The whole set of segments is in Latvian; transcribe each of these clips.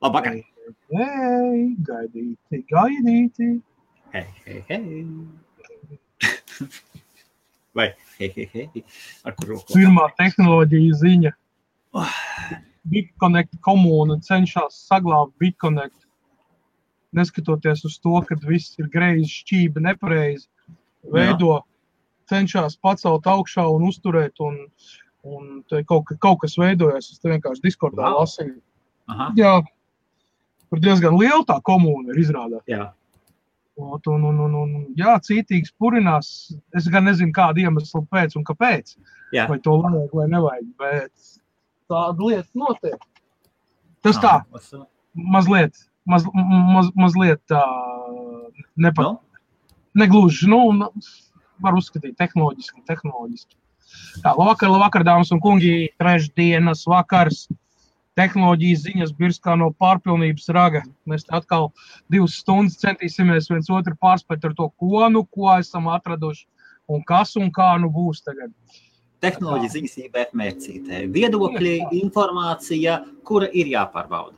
Labvakar. Hei, gaidīti. Hei. Vai, hei. Ar kur roku? Pirmā tehnoloģija ziņa. BitConnect komūna cenšas saglābt BitConnect. Neskatoties uz to, ka viss ir greizi, šķība nepareizi, cenšas pacelt augšā un uzturēt, un kaut kas veidojas. Es te vienkārši Discordā lasīju. Jā, tur diezgan liela tā komūna ir izrādāt. Jā. Jā, cītīgs purinās. Es gan nezinu, kādu iemeslu pēc un kāpēc. Jā. Vai to vajag vai nevajag, bet tāda lieta notiek. Tas tā, mazliet tā negluži, var uzskatīt tehnoloģiski. Tā, labvakar, dāmas un kungi, trešdienas vakars. Tehnoloģijas ziņas birskā no pārpilnības raga. Mēs atkal 2 stundas centīsimies viens otru pārspēt ar to, ko esam atraduši un kas un kā būs tagad. Tehnoloģijas ziņas IBF mērcītē. Viedokļi, informācija, kura ir jāpārbauda.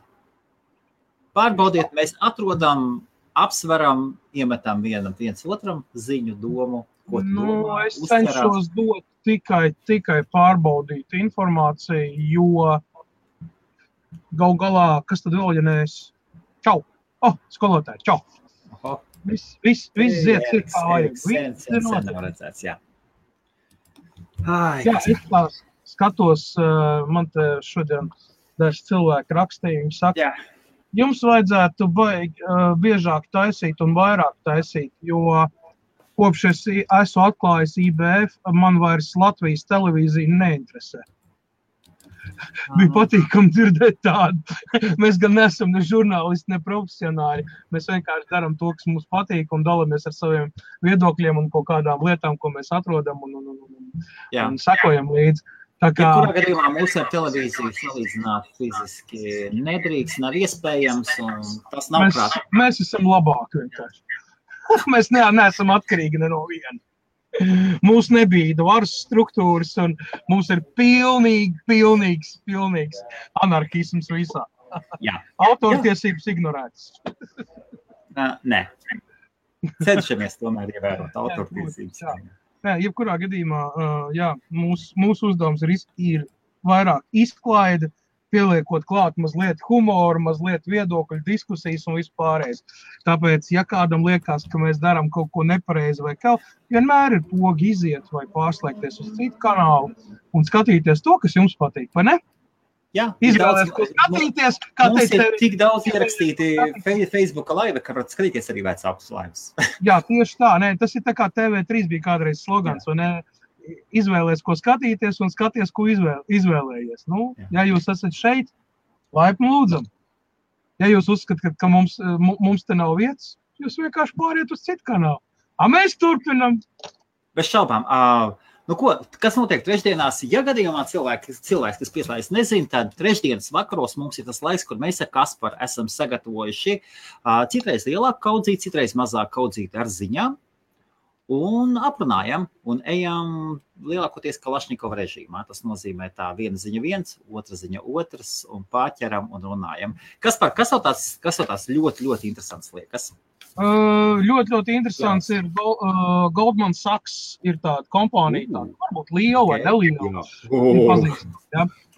Pārbaudiet, mēs atrodam, apsveram, iemetam viens otram ziņu domu, ko tu domā, es cenšos dot tikai pārbaudīt informāciju, jo gal galā, kas tad vēl, ja nees? Čau! Skolotāji, čau! Viss ziet ir kā vajag. Sen nav redzēts, jā. Jā, es skatos, man te šodien daži cilvēki rakstīja, viņi saka, jums vajadzētu biežāk taisīt un vairāk taisīt, jo kopš es esmu atklājis IBF, man vairs Latvijas televīzija neinteresē. Bija patīkami dzirdēt tādu. Mēs gan neesam ne žurnālisti, ne profesionāļi. Mēs vienkārši darām to, kas mums patīk un dalamies ar saviem viedokļiem un kaut kādām lietām, ko mēs atrodam un sekojam līdzi. Kurā gadījumā mūsu ar televīziju salīdzināt fiziski nedrīkst, nav iespējams un tas nav prāt. Mēs esam labāki vienkārši. Mēs neesam atkarīgi ne no viena. Mums nebija varas struktūras un mums ir pilnīgs anarhisms visā. Jā. Autortiesības ignorētas. Nē. Cenšamies tomēr ievērot autortiesības. Nē, jebkurā gadījumā, mūsu uzdevums ir vairāk izklaide, pieliekot klāt mazliet humoru, mazliet viedokļu diskusijas un vispārējais. Tāpēc, ja kādam liekas, ka mēs darām kaut ko nepareizi vai kaut, vienmēr ir pogi iziet vai pārslēgties uz citu kanālu un skatīties to, kas jums patīk, vai ne? Jā, izvēlēs, ko skatīties. Mums ir tik daudz ierakstīti Facebooka laive, ka var skatīties arī vecākus laivas. Jā, tieši tā. Nē, tas ir tā kā TV3 bija kādreiz slogans, vai ne? Izvēlēs, ko skatīties un skaties, ko izvēlējies. Ja jūs esat šeit, laipni lūdzam. Ja jūs uzskatāt, ka mums te nav vietas, jūs vienkārši pāriet uz citu kanālu. Mēs turpinam. Bez šaubām. Kas notiek trešdienās? Ja gadījumā cilvēks, kas pieslēdz, nezin, tad trešdienas vakaros mums ir tas laiks, kur mēs ar Kasparu esam sagatavojuši citreiz lielāku kaudzīti, citreiz mazāku kaudzīti ar ziņām. Un aprunājam un ejam lielākoties Kalašņikova režīmā. Tas nozīmē tā viena ziņa viens, otra ziņa otrs un pārķeram un runājam. Kas tev tās ļoti, ļoti interesants liekas? Ļoti interesants ir Goldman Sachs ir tāda kompānija, tāda varbūt liela vai neliela.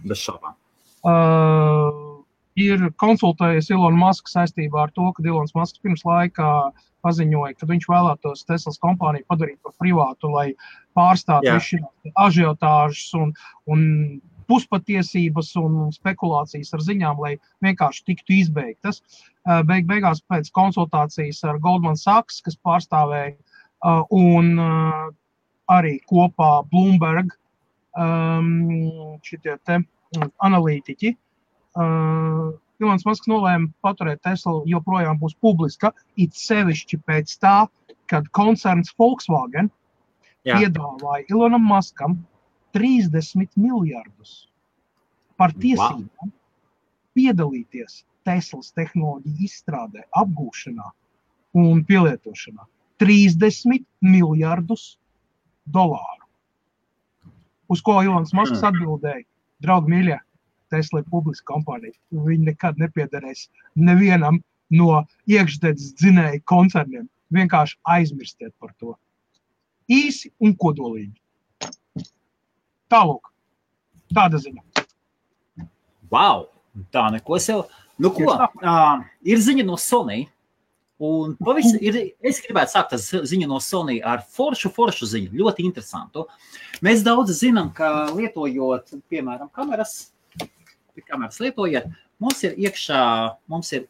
Bez šaubām. Ir konsultējies Elon Musk saistībā ar to, ka Elons Musks pirms laikā paziņoja, ka viņš vēlētos Teslas kompāniju padarīt par privātu, lai pārstātu visu ažiotāžas un puspatiesības un spekulācijas ar ziņām, lai vienkārši tiktu izbeigtas. Beigās pēc konsultācijas ar Goldman Sachs, kas pārstāvēja, un arī kopā Bloomberg šitie te analītiķi, Elons Musks nolēma paturēt Tesla joprojām būs publiska, it sevišķi pēc tā, kad koncerns Volkswagen piedāvāja Elonam Muskam 30 miljardus par tiesībām piedalīties Teslas tehnoloģiju izstrādē, apgūšanā un pielietošanā. 30 miljardus dolāru. Uz ko Elons Musks atbildēja, draugi mīļie, Tesla ir publiska kompānija. Viņi nekad nepiederēs nevienam no iekšdedzes dzinēju koncerniem. Vienkārši aizmirstiet par to. Īsi un kodolīgi. Tālūk. Tāda ziņa. Wow! Tā neko sev. Nu ko, ir ziņa no Sony. Un es gribētu sākt ziņu no Sony ar foršu ziņu, ļoti interesantu. Mēs daudz zinām, ka lietojot, piemēram, kameras lietojot, mums ir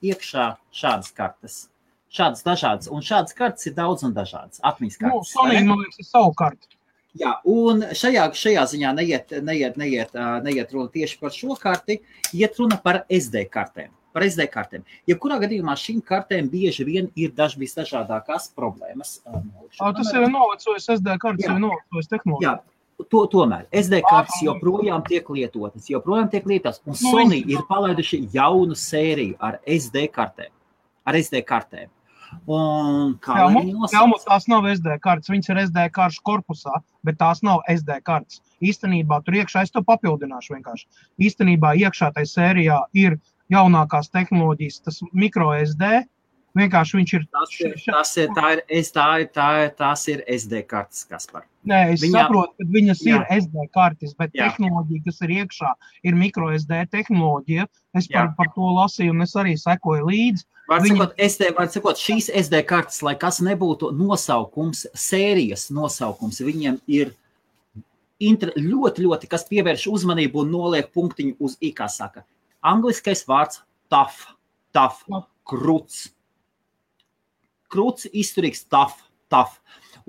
iekšā šādas kartes. Šādas dažādas, un šādas kartes ir daudz un dažādas. Atmiņas kartes. Sony, man liekas, ir savu kartu. Jā, un šajā ziņā neiet runa tieši par šo karti, iet runa par SD kartēm. Jebkurā gadījumā šīm kartēm bieži vien ir dažādākās problēmas. Tas ir novecojis SD kartes, ir novecojis tehnoloģija. Jā, tomēr SD kartes joprojām tiek lietotas, un Sony ir palaiduši jaunu sēriju ar SD kartēm. Un kā tās nav SD kartes, viņas ir SD karšu korpusā, bet tās nav SD kartes. Īstenībā tur iekšā, es to papildināšu vienkārši. Īstenībā iekšā tai sērijā ir jaunākās tehnoloģijas, tas micro SD, vienkārši viņš ir... Tās ir SD kartes, Kaspar. Nē, es saprotu, ka viņas ir SD kartes, bet tehnoloģija, kas ir iekšā, ir micro SD tehnoloģija. Es par to lasīju, un es arī sekoju līdzi. Var sakot, šīs SD kartes, lai kas nebūtu nosaukums, sērijas nosaukums, viņiem ir ļoti, kas pievērš uzmanību un noliek punktiņu uz I, kā saka. Angliskais vārds tough, kruts. Kruts, izturīgs, tough.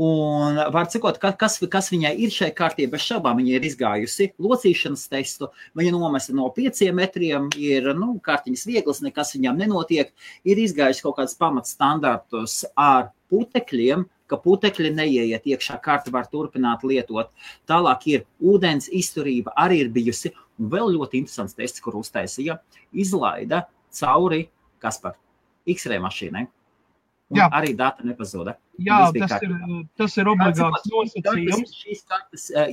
Un var sakot, kas viņai ir šai kārtī, bez šaubām viņa ir izgājusi locīšanas testu, viņa nomesa no 5 metriem, ir kārtiņas vieglas, nekas viņām nenotiek, ir izgājusi kaut kāds pamatstandartus ar putekļiem, ka putekļi neieiet iekšā, karti var turpināt lietot. Tālāk ir ūdens izturība, arī ir bijusi. Un vēl ļoti interesants tests, kur uztaisīja, izlaida cauri, Kaspar, X-ray mašīnai. Un arī dati nepazuda. Jā, tas ir obligāts nosacījums.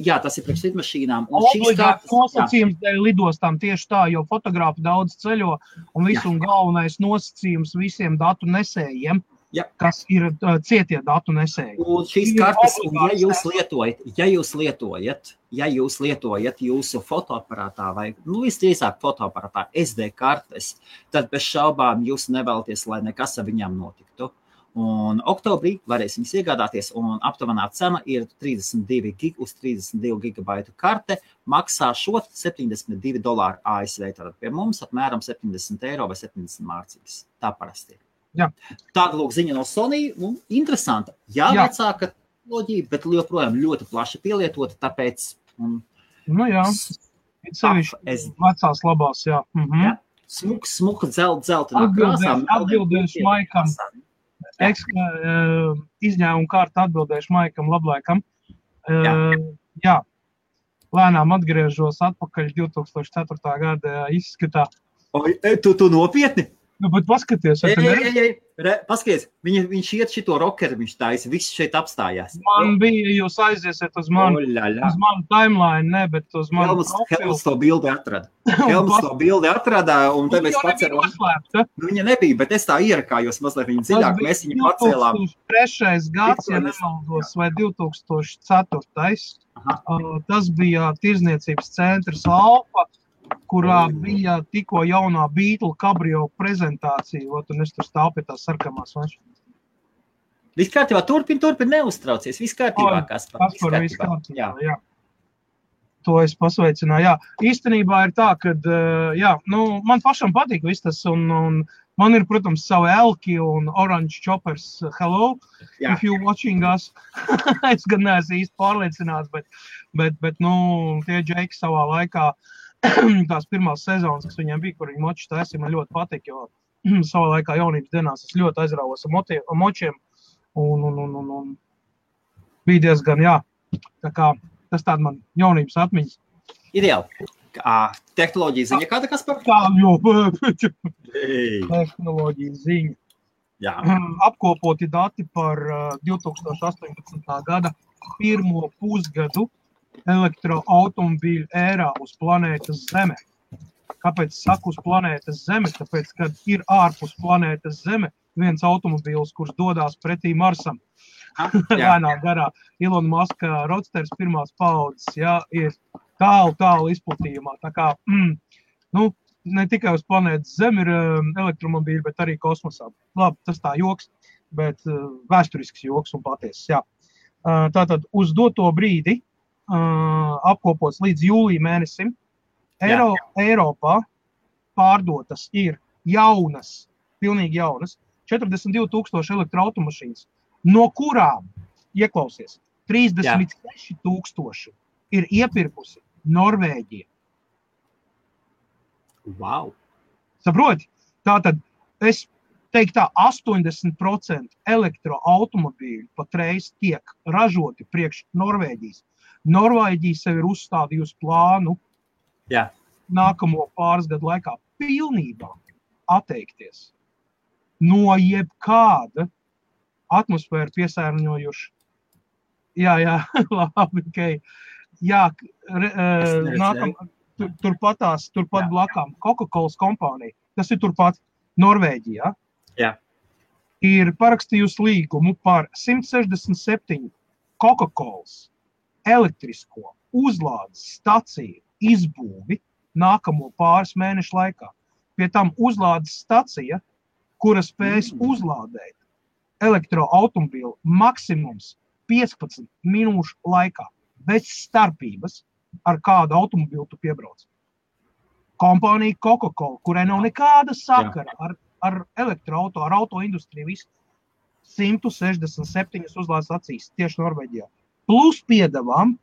Jā, tas ir priekš lidmašīnām. Obligāts nosacījums dēļ lidostām tieši tā, jo fotografi daudz ceļo un visu un galvenais nosacījums visiem datu nesējiem. Kas ir cietie datu nesēji. Un šīs kartes, ja jūs lietojat jūsu fotoaparātā vai, visdrīzāk fotoaparātā SD kartes, tad bez šaubām jūs nevēlaties, lai nekas ar viņām notiktu. Un oktobrī varēs viņas iegādāties, un aptuvenā cena ir 32 uz 32 gigabaitu karte, maksā šo $72 ASV, tātad pie mums apmēram 70 eiro vai 70 mārciņas. Tā parasti ir. Jā. Tāda lūk ziņa no Sony, interesanta. Jā, vecāka tehnoloģija, bet joprojām ļoti plaši pielietota, tāpēc... Vecās labās, jā. Smuka dzeltenā krāsā. Atbildēšu Maikam. Izņēmumu kārtu atbildēšu Maikam Lablaikam. Jā. Lēnām atgriežos atpakaļ 2004. gada izskatā. Tu nopietni? Bet paskaties, paskaties, viņš iet šito rokeru, viņš taisa, viss šeit apstājās. Man bija, jūs aiziesiet uz manu timeline, ne, bet uz manu profilu. Helms to bildi atrada, un te mēs paceram. Viņa nebija, bet es tā ierakājos mazliet viņa dziļāk, mēs viņu pacēlām. 2003. gads, ja nemaldos, vai 2004. Tas bija tirzniecības centrs Alfa, kurā bija tikko jaunā Beetle Cabrio prezentācija, un es tur stāv pie tās sarkamās mašīnas. Viss kārtībā, turpin, neuztraucies, viss kārtībā, Kaspar. Viss kārtībā, jā. To es pasveicināju, jā. Īstenībā ir tā, kad, man pašam patīk viss tas, un man ir, protams, savu Elki un Orange Choppers, hello, if you watching us. Es gan neesmu īsti pārliecināts, bet tie džeki savā laikā, tās pirmās sezonas, kas viņiem bija, kur viņi moči taisīja, man ļoti patīk, jo savā laikā jaunības dienās es ļoti aizrāvos ar močiem un bija diezgan, tā kā tas tāda man jaunības atmiņas. Ideāli. Tehnoloģija ziņa kāda, Kaspar? Tehnoloģija ziņa. Jā. Apkopoti dati par 2018. gada pirmo pusgadu elektroautomobīļu ērā uz planētas Zeme. Kāpēc saku uz planētas Zeme? Tāpēc, kad ir ārpus planētas Zeme viens automobīls, kurš dodās pretī Marsam. Lēnā garā. Elon Musk Roadsters pirmās paudzes, ir tālu izplatījumā. Tā kā, ne tikai uz planētas Zeme ir elektromobīļi, bet arī kosmosā. Labi, tas tā joks, bet vēsturisks joks un patiesis, jā. Tātad uz doto brīdi apkopots līdz jūlija mēnesim Eiropā pārdotas ir jaunas, pilnīgi jaunas, 42,000 elektroautomašīnas, no kurām, ieklausies, 36,000 ir iepirkusi Norvēģija. Wow! Saproti? Tātad es teiktu tā, 80% elektroautomobīļu patreiz tiek ražoti priekš Norvēģijas. Norvēģija sev ir uzstādījusi plānu nākamo pāris gadu laikā pilnībā atteikties no jebkāda atmosfēru piesārņojuša. Labi, okay. Turpat blakām Coca-Cola kompānija, tas ir turpat Norvēģijā, ir parakstījusi līgumu par 167 Coca-Colas elektrisko uzlādes staciju izbūvi nākamo pāris mēnešu laikā. Pie tam uzlādes stacija, kura spējas uzlādēt elektroautomobīlu maksimums 15 minūšu laikā, bez starpības, ar kādu automobīlu tu piebrauc. Kompānija Coca-Cola, kurai nav nekāda sakara ar elektroauto, ar autoindustriju, visu 167 uzlādes stacijas tieši Norvēģijā. Plus piedevām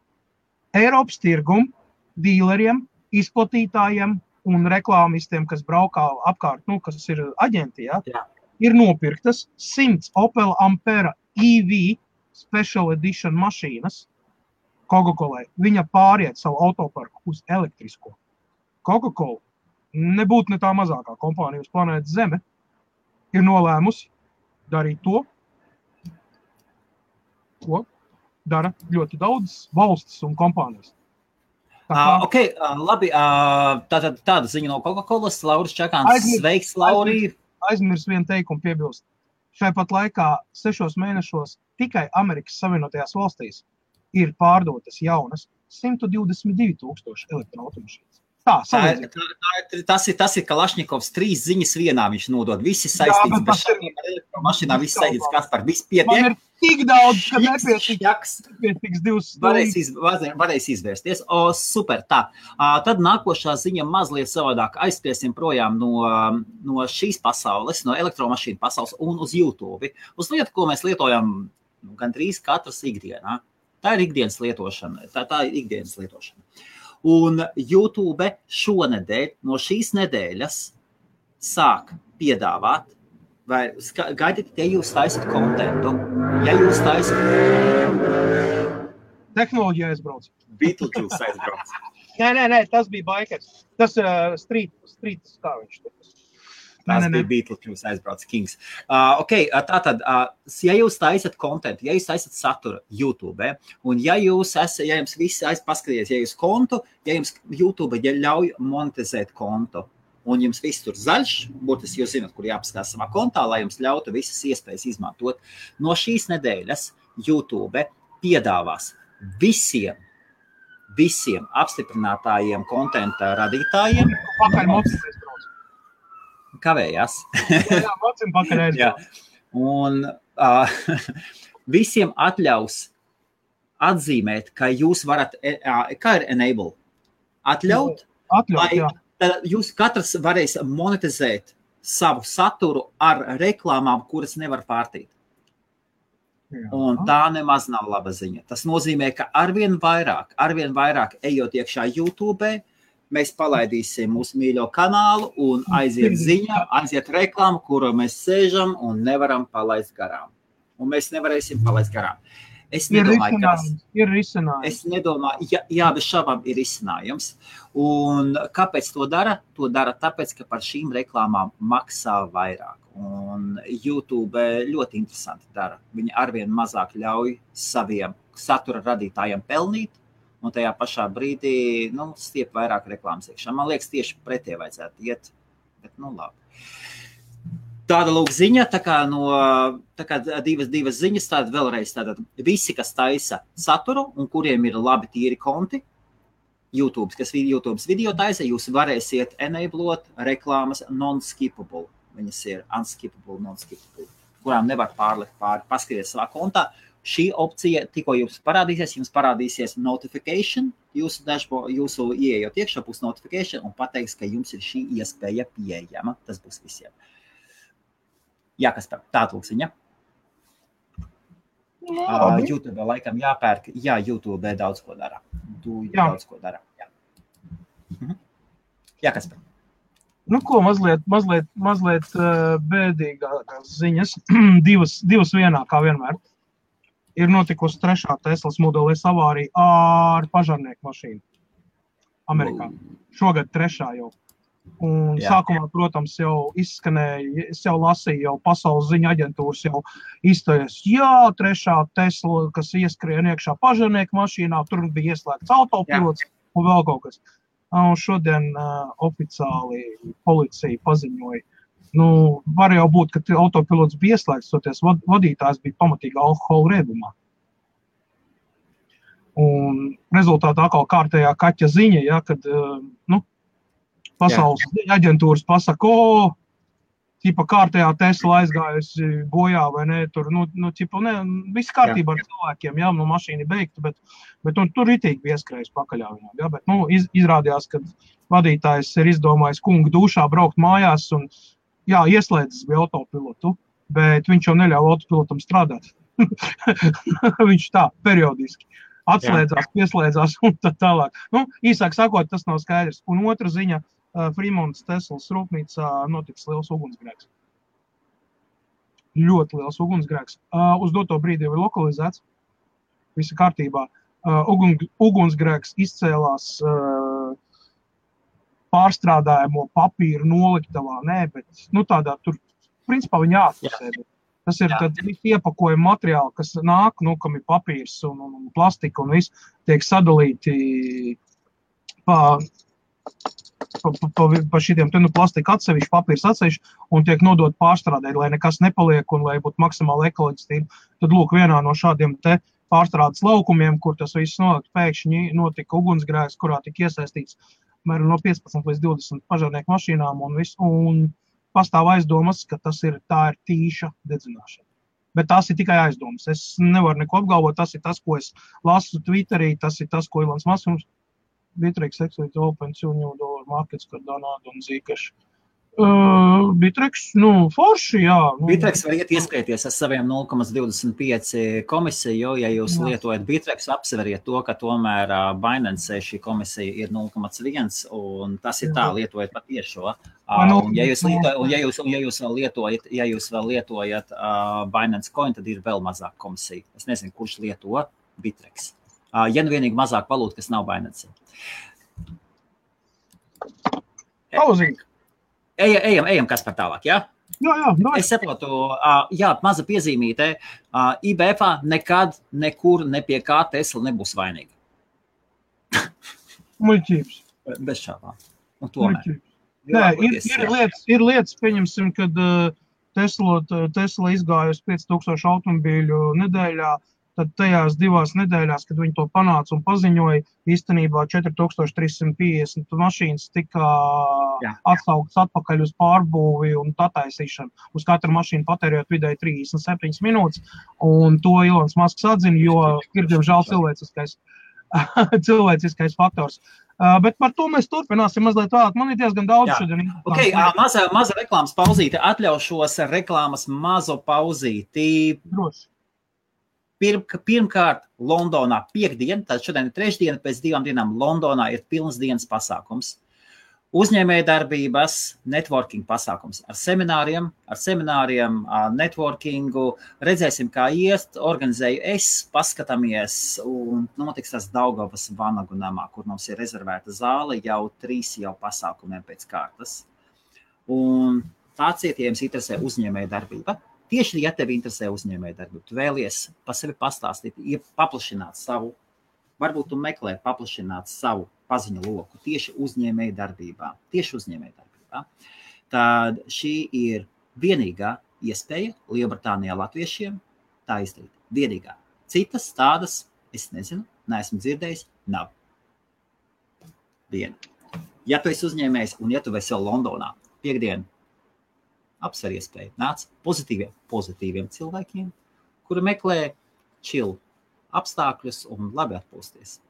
Eiropas tirgum, dīleriem, izplatītājiem un reklāmistiem, kas braukā apkārt, kas ir aģenti, ir nopirktas 100 Opel Ampera EV Special Edition mašīnas Coca-Colai. Viņa pāriet savu autoparku uz elektrisko. Coca-Cola nebūtu ne tā mazākā kompānija uz planētas Zeme, ir nolēmusi darīt to, ko dara ļoti daudz valstis un kompānijas. Labi, tāda ziņa no Coca-Colas, Lauris Čakāns. Sveiks, Lauri! Aizmirs vienu teikumu piebilst. Šai pat laikā 6 mēnešos tikai Amerikas Savienotajās valstīs ir pārdotas jaunas 122,000 elektroautomašīnas. Tas ir Kalašņikovs 3 ziņas vienā viņš nodod. Visi saistīts, bet šādiem ar elektromašīnā viss saistīts, kas par visu pietiek. Man ir tik daudz, ka nepietiks 2 stundas. Varēs izvērsties. Super, tā. Tad nākošā ziņa mazliet savādāk. Aizskriesim projām no šīs pasaules, no elektromašīnu pasaules un uz YouTube. Uz lietu, ko mēs lietojam gandrīz katras ikdienā. Tā ir ikdienas lietošana. Tā ir ikdienas lietošana. Un YouTube šonedēļ, no šīs nedēļas, sāk piedāvāt, vai gaidiet, ja jūs taisat kontentu, ja jūs taisat... Tehnoloģija aizbrauc. Beetlejuice aizbrauc. Nē, tas bija bikers. Tas street, kā viņš tur. Tas bija Beetlejuice aizbrauc Kings. Tātad, ja jūs taisat kontentu, ja jūs taisat saturu YouTube, un ja jums visi paskaties, ja jūs kontu, ja jums YouTube ļauj monetizēt kontu, un jums viss tur zaļš, būtiski jūs zināt, kur jāpaskatās savā kontā, lai jums ļautu visas iespējas izmantot, no šīs nedēļas YouTube piedāvās visiem apstiprinātājiem kontenta radītājiem. Kavējās. Mocim pakaļ aizbrauc. Un visiem atļaus atzīmēt, ka jūs varat, kā ir enable? Atļaut, tad jūs katrs varēs monetizēt savu saturu ar reklāmām, kuras nevar pārtīt. Un tā nemaz nav laba ziņa. Tas nozīmē, ka arvien vairāk ejot iekšā YouTube, mēs palaidīsim mūsu mīļo kanālu un aiziet ziņa, aiziet reklāma, kuru mēs sēžam un nevaram palaist garām. Un mēs nevarēsim palaist garām. Es nedomāju, ir risinājums. Es nedomāju, bez šabām ir risinājums. Un kāpēc to dara? To dara tāpēc, ka par šīm reklāmām maksā vairāk. Un YouTube ļoti interesanti dara. Viņi arvien mazāk ļauj saviem satura radītājiem pelnīt, un tajā pašā brīdī, stiep vairāk reklāmas iekšā. Man liekas, tieši pretie vajadzētu iet, bet, labi. Tāda lūk ziņa, tā kā divas ziņas, tāda vēlreiz, visi, kas taisa saturu un kuriem ir labi tīri konti, YouTube video taisa, jūs varēsiet enablot reklāmas non-skippable. Viņas ir unskippable, non-skippable, kurām nevar pārlikt pāri, paskaties savā kontā. Šī opcija tikko jums parādīsies notification, jūsu ieejot iekšā būs notification un pateiks, ka jums ir šī iespēja pieejama. Tas būs visiem. Jā, kas par tādu lūksiņa? YouTube laikam jāpērk. Jā, YouTube daudz ko dara. Daudz ko dara. Jā, kas par? Ko mazliet bēdīgākās ziņas. divas vienā, kā vienmēr. Ir notikusi 3. Teslas Model S avārija ar pažarnieku mašīnu Amerikā. Šogad 3. jau. Un sākumā, protams, jau izskanēja, es jau lasīju, jau pasaules ziņu aģentūras jau izstājas, 3. Tesla, kas ieskrien iekšā pažarnieku mašīnā, tur bija ieslēgts autopilots un vēl kaut kas. Un šodien oficiāli policija paziņoja, var jau būt, ka autopilots bija ieslēgts, toties vadītājs bija pamatīgi alkohola riebumā. Un rezultātā atkal kārtējā kaķa ziņa, kad, pasaules aģentūras pasaka, tipa kārtējā Tesla aizgājusi bojā vai ne, tur, viss kārtībā ar cilvēkiem, mašīna beigta, bet tur ritīgi bija ieskrējis pakaļā viņam, bet, izrādījās, ka vadītājs ir izdomājis kungu dušā braukt mājās un, ieslēdzis bija autopilotu, bet viņš jau neļauj autopilotam strādāt. Viņš tā, periodiski. Atslēdzās, pieslēdzās un tā tālāk. Īsāk sakot, tas nav skaidrs. Un otra ziņa, Fremontas Teslas rūpnīcā notiks liels ugunsgrēks. Ļoti liels ugunsgrēks. Uz doto brīdi jau ir lokalizēts. Visa kārtībā. Ugunsgrēks izcēlās pārstrādājamo papīru noliktavā. Nē, bet tādā tur, principā viņi jāatpasēd. Tas ir tad iepakojuma materiāli, kas nāk, kam ir papīrs un plastika un viss tiek sadalīti pa šitiem plastika atsevišķi, papīrs atsevišķi un tiek nodot pārstrādēt, lai nekas nepaliek un lai būtu maksimāli ekoloģistība. Tad lūk, vienā no šādiem te pārstrādes laukumiem, kur tas viss pēkšņi notika ugunsgrēks, kurā tika iesaistīts no 15 līdz 20 pažarnieku mašīnām un pastāv aizdomas, ka tā ir tīša dedzināšana. Bet tās ir tikai aizdomas. Es nevaru neko apgalvot, tas ir tas, ko es lasu Twitterī, tas ir tas, ko Ilons Masks Bittrex Exit Open $2 million markets, kad Donāda un Zīkaši. Bittrex, forši, jā. Bittrex var iet ieskrieties ar saviem 0,25 komisiju, ja jūs lietojat Bittrex, apsveriet to, ka tomēr Binance šī komisija ir 0,1 un tas ir tā, lietojat patiešo. Un ja jūs vēl lietojat Binance Coin, tad ir vēl mazāk komisija. Es nezinu, kurš lieto Bittrex. Ja vienīgi mazāk valūta, kas nav Binance. Pauzīgi. Ejam, kas par tālāk, jā? Jā. Es saprotu, maza piezīmīte. IBF-ā nekad, nekur, ne pie kā Tesla nebūs vainīga. Muļķības. Bez šāpām. Un tomēr. Nē, ir lietas, pieņemsim, kad Tesla izgājusi 5000 automobīļu nedēļā, tad tajās 2 nedēļās, kad viņi to panāca un paziņoja, īstenībā 4350 mašīnas tika atsauktas atpakaļ uz pārbūvi un attaisīšanu. Uz katru mašīnu patērējot vidēji 37 minūtes, un to Ilons Masks atzina, jo ir, diemžēl, cilvēciskais faktors. Bet par to mēs turpināsim mazliet vēlāk. Man ir diezgan daudz šodien. Maza reklāmas pauzīte. Atļaušos reklāmas mazo pauzīti. Droši. Pirmkārt, Londonā piekdien, tad šodien ir trešdiena, pēc 2 dienām Londonā ir pilnas dienas pasākums. Uzņēmējdarbības, networking pasākums ar semināriem, networkingu. Redzēsim, kā iest, organizēju es, paskatāmies un notiks tas Daugavas Vanagu namā, kur mums ir rezervēta zāle jau 3 pasākumiem pēc kārtas. Un tāds ja jums interesē uzņēmējdarbība. Tieši, ja tevi interesē uzņēmējdarbība, tu vēlies pa sevi pastāstīt, paplašināt savu varbūt tu meklē paplašināt savu paziņu loku tieši uzņēmēju darbībā, tad šī ir vienīgā iespēja Lielbritānijā latviešiem tā izdarīt. Vienīgā. Citas tādas, es nezinu, neesmu dzirdējis, nav. Viena. Ja tu esi uzņēmējs un ja tu esi vēl Londonā, piekdien, apsver iespēju, nāc pozitīviem cilvēkiem, kuri meklē chill apstākļus un labi atpūsties.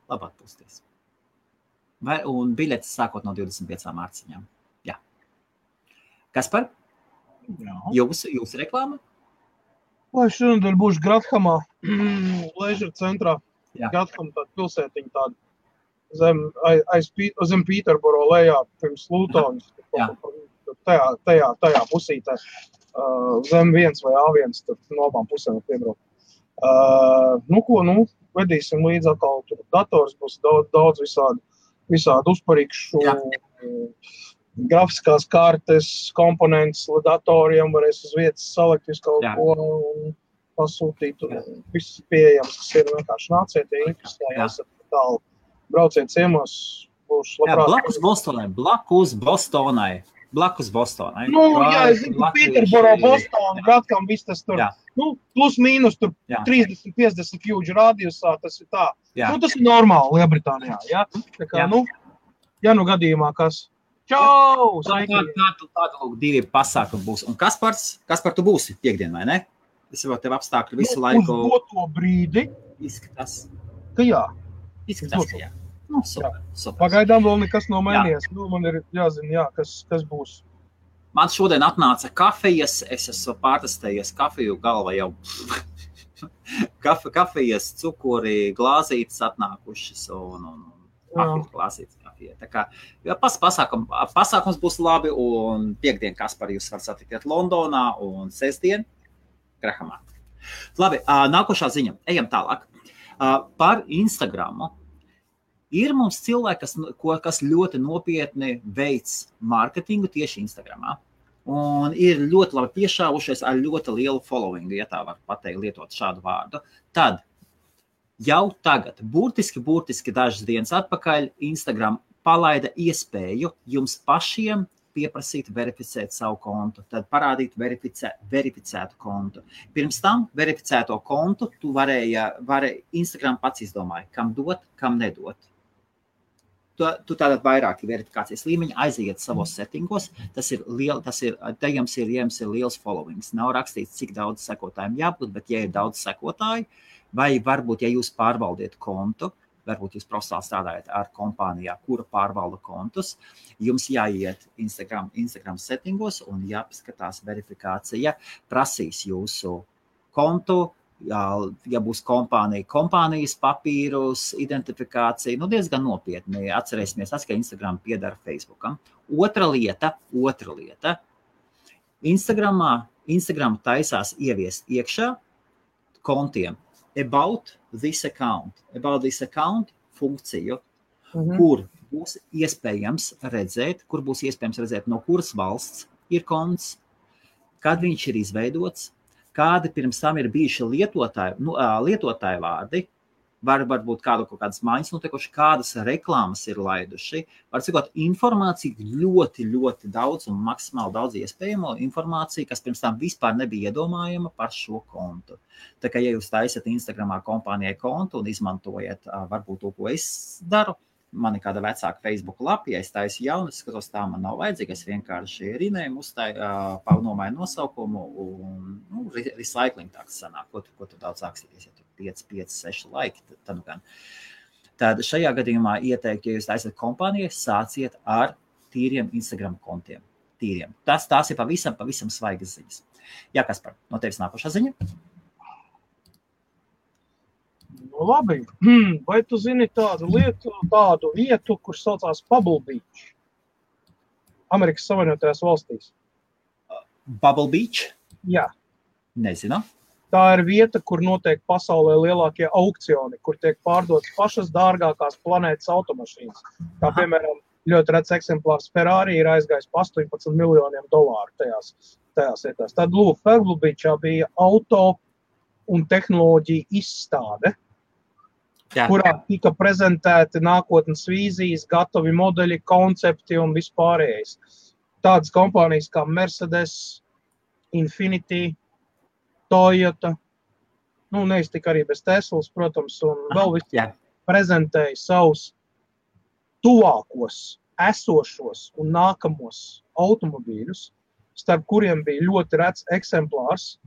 Un biļetes sākot no 25 mārciņām. Jā. Kaspar? Jūsu reklāma? Lai šonadēļ būšu Grathamā, Leisure centrā. Gratham tāda pilsētiņa tāda zem Pīterboro lejā pirms Lutonas. Tajā pusītē. Zem 1 vai A1, tur no abām pusēm piebraukt. Vedīsim līdz atkal, tur dators būs daudz visādi uzparīkšu, grafiskās kartes, komponents datoriem, varēs uz vietas salikt visu kaut ko un pasūtīt. Viss pieejams, kas ir vienkārši nāciet, ja interesējās tālu. Brauciet ciemos, būšu labprāt. Blakus Bostonai. Es zinu, Pīterboro, Bostona, Gratham, viss tas tur. Plus mīnus tur 30-50 kļūdžu radiusā, tas ir tā. Tas ir normāli Lielbritānijā, ja? Tā kā, ja gadījumā kas. Čau! Tāda lūk, 2 pasākumi būs. Un Kaspar, tu būsi piekdien, vai ne? Es jau tev apstākļu visu laiku. Uz doto brīdi. Izskatās. Ka jā. Izskatās, ka jā. Super. Pagaidām vēl nekas nav mainījies. Man ir jāzina, kas būs. Man šodien atnāca kafijas, es esmu pārtestējies kafiju, galva jau kafijas, cukuri, glāzītes atnākušas un glāzītes kafija. Tā kā pasākums būs labi un piekdien Kaspar jūs var satikt Londonā un sestdien Grahamā. Labi, nākošā ziņa. Ejam tālāk. Par Instagramu. Ir mums cilvēki, kas ļoti nopietni veic mārketingu tieši Instagramā. Un ir ļoti labi piešāvušies ar ļoti lielu followingu, ja tā var pateikt, lietot šādu vārdu. Tad jau tagad, burtiski dažas dienas atpakaļ, Instagram palaida iespēju jums pašiem pieprasīt verificēt savu kontu, tad parādīt verificētu kontu. Pirms tam verificēto kontu tu varēja Instagram pats izdomāja, kam dot, kam nedot. Tu tātad vairāki verifikācijas līmeņi aiziet savos settingos, te jums ir liels followings. Nav rakstīts, cik daudz sekotājiem jābūt, bet ja ir daudz sekotāji, vai varbūt, ja jūs pārvaldiet kontu, varbūt jūs profesionāli strādājat ar kompānijā, kura pārvalda kontus, jums jāiet Instagram settingos un jāpaskatās verifikācija, prasīs jūsu kontu, ja būs kompānijas papīrus, identifikācija, diezgan nopietni. Atcerēsimies, ka Instagram piedara Facebookam. Otra lieta. Instagram taisās ieviest iekšā kontiem about this account funkciju, kur būs iespējams redzēt, no kuras valsts ir konts, kad viņš ir izveidots, kādi pirms tam ir bijuši lietotāju vārdi, varbūt kaut kādas maiņas notikuši, kādas reklāmas ir laiduši. Var cikot informāciju ļoti, ļoti daudz un maksimāli daudz iespējamo informāciju, kas pirms tam vispār nebija iedomājama par šo kontu. Tā kā, ja jūs taisat Instagramā kompānijai kontu un izmantojat varbūt to, ko es daru, man ir kāda vecāka Facebook lapa, ja es taisu jaunu, skatos, tā man nav vajadzīga, es vienkārši rinējumu nomāju nosaukumu un recycling tāds sanāk, ko tu daudz akstīties, ja tu 5, 6 laiki, tad gan. Tad šajā gadījumā ieteiktu, ja jūs taisat kompānijai, sāciet ar tīriem Instagram kontiem. Tīriem. Tās ir pavisam svaigas ziņas. Jā, Kaspar, no tevis nākošā ziņa? Labi, vai tu zini tādu vietu, kur saucās Bubble Beach? Amerikas Savienotajās valstīs. Bubble Beach? Jā. Nezinu. Tā ir vieta, kur notiek pasaulē lielākie aukcioni, kur tiek pārdotas pašas dārgākās planētas automašīnas. Kā piemēram, ļoti rets eksemplārs Ferrari ir aizgājis pa $18 miljoniem tajās vietās. Tad lūk, Bubble Beachā bija auto un tehnoloģija izstāde. kurā tika prezentēti nākotnes vīzijas, gatavi modeļi, koncepti un vispārējais. Tādas kompānijas kā Mercedes, Infiniti, Toyota, neiztika arī bez Teslas, protams, un vēl visi prezentēja savus tuvākos, esošos un nākamos automobīļus, starp kuriem bija ļoti rets eksemplārs,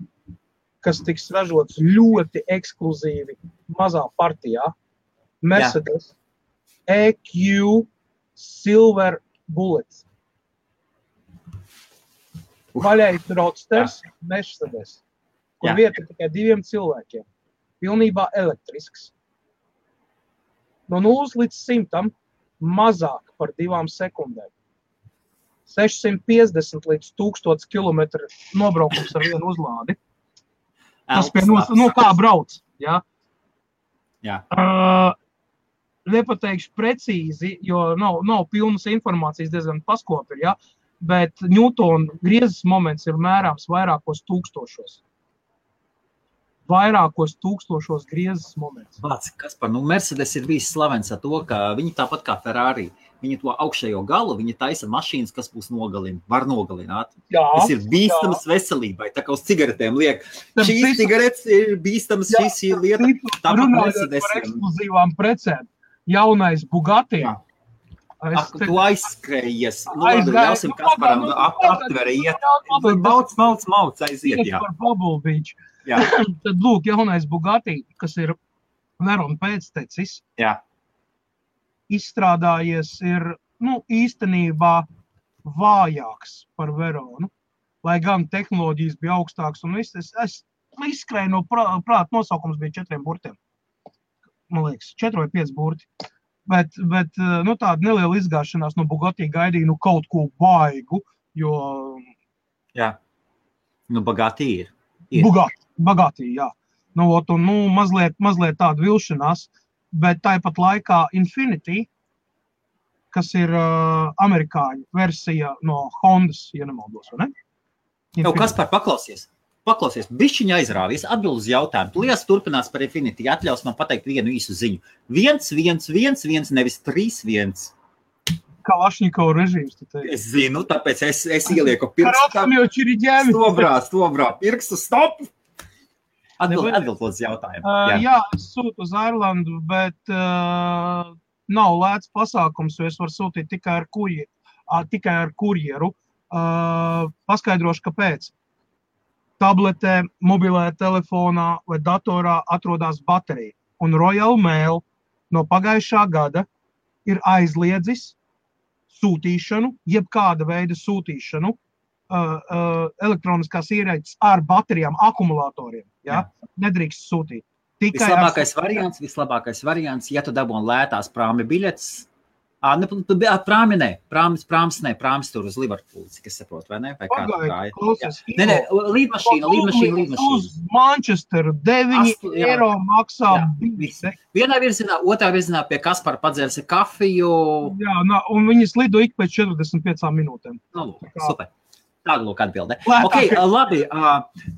kas tiks ražots ļoti ekskluzīvi mazā partijā. Mercedes EQ Silver Bullet. Vaļais roadsters Mercedes, kur vieta tikai 2 cilvēkiem. Pilnībā elektrisks. No 0 līdz 100 mazāk par 2 sekundēm. 650 līdz 1000 kilometru nobraukums ar vienu uzlādi. Tas pie kā brauc, jā? Jā. Nepateikšu precīzi, jo nav pilnas informācijas, diezgan paskopi, jā? Bet Newtona griezes moments ir mērāms vairākos tūkstošos. Vairākos tūkstošos griezes moments. Vāc, Kaspar, Mercedes ir bijis slavens ar to, ka viņi tāpat kā Ferrari, viņi to augšējo galu, viņi taisa mašīnas, kas būs var nogalināt. Tas ir bīstams veselībai, tā kā uz cigaretēm liek. Šīs cigaretes ir bīstams, šīs ir lieta. Tāpat Mercedes. Par ekskluzīvām precēm. Jaunais Bugatti. Tu aizskrējies. Ļausim Kasparam aptveri iet. Mauc, aiziet, jā. Par Bubble Beach. Tad lūk, jaunais Bugatti, kas ir Verona pēctecis, izstrādājies ir, īstenībā vājāks par Veronu, lai gan tehnoloģijas bija augstāks un viss. Es izskrēju no prāta, nosaukums bija 4 burtiem. Man liekas, 4 vai 5 burti. Bet tāda neliela izgāšanās no Bugatti gaidīja kaut ko baigu, jo... Jā, Bugatti ir. Bugatti, jā. Mazliet tāda vilšanās, bet tāpat laikā Infiniti, kas ir amerikāņu versija no Hondas, ja nemaldos, vai ne? Kaspar, paklausies, bišķiņa aizrāvies, atbild uz jautājumu. Lietas turpinās par Infiniti, atļaus man pateikt vienu īsu ziņu. 1-1-1-1, nevis 3-1. Kalašņikova režīms, tu teici. Es zinu, tāpēc es ielieku pirkstu. Stobrā, pirkstu, stop! Atbild uz jautājumu. Jā, es sūtu uz Airlandu, bet nav lēts pasākums, jo es varu sūtīt tikai ar kurjeru. Paskaidrošu, kāpēc. Tabletē, mobilē telefonā vai datorā atrodas baterija. Un Royal Mail no pagājušā gada ir aizliedzis sūtīšanu, jebkāda veida sūtīšanu elektroniskās ierīces ar baterijām, akumulatoriem. Ja? Nedrīkst sūtīt. Vislabākais variants, ja tu dabūni lētās prāmi biļetes, prāmis tur uz Liverpoolu, cik es saprotu, vai ne? Vai kā līdmašīna. Uz Manchesteru 9 eiro maksā biļete. Vienā virzienā, otrā virzienā pie Kaspara padzērsi kafiju. Jā, un viņas lido ik pēc 45 minūtēm. Super. Tāda lūk atbildē. Labi,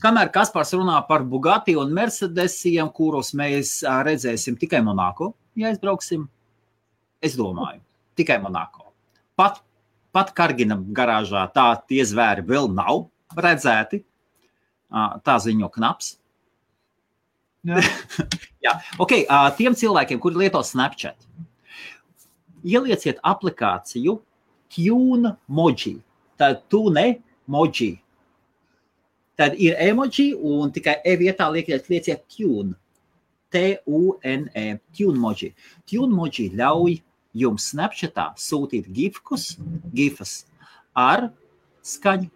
kamēr Kaspars runā par Bugatti un Mercedesiem, kurus mēs redzēsim tikai Monako, ja aizbrauksim, es domāju, tikai Monako. Pat Kargina garāžā tie zvēri vēl nav redzēti. Tā ziņo Knaps. Jā. Tiem cilvēkiem, kuri lieto Snapchat, ielieciet aplikāciju TuneMoji. Tad TuneMoji. Tad ir emoji un tikai vietā lieciet Tune. T-U-N-E. TuneMoji. TuneMoji ļauj jums Snapchatā sūtīt gifas ar skaņu.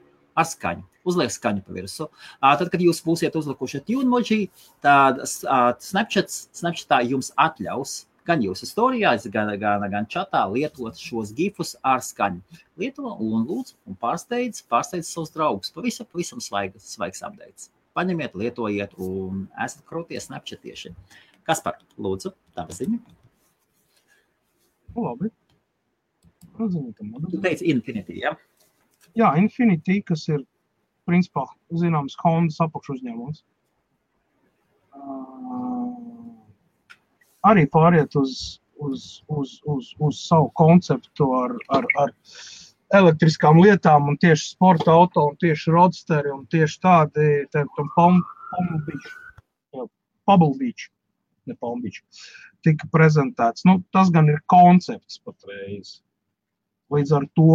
Uzliek skaņu pa virsu. Tad, kad jūs būsiet uzlikuši TuneMoji, tad Snapchatā jums atļaus gan jūsu storijās, gan čatā lietot šos gifus ar skaņu. Lieto un lūdzu un pārsteidz savus draugus. Pavisam svaigs updates. Paņemiet, lietojiet un esat krūtie Snapchatieši. Kaspar, lūdzu, tava ziņa. Labi. Tu teici Infiniti, ja? Jā, Infiniti, kas ir, principā, zināms, Hondas apakšuzņēmums. arī pāriet uz savu konceptu ar elektriskām lietām un tieši sporta auto un tieši roadsteri un tieši tādi Pebble Beach, ne Palm Beach, tika prezentēts. Nu, tas gan ir koncepts patreiz. Līdz ar to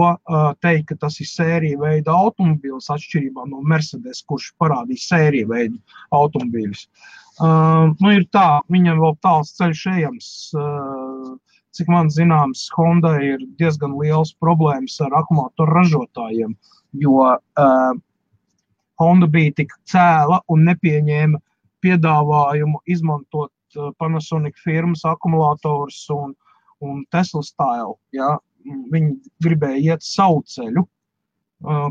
teikt, ka tas ir sērija veida automobīls atšķirībā no Mercedes, kurš parādīja sērija veida automobīļus. Nu, ir tā, viņam vēl tāls ceļš ejams. Cik man zināms, Honda ir diezgan liels problēmas ar akumulātoru ražotājiem, jo Honda bija tik cēla un nepieņēma piedāvājumu izmantot Panasonic firmas akumulātors un Tesla style, ja. Viņi gribēja iet savu ceļu,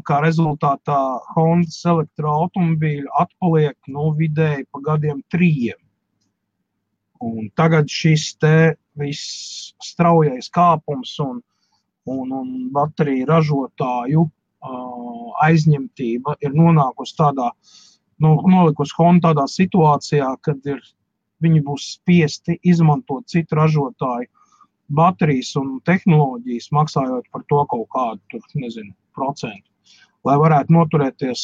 kā rezultātā Hondas elektroautomobīļi atpaliek vidēji pa gadiem 3. Un tagad šis te viss straujais kāpums un bateriju ražotāju aizņemtība ir nonākusi nolikusi Honda tādā situācijā, kad viņi būs spiesti izmantot citu ražotāju baterijas un tehnoloģijas, maksājot par to kaut kādu, procentu, lai varētu noturēties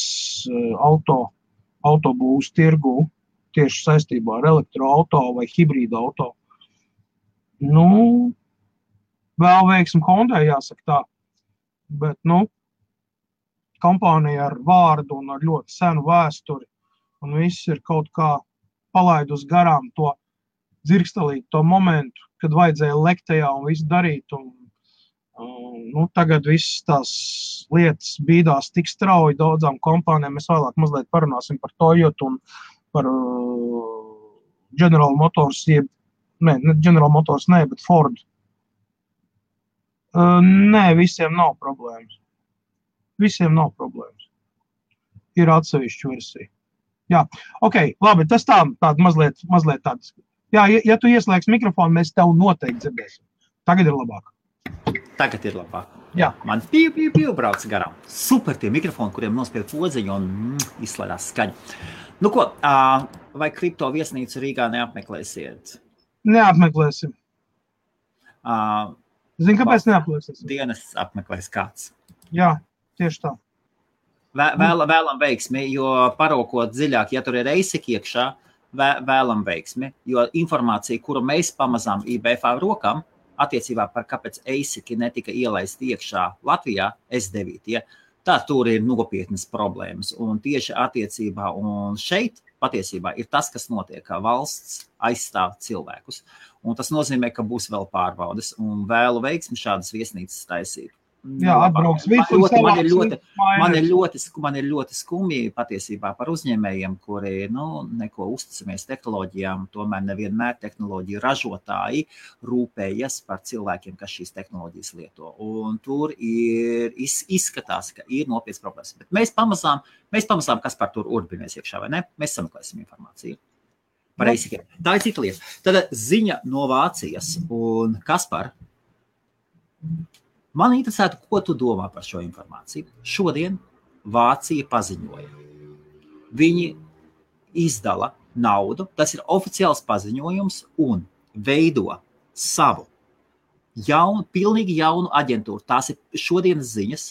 autobūvas tirgu tieši saistībā ar elektroauto vai hibrīda auto. Nu, vēl veiksim Hondai, jāsaka tā, bet, kompānija ar vārdu un ar ļoti senu vēsturi, un viss ir kaut kā palaidus garām to dzirkstelīt to momentu, kad vajadzēja lekt tajā un visu darīt, un tagad visas tās lietas bīdās tik strauji daudzām kompānijām. Mēs vēlāk mazliet parunāsim par Toyota un par General Motors, General Motors bet Ford. Nē, visiem nav problēmas. Visiem nav problēmas. Ir atsevišķa versija. Jā, ok, labi, tas tāda mazliet tāds. Jā, ja tu ieslēgs mikrofonu, mēs tev noteikti dzirdēsim. Tagad ir labāk. Tagad ir labāk. Jā. Man pīv brauc garām. Super tie mikrofoni, kuriem nospied podziņu un izslēdās skaņu. Nu ko, vai kripto viesnīcu Rīgā neapmeklēsiet? Neapmeklēsim. Zini, kāpēc neapmeklēsim? Dienas apmeklēs kāds. Jā, tieši tā. Vēlam veiksmi, jo parokot dziļāk, ja tur ir ASIC iekšā, vēlam veiksmi, jo informācija, kuru mēs pamazām IBF rokam, attiecībā par kāpēc ASIC netika ielaist iekšā Latvijā, S9, ja, tā tur ir nopietnas problēmas. Un tieši attiecībā un šeit patiesībā ir tas, kas notiek, kā valsts aizstāv cilvēkus. Un tas nozīmē, ka būs vēl pārbaudes un vēlu veiksmi šādas viesnīcas taisīt. Jā, atbrauks visu. Man ir ļoti skumji patiesībā par uzņēmējiem, kuri neko uzticamies tehnoloģijām, tomēr nevienmēr tehnoloģiju ražotāji rūpējas par cilvēkiem, kas šīs tehnoloģijas lieto. Un tur izskatās, ka ir nopietnas problēmas. Bet mēs pamazām kas par tur urbinamies iekšā, vai ne? Mēs sameklēsim informāciju. Par ASIC. Tā ir cita lieta. Tad ziņa no Vācijas un Kaspar. Man interesētu, ko tu domā par šo informāciju. Šodien Vācija paziņoja. Viņi izdala naudu, tas ir oficiāls paziņojums un veido savu pilnīgi jaunu aģentūru. Tās ir šodienas ziņas.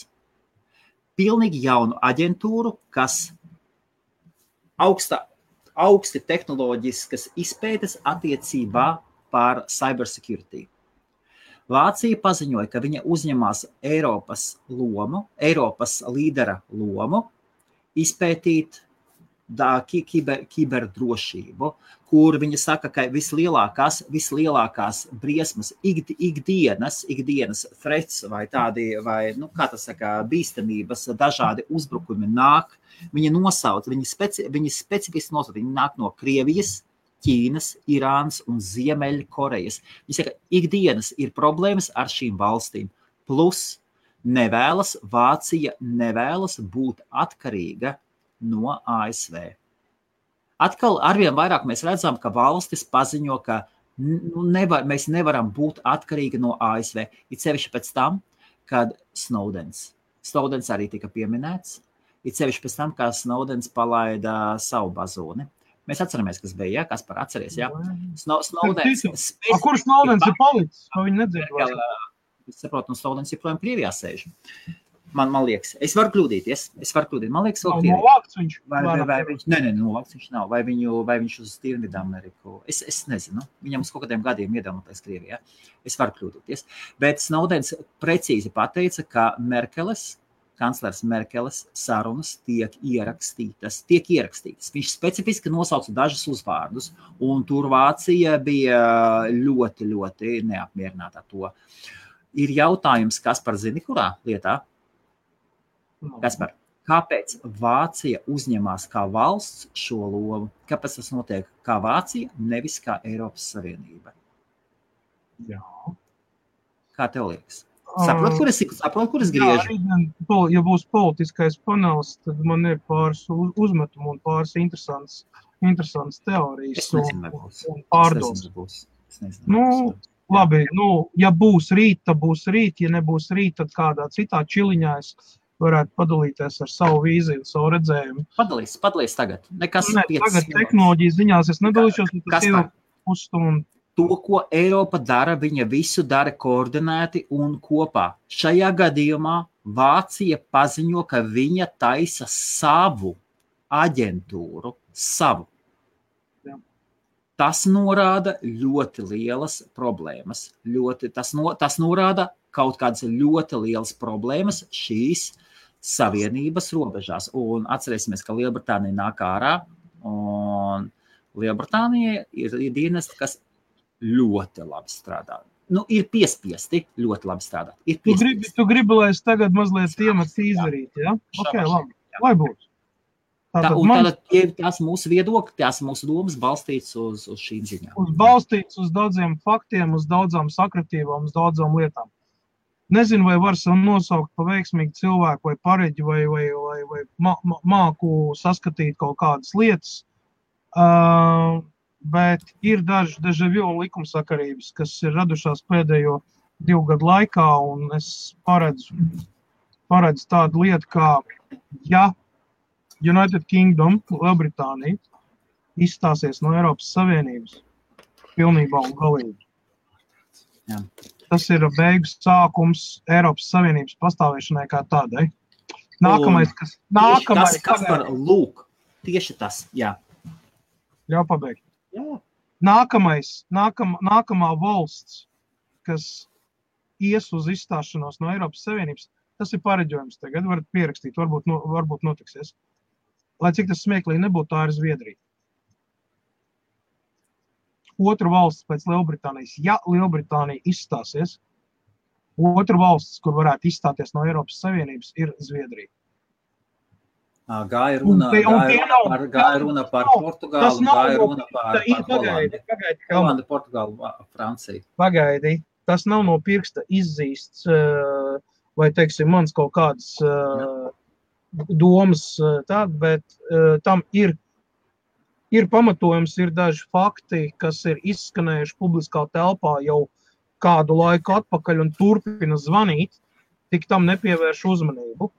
Pilnīgi jaunu aģentūru, kas augsti tehnoloģiskas izpētes attiecībā par cybersecurity. Vācija paziņoja, ka viņa uzņemās Eiropas līdera lomu izpētīt kiberdrošību, kur viņa saka, ka vislielākās briesmas ikdienas threats vai tādi, bīstamības, dažādi uzbrukumi nāk. Viņa specifiski nosauc, viņi nāk no Krievijas, Ķīnas, Irānas un Ziemeļkorejas. Viņi saka, ikdienas ir problēmas ar šīm valstīm. Plus Vācija nevēlas būt atkarīga no ASV. Atkal arvien vairāk mēs redzam, ka valstis paziņo, ka mēs nevaram būt atkarīgi no ASV. It sevišķi pēc tam, kad Snowdens arī tika pieminēts, it sevišķi pēc tam, kā Snowdens palaida savu bazūni. Mēs atceramies, kas bija, Kaspar, atceries, Snowdens. Kur Snowdens ir palicis? Viņi nedzird vairs. Es saprotu, Snowdens joprojām Krievijā sēž. Man liekas, es varu kļūdīties. Man liekas, vēl Krievijā. Novākts viņš? Vai viņš? Nē, novākts viņš nav. Vai viņš uz Tirnidu Ameriku? Es nezinu. Viņam uz kaut kādiem gadiem iedomāties Krievijā. Es varu kļūdīties. Bet Snowdens precīzi pateica, ka kanclers Merkeles sarunas tiek ierakstītas. Viņš specifiski nosauca dažus uzvārdus, un tur Vācija bija ļoti, ļoti neapmierināta to. Ir jautājums, Kaspar, zini, kurā lietā? Kaspar, kāpēc Vācija uzņemās kā valsts šo lomu? Kāpēc tas notiek kā Vācija, nevis kā Eiropas Savienība? Jā. Kā tev liekas? Saprot, kur es griežu? Ja būs politiskais panels, tad man ir pāris uzmetumu un pāris interesants teorijas. Es nezinu, un pārdomas. Es nezinu. Labi, ja būs rīt, tad būs rīt. Ja nebūs rīt, tad kādā citā čiliņā es varētu padalīties ar savu vīziju, savu redzējumu. Padalīs tagad. Tagad tehnoloģijas ziņās es nedalīšos, tas ir pusstundu. To, ko Eiropa dara, viņa visu dara koordinēti un kopā. Šajā gadījumā Vācija paziņo, ka viņa taisa savu aģentūru, Jā. Tas norāda ļoti lielas problēmas. Tas norāda kaut kādas ļoti lielas problēmas šīs savienības robežās. Un atcerēsimies, ka Lielbritānija nāk ārā, un Lielbritānija ir dienesti, kas ļoti labi strādā. Ir piespiesti ļoti labi strādāt. Tu gribi, lai es tagad mazliet iemats izdarīt, ja? Ok, labi. Lai būtu. Tās mūsu viedokļi, tās mūsu domas balstīts uz šīm ziņām. Balstīts uz daudziem faktiem, uz daudzām sakritībām, uz daudzām lietām. Nezinu, vai var sev nosaukt pa veiksmīgu cilvēku vai pareģi vai māku saskatīt kaut kādas lietas. Bet ir daži deja-vu un likumsakarības, kas ir radušās pēdējo 2 gadu laikā, un es paredzu tādu lietu, kā ja United Kingdom, Lielbritānija, izstāsies no Eiropas Savienības pilnībā un galīgi. Jā. Tas ir beigu sākums Eiropas Savienības pastāvēšanai kā tādai. Nākamais, lūk, tieši tas, jā. Ļauj pabeigt. Jā. Nākamā valsts, kas ies uz izstāšanos no Eiropas Savienības, tas ir pareģojums tagad, varat pierakstīt, varbūt notiksies. Lai cik tas smieklīgi nebūtu, tā ir Zviedrija. Otra valsts pēc Lielbritānijas, ja Lielbritānija izstāsies, otra valsts, kur varētu izstāties no Eiropas Savienības, ir Zviedrija. Gāja runa par Portugālu, gāja runa par Hollandi, Portugālu, Franciju. Pagaidi, tas nav no pirksta izzīsts, vai, teiksim, mans kaut kādas domas tāda, bet tam ir pamatojums, ir daži fakti, kas ir izskanējuši publiskā telpā jau kādu laiku atpakaļ un turpina zvanīt, tik tam nepievērš uzmanību.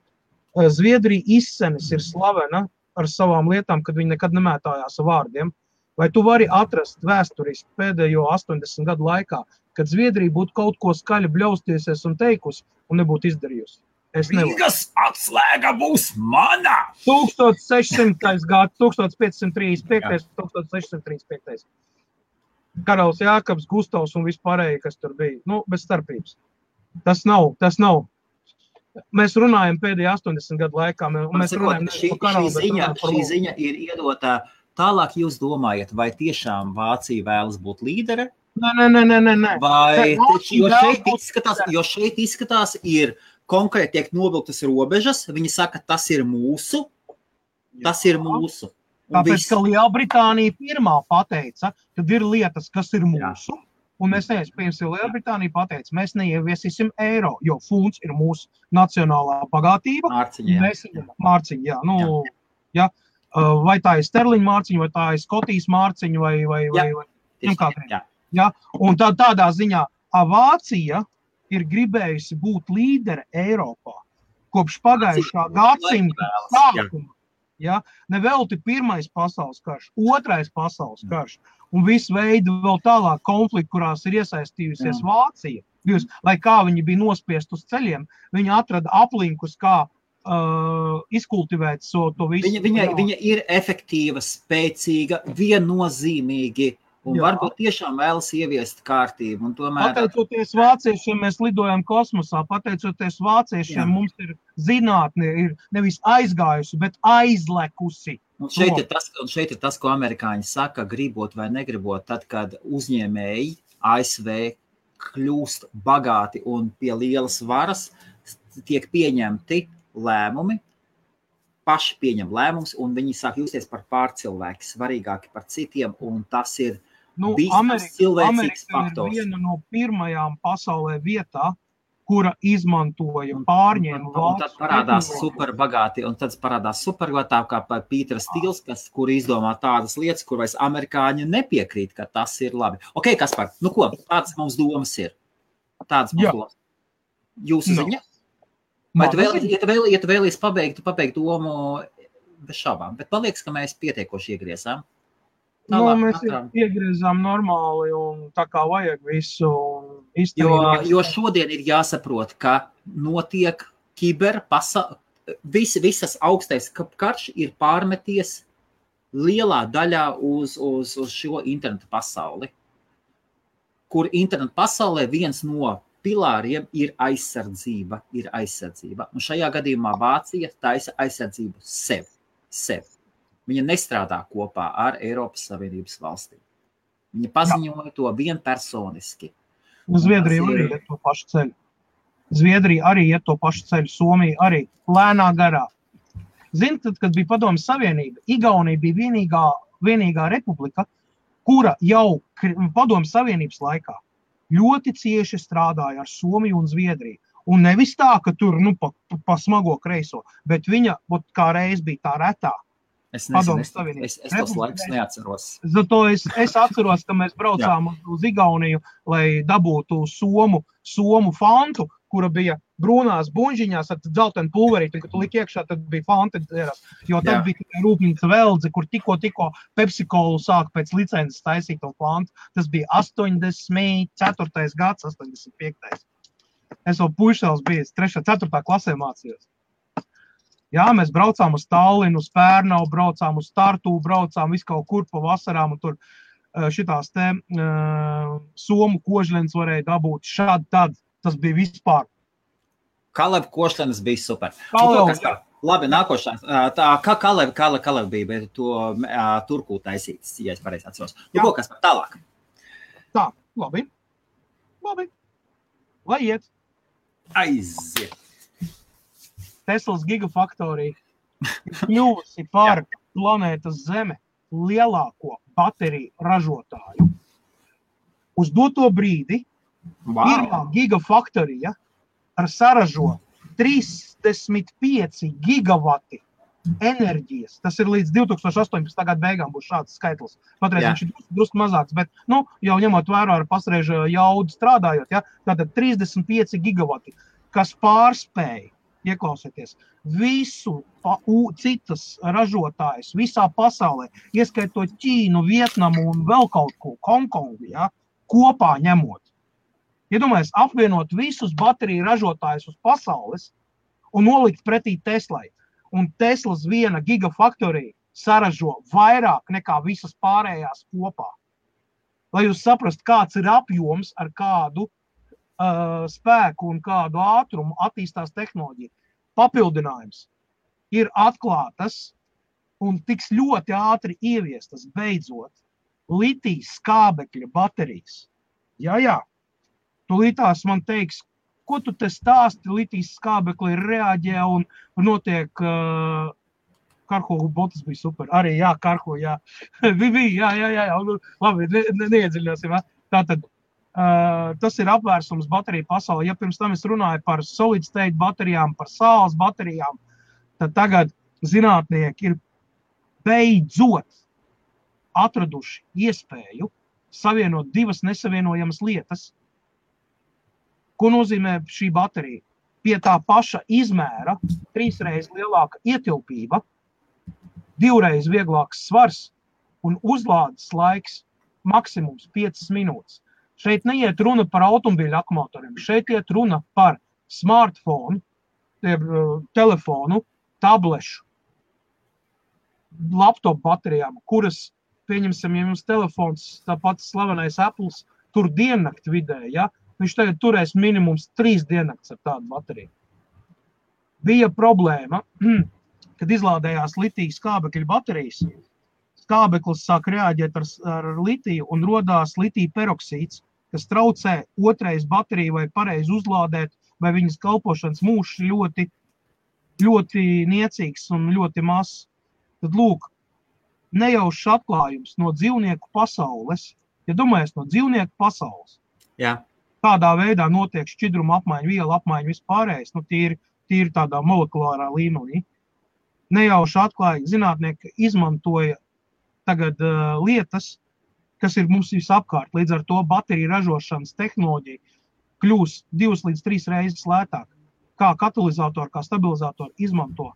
Zviedrija izsenis ir slavena ar savām lietām, kad viņi nekad nemētājās ar vārdiem. Vai tu vari atrast vēsturiski pēdējo 80 gadu laikā, kad Zviedrija būtu kaut ko skaļi bļaustiesies un teikusi un nebūtu izdarījusi? Rīgas atslēga būs mana! 1600. gads, 1535. 1635. Karalis Jākabs, Gustavs un vispārēji, kas tur bija. Bez starpības. Tas nav. Mēs runājam pēdējā 80 gadu laikā. Šī ziņa ir iedota tālāk. Jūs domājat, vai tiešām Vācija vēlas būt līdere? Nē. Vai, jo šeit izskatās ir konkrēti tiek novilktas robežas. Viņi saka, tas ir mūsu. Tāpēc, ka Lielbritānija pirmā pateica, tad ir lietas, kas ir mūsu. Jā. Un mēs neiesim, Lielbritānija pateica, mēs neieviesīsim eiro, jo funds ir mūsu nacionālā bagātība. Mārciņa, jā. Vai tā ir sterliņa mārciņa, vai tā ir Skotijas mārciņa, vai jā. Un tādā ziņā Vācija ir gribējusi būt līdere Eiropā kopš pagājušā gadsimta sākuma. Ja? Nevelti pirmais pasaules karš, otrais pasaules karš un visu veidu vēl tālāk konflikti, kurās ir iesaistījusies Vācija. Lai kā viņi bija nospiest uz ceļiem, viņi atrada aplinkus, kā izkultivēt to visu. Viņa ir efektīva, spēcīga, viennozīmīgi. Un varbūt tiešām vēlas ieviest kārtību. Un tomēr... Pateicoties vāciešiem, mēs lidojam kosmosā. Pateicoties vāciešiem, mums ir zinātne, ir nevis aizgājusi, bet aizlekusi. Un šeit ir tas, ko amerikāņi saka, gribot vai negribot, tad, kad uzņēmēji ASV kļūst bagāti un pie lielas varas, tiek pieņemti lēmumi, paši pieņem lēmumus, un viņi sāk justies par pārcilvēki, svarīgāki par citiem, un tas ir cilvēcīgs faktors. Ir viena no pirmajām pasaulē vietā, kura izmantoja pārņēmu valsts. Un tad parādās superbagāti, kā Pīters Stīls, kur izdomā tādas lietas, kur vairs amerikāņi nepiekrīt, ka tas ir labi. Ok, Kaspar, nu ko, tādas mums domas ir. Tādas mums domas. Jūsu ziņa? Vai tu vēlies pabeigt domu bez šaubām? Bet man liekas, ka mēs pietiekoši iegriezām. Mēs iegriezām normāli un tā kā vajag visu izturīt. Jo šodien ir jāsaprot, ka notiek visas augstais karš ir pārmeties lielā daļā uz šo internetu pasauli, kur internetu pasaulē viens no pilāriem ir aizsardzība. Un šajā gadījumā Vācija taisa aizsardzību sev. Viņa nestrādā kopā ar Eiropas Savienības valstīm. Viņa paziņoja to vienpersoniski. Zviedrija arī iet to pašu ceļu. Somija arī lēnā garā. Zini, kad bija Padomju Savienība, Igaunija bija vienīgā republika, kura jau Padomju Savienības laikā ļoti cieši strādāja ar Somiju un Zviedriju. Un nevis tā, ka tur pa smago kreiso, bet viņa kā reiz bija tā retā. Es tos laikus neatceros. Zato es atceros, ka mēs braucām uz Igauniju, lai dabūtu somu fantu, kura bija brūnās buņžiņās ar dzeltenu pulverīti, un kad tu liki iekšā, tad bija fanta dzēras. Jo tad bija tikai rūpnīca Veldze, kur tikko Pepsi-Colu sāk pēc licences taisīt to fantu. Tas bija 84. gads, 85. Es vēl puišēls bijis 3. 4. klasē mācījos. Jā, mēs braucām uz Tallinu, uz Pērnavu, braucām uz Tartu, braucām visu kaut kur pa vasarām, un tur šitās somu kožļenes varēja dabūt šādi tad. Tas bija vispār. Kalev košļenes bija super. Labi, nākošais. Kā Kalev bija, bet to Turku taisītas, ja es pareizi atceros. Ko, kas par tālāk? Tā, labi. Lai iet. Aiziet. Teslas gigafaktorija ir kļuvusi par planētas Zeme lielāko bateriju ražotāju. Uz doto brīdi pirmā gigafaktorija saražo 35 gigavati enerģijas. Tas ir līdz 2018. Gada beigām būs šāds skaitlis. Patreiz viņš ir drusku mazāks, bet jau ņemot vērā ar pasreižu jaudu strādājot, tātad 35 gigavati, kas pārspēja, ieklausieties, visu citas ražotājus visā pasaulē, ieskaitot Ķīnu, Vietnamu un vēl kaut ko, Hongkongu, kopā ņemot. Iedomājies, apvienot visus bateriju ražotājus uz pasaules un nolikt pretī Teslai. Un Teslas viena gigafaktorija saražo vairāk nekā visas pārējās kopā. Lai jūs saprastu, kāds ir apjoms, ar kādu spēku un kādu ātrumu attīstās tehnoloģija. Papildinājums ir atklātas un tiks ļoti ātri ieviestas beidzot litijas skābekļa baterijas. Jā. Tūlītās man teiks, ko tu te stāsti, litijas skābekli reaģē un notiek Karho botas bija super. Arī, Karho, jā. Labi, neiedziļināsim. Tātad, tas ir apvērsums bateriju pasaulē. Ja pirms tam es runāju par solid state baterijām, par saules baterijām, tad tagad zinātnieki ir beidzot atraduši iespēju savienot divas nesavienojamas lietas. Ko nozīmē šī baterija? Pie tā paša izmēra 3 reizes lielāka ietilpība 2 vieglāks svars un uzlādes laiks maksimums 5 minūtes. Šeit neiet runa par automobiļu akumulatoriem, šeit iet runa par smartphone, telefonu, tablešu, laptop baterijām, kuras, pieņemsim, ja jums telefons, tāpat slavenais Apples, tur diennakti vidē, ja? Viņš tagad turēs minimums 3 diennakts ar tādu bateriju. Bija problēma, kad izlādējās litija skābekļa baterijas. Skābeklis sāk reaģēt ar litiju un rodās litija peroksīds, kas traucē otrais bateriju vai pareizi uzlādēt, vai viņas kalpošanas mūžs ļoti, ļoti niecīgs un ļoti mazs. Tad lūk, nejaušs atklājums no dzīvnieku pasaules, ja domājies no dzīvnieku pasaules, kādā veidā notiek šķidruma apmaiņa, viela apmaiņa vispārējais, tīri tādā molekulārā līmenī. Nejauši atklāja, zinātnieki izmantoja tagad lietas, kas ir mums visapkārt. Līdz ar to bateriju ražošanas tehnoloģija kļūs 2 līdz 3 reizes lētāk. Kā katalizatoru, kā stabilizatoru izmanto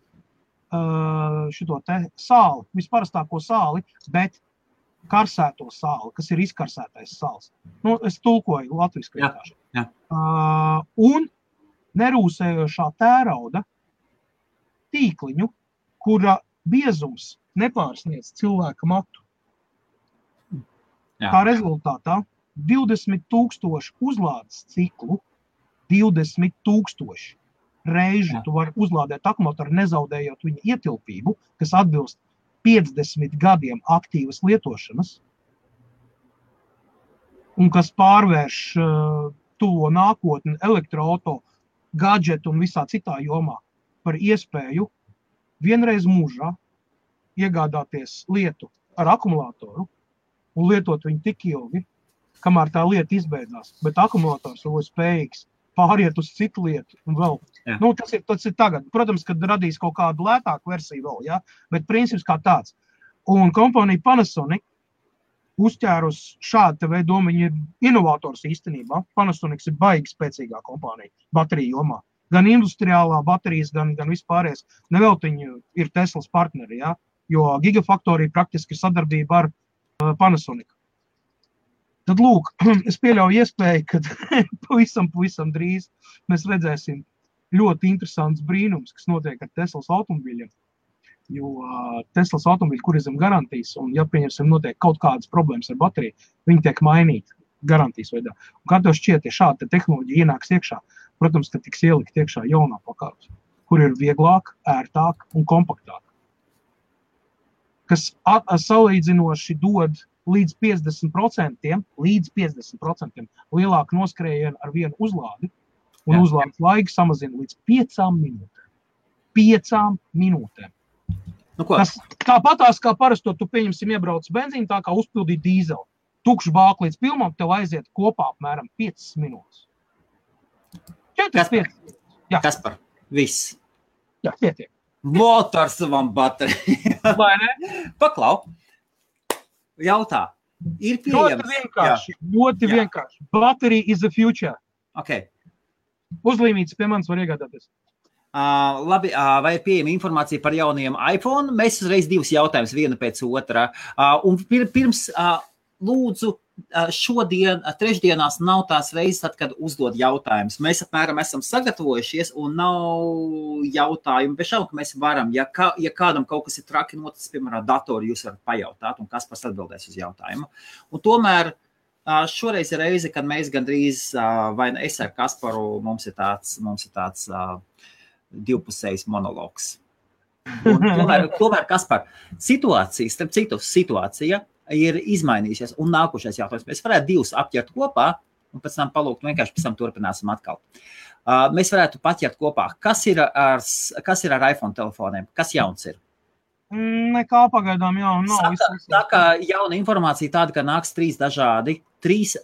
šito te sāli, visparastāko sāli, bet karsēto sāli, kas ir izkarsētais sāls. Es tulkoju latviski vienkārši. Un nerūsējošā tērauda tīkliņu, kura biezums nepārsniedz cilvēka matu. Kā rezultātā 20,000 uzlādes ciklu, 20,000 reižu tu vari uzlādēt akumulatoru, nezaudējot viņa ietilpību, kas atbilst 50 gadiem aktīvas lietošanas, un kas pārvērš tuvo nākotni elektroauto, gadžetu un visā citā jomā par iespēju vienreiz mūžā iegādāties lietu ar akumulatoru un lietot viņu tik ilgi, kamēr tā lieta izbeidzās. Bet akumulators jau ir spējīgs pāriet uz citu lietu un vēl. Tas ir tagad. Protams, kad radīs kaut kādu lētāku versiju vēl, ja? Bet princips kā tāds. Un kompānija Panasonic uzķērus šādu veidu domu, viņi ir inovators īstenībā. Panasonic ir baigi spēcīgā kompānija bateriju jomā. Gan industriālā baterijas, gan vispārējais. Nevēl viņi ir Teslas partneri, ja? Jo Gigafactory praktiski ir sadarbība ar Panasonic. Tad lūk, es pieļauju iespēju, ka pavisam drīz mēs redzēsim ļoti interesants brīnums, kas notiek ar Teslas automobiļiem. Jo Teslas automobiļi, kur ir zem garantijas, un ja pieņemsim notiek kaut kādas problēmas ar bateriju, viņi tiek mainīti garantijas veidā. Un kā tev šķiet, ja šāda tehnoloģija ienāks iekšā, protams, ka tiks ielikt iekšā jaunā pakārs, kur ir vieglāk, ērtāk un kompaktāk. Kas salīdzinoši dod līdz 50% lielāku noskrējienu ar vienu uzlādi, un uzlādes laiku samazina līdz 5 minūtēm. 5 minūtēm. Tāpatās kā parasto, tu pieņemsim iebrauc benzīnu, tā kā uzpildīt dīzeli. Tukšu bāku līdz pilnam, tev aiziet kopā apmēram 5 minūtes. 4-5. Kaspar, viss. Jā, pietiek. Motor savam bateriju. Vai ne? Paklau. Jautā. Ir pieejams. Ļoti vienkārši. Battery is the future. Okay. Uzlīmītas pie manis var iegādāties. Labi, vai ir pieejama informācija par jaunajiem iPhone? Mēs uzreiz 2 jautājumus, viena pēc otrā. Un pirms lūdzu, šodien, trešdienās nav tās reizes, tad, kad uzdod jautājumus. Mēs apmēram esam sagatavojušies un nav jautājumu. Bez šaubu, ka mēs varam, ja kādam kaut kas ir traki noticis, piemēram, datoru, jūs varat pajautāt un Kaspars atbildēs uz jautājumu. Un tomēr šoreiz ir reize, kad mēs gandrīz, vai es ar Kasparu, mums ir tāds divpusējs monologs. Un tomēr Kaspar, situācija ir izmainījusies un nākošais jautājums. Mēs varētu 2 apķert kopā un pēc tam palūgt, vienkārši pēc tam turpināsim atkal. Mēs varētu paķert kopā. Kas ir ar iPhone telefoniem? Kas jauns ir? Nekā pagaidām jauna nav. Tā kā jauna informācija tāda, ka nāks 3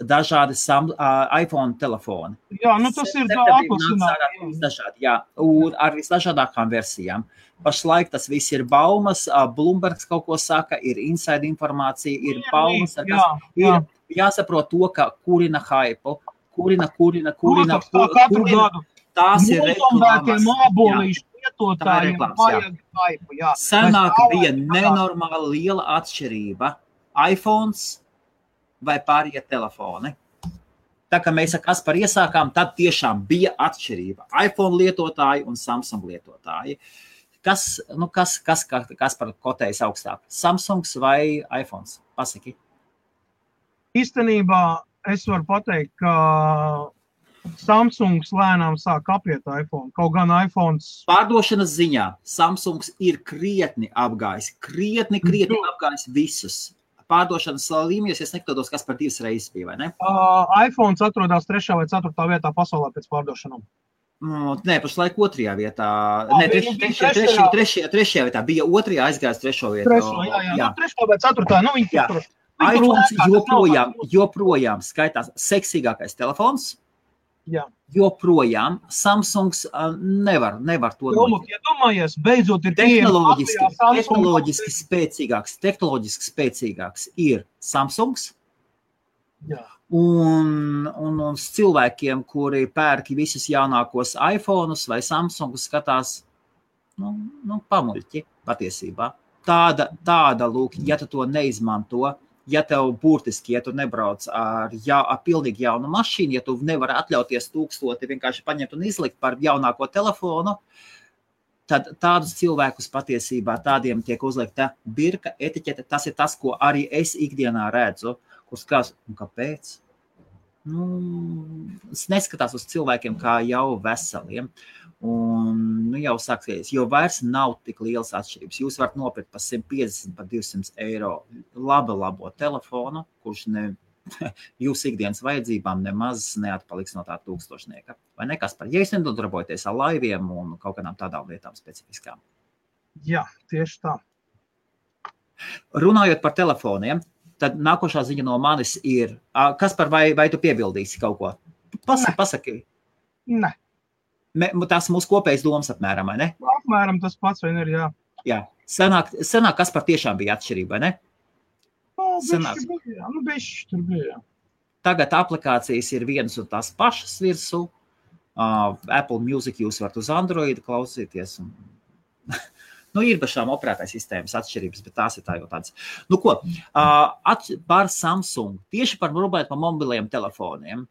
dažādi iPhone telefoni. Jā, tas ir dažādi, jā, un ar visdažādākām versijām. Pašlaik tas viss ir baumas, Bloombergs kaut ko saka, ir inside informācija, ir baumas, ir jāsaprot to, ka kurina hype, kurina. Katru gadu. Tās ir reklāmas. lietotājiem vajag Skype, jā. Senāk bija nenormāli liela atšķirība. iPhones vai pārējie telefoni. Tā kā mēs ar Kasparu iesākām, tad tiešām bija atšķirība. iPhone lietotāji un Samsung lietotāji. Kas par kotējas augstāk? Samsungs vai iPhones? Pasaki. Īstenībā es varu pateikt, ka Samsungs lēnām sāk apiet iPhone. Kaut gan iPhones... Pārdošanas ziņā Samsungs ir krietni apgājis. Krietni apgājis visus. Pārdošanas līmenis, es nekļūdos, kas par 2 reizes bija, vai ne? iPhones atrodās 3. vai 4. vietā pasaulē pēc pārdošanām. Nē, pašlaik 2. vietā. Nē, 3. vietā. Bija 2. aizgājis 3. vietā. 3. jā. 3. vai 4. Nu, viņi tur. iPhones joprojām skaitās seksīgākais telefons. Jā. Joprojām Samsungs nevar to domāt. Ja domājies, beidzot ir tehnoloģiski spēcīgāks ir Samsungs. Jā. Un cilvēkiem, kuri pērk visus jaunākos iPhone'us vai Samsungus, skatās pamuļķi patiesībā. Tāda lūk, ja tu to neizmanto, ja tev burtiski, ja tu nebrauc ar pilnīgi jaunu mašīnu, ja tu nevari atļauties 1000 vienkārši paņemt un izlikt par jaunāko telefonu, tad tādus cilvēkus patiesībā tādiem tiek uzlikta birka etiķete. Tas ir tas, ko arī es ikdienā redzu, kur skās, kāpēc? Es neskatās uz cilvēkiem kā jau veseliem. Un jau sāksies, jo vairs nav tik lielas atšķirības. Jūs varat nopirkt par 150, par 200 eiro labo telefonu, kurš jūsu ikdienas vajadzībām nemaz neatpaliks no tā 1000. Vai ne, Kaspar? Ja jūs nedarbojaties ar laiviem un kaut kādām tādām lietām specifiskām. Jā, tieši tā. Runājot par telefoniem, tad nākošā ziņa no manis ir, Kaspar, vai tu piebildīsi kaut ko? Pasaki. Ne. Tas mūsu kopējais domas apmēram, vai ne? Apmēram tas pats, vai ne, jā. Jā. Senāk Kaspar tiešām bija atšķirība, vai ne? Bišķi tur bija, jā. Tagad aplikācijas ir vienas un tās pašas virsū. Apple Music jūs varat uz Android klausīties. Ir bašām operētājas sistēmas atšķirības, bet tās ir tā jau tādas. Par Samsung, tieši par mobiliem telefoniem.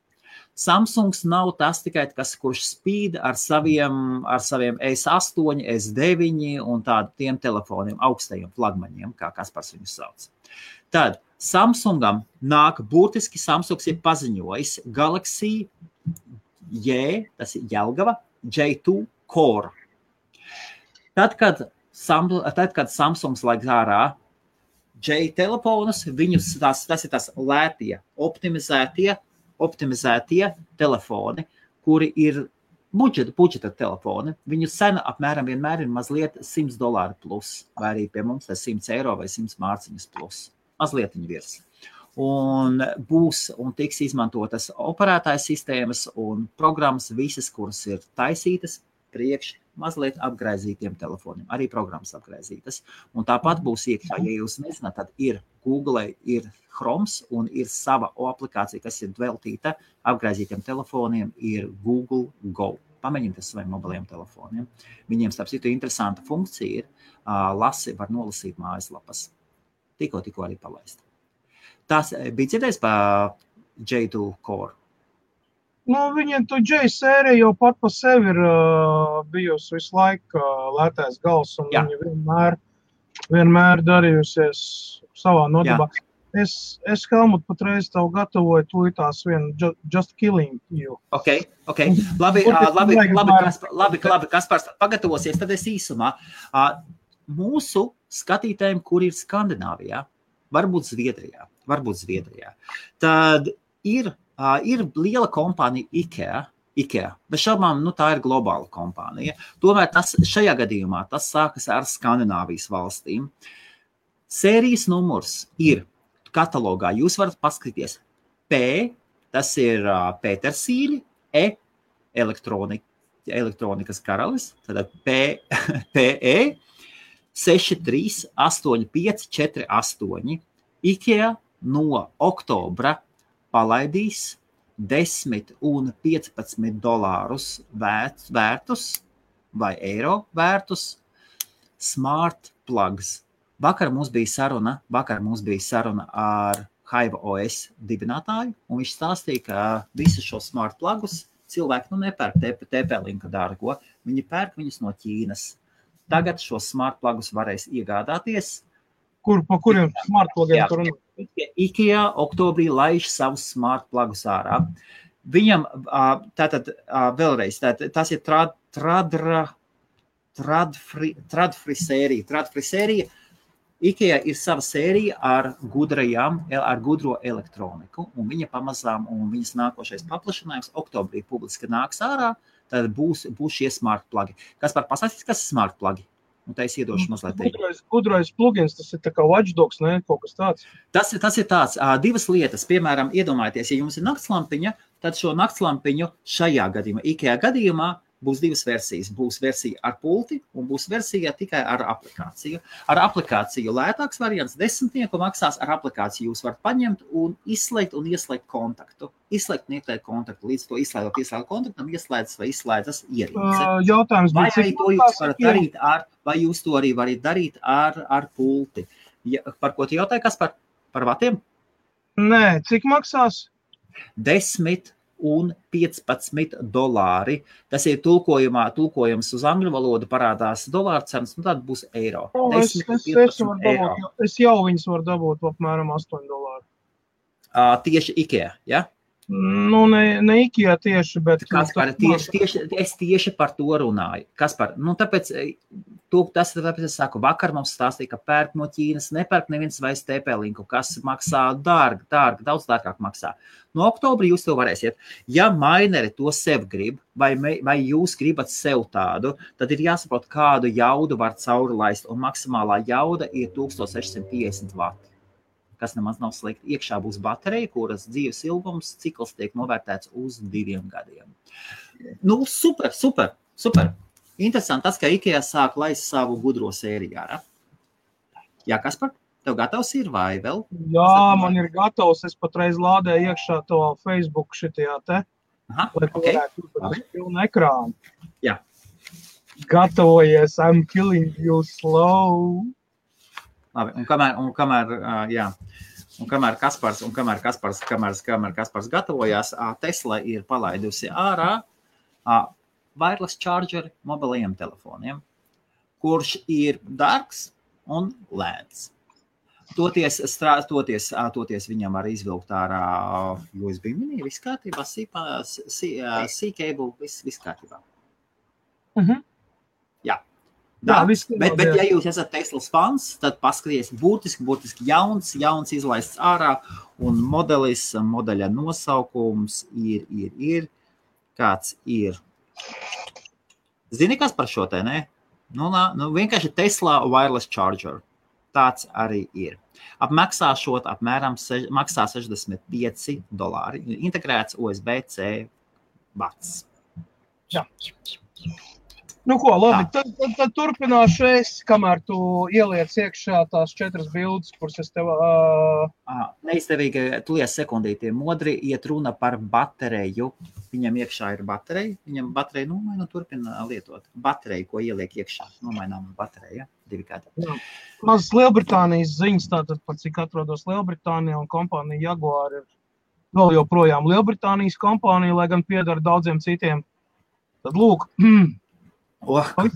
Samsungs nav tas tikai, kurš spīd ar saviem S8, S9 un tādiem telefoniem, augstajiem flagmaņiem, kā Kaspars viņus sauc. Tad Samsungam nāk burtiski, Samsungs ir paziņojis Galaxy tas ir Jelgava, J2 Core. Tad, kad Samsungs laik ārā J telefonus, viņus tas ir tas lētie, optimizētie telefoni, kuri ir budžeta telefoni. Viņu cena apmēram vienmēr ir mazliet $100 plus, vai arī pie mums tas 100 eiro vai 100 mārciņas plus. Mazliet viņa virs. Un tiks izmantotas operētājas sistēmas un programmas visas, kuras ir taisītas priekš mazliet apgraizītiem telefoniem. Arī programmas apgraizītas. Un tāpat būs iekšā, ja jūs nezināt, tad ir Google, ir Chromes un ir sava aplikācija, kas ir veltīta apgraizītiem telefoniem, ir Google Go. Pamēģiniet saviem mobiliem telefoniem. Viņiem, starp citu, interesanta funkcija ir, var nolasīt mājaslapas. Tikko arī palaist. Tas bija dzirdējis par J2 Core? Viņiem to J sērija jau pat pa sevi ir bijusi visu laiku lētais gals, un viņi vienmēr darījusies savā nodarbā. Es Helmut, patreiz tev gatavoju tūlītās vienu Just Killing You. Ok. Labi, Kaspars, pagatavosies, tad es īsumā. Mūsu skatītājiem, kur ir Skandināvijā, varbūt Zviedrijā, tad ir liela kompānija IKEA, bet šaubām, tā ir globāla kompānija. Tomēr šajā gadījumā tas sākas ar Skandināvijas valstīm. Sērijas numurs ir katalogā. Jūs varat paskatīties P, tas ir Petersīļi, E, elektronikas karalis, tad PE 638548. IKEA no oktobra palaidīs $10 un $15 vērtus vai eiro vērtus smart plugs. Vakar mums bija saruna ar Hive OS dibinātāju, un viņš stāstīja, ka visus šos smart plugus cilvēki nepērk TP-Linka dārgo, viņi pērk viņus no Ķīnas. Tagad šos smart plugus varēs iegādāties. Pa kuriem smart plugiem tur runā? IKEA oktobrī laiž savus smart plugus ārā. Viņam, tātad vēlreiz, tas ir Tradfree sērija. IKEA ir sava sērija ar gudro elektroniku, un viņa pamazām, un viņas nākošais paplašinājums oktobrī publiski nāks ārā, tad būs šie smart plugi. Pasāstīs, kas ir smart plugi? Un tā es iedošu mazliet. Gudrais plugins, tas ir tā kā watchdogs, ne? Kaut kas tāds. Tas ir tāds, divas lietas. Piemēram, iedomājieties, ja jums ir naktslampiņa, tad šo naktslampiņu šajā gadījumā, IKEA gadījumā, būs divas versijas. Būs versija ar pulti un būs versija tikai ar aplikāciju. Ar aplikāciju lētāks variants 10 maksās. Ar aplikāciju jūs varat paņemt un izslēgt un ieslēgt kontaktu. Izslēgt un ieslēgt kontaktu. Līdz to ieslēgt kontaktam, ieslēdzas vai izslēdzas ierīce. Jautājums vai arī to jūs varat darīt vai jūs to arī varat darīt ar pulti. Par ko tu jautāji, kas par vatiem? Nē, cik maksās? 10 un $15. Tas ir tulkojums uz angļu valodu, parādās dolāru cenas, un tad būs eiro. Es jau viņus varu dabūt apmēram $8. Tieši IKEA, ja? Nu, ne IKEA tieši, bet... Kaspar, es tieši par to runāju. Kaspar, tāpēc es saku, vakar mums stāstīja, ka pērk no Ķīnas, nepērk neviens vairs TP-Linku, kas maksā dārgi, daudz dārgāk maksā. No oktobrī jūs to varēsiet. Ja maineri to sev grib, vai jūs gribat sev tādu, tad ir jāsaprot, kādu jaudu var cauri laist, un maksimālā jauda ir 1650 vati. Kas nemaz nav slikti. Iekšā būs baterija, kuras dzīves ilgums cikls tiek novērtēts uz 2 gadiem. Super. Interesanti tas, ka IKEA sāk laist savu gudro sēriju ārā. Jā, Kaspar, tev gatavs ir vai vēl? Jā, man ir gatavs. Es patreiz lādēju iekšā to Facebook šitajā te. Lai varētu uz pilnu ekrānu. Jā. Gatavojies, I'm killing you slow. Labi, un kamēr Kaspars gatavojās, Tesla ir palaidusi ārā wireless chargeri mobilajiem telefoniem, kurš ir dārgs un lēts. Toties viņam var izvilkt ārā USB mini, viss kārtībā, C-cable, viss kārtībā. Jā. Bet ja jūs esat Teslas fans, tad paskaties burtiski jauns izlaists ārā, un modeļa nosaukums ir, kāds ir. Zini, kas par šo te, ne? Vienkārši Tesla wireless charger. Tāds arī ir. Apmaksāšot apmēram maksā $65. Integrēts USB-C vats. Jā. Ko, labi, tad turpināšu es, kamēr tu ieliec iekšā tās 4 bildes, kuras es tev... Neizdevīgi, tulies sekundīti, modri iet runa par bateriju. Viņam iekšā ir baterija, viņam baterija nomaina un turpina lietot. Bateriju, ko ieliek iekšā, nomainām bateriju, 2 gadi. Mazas Lielbritānijas ziņas, tātad pat cik atrodos Lielbritānijā un kompānija Jaguar ir vēl joprojām Lielbritānijas kompānija, lai gan piedara daudziem citiem. Tad lūk,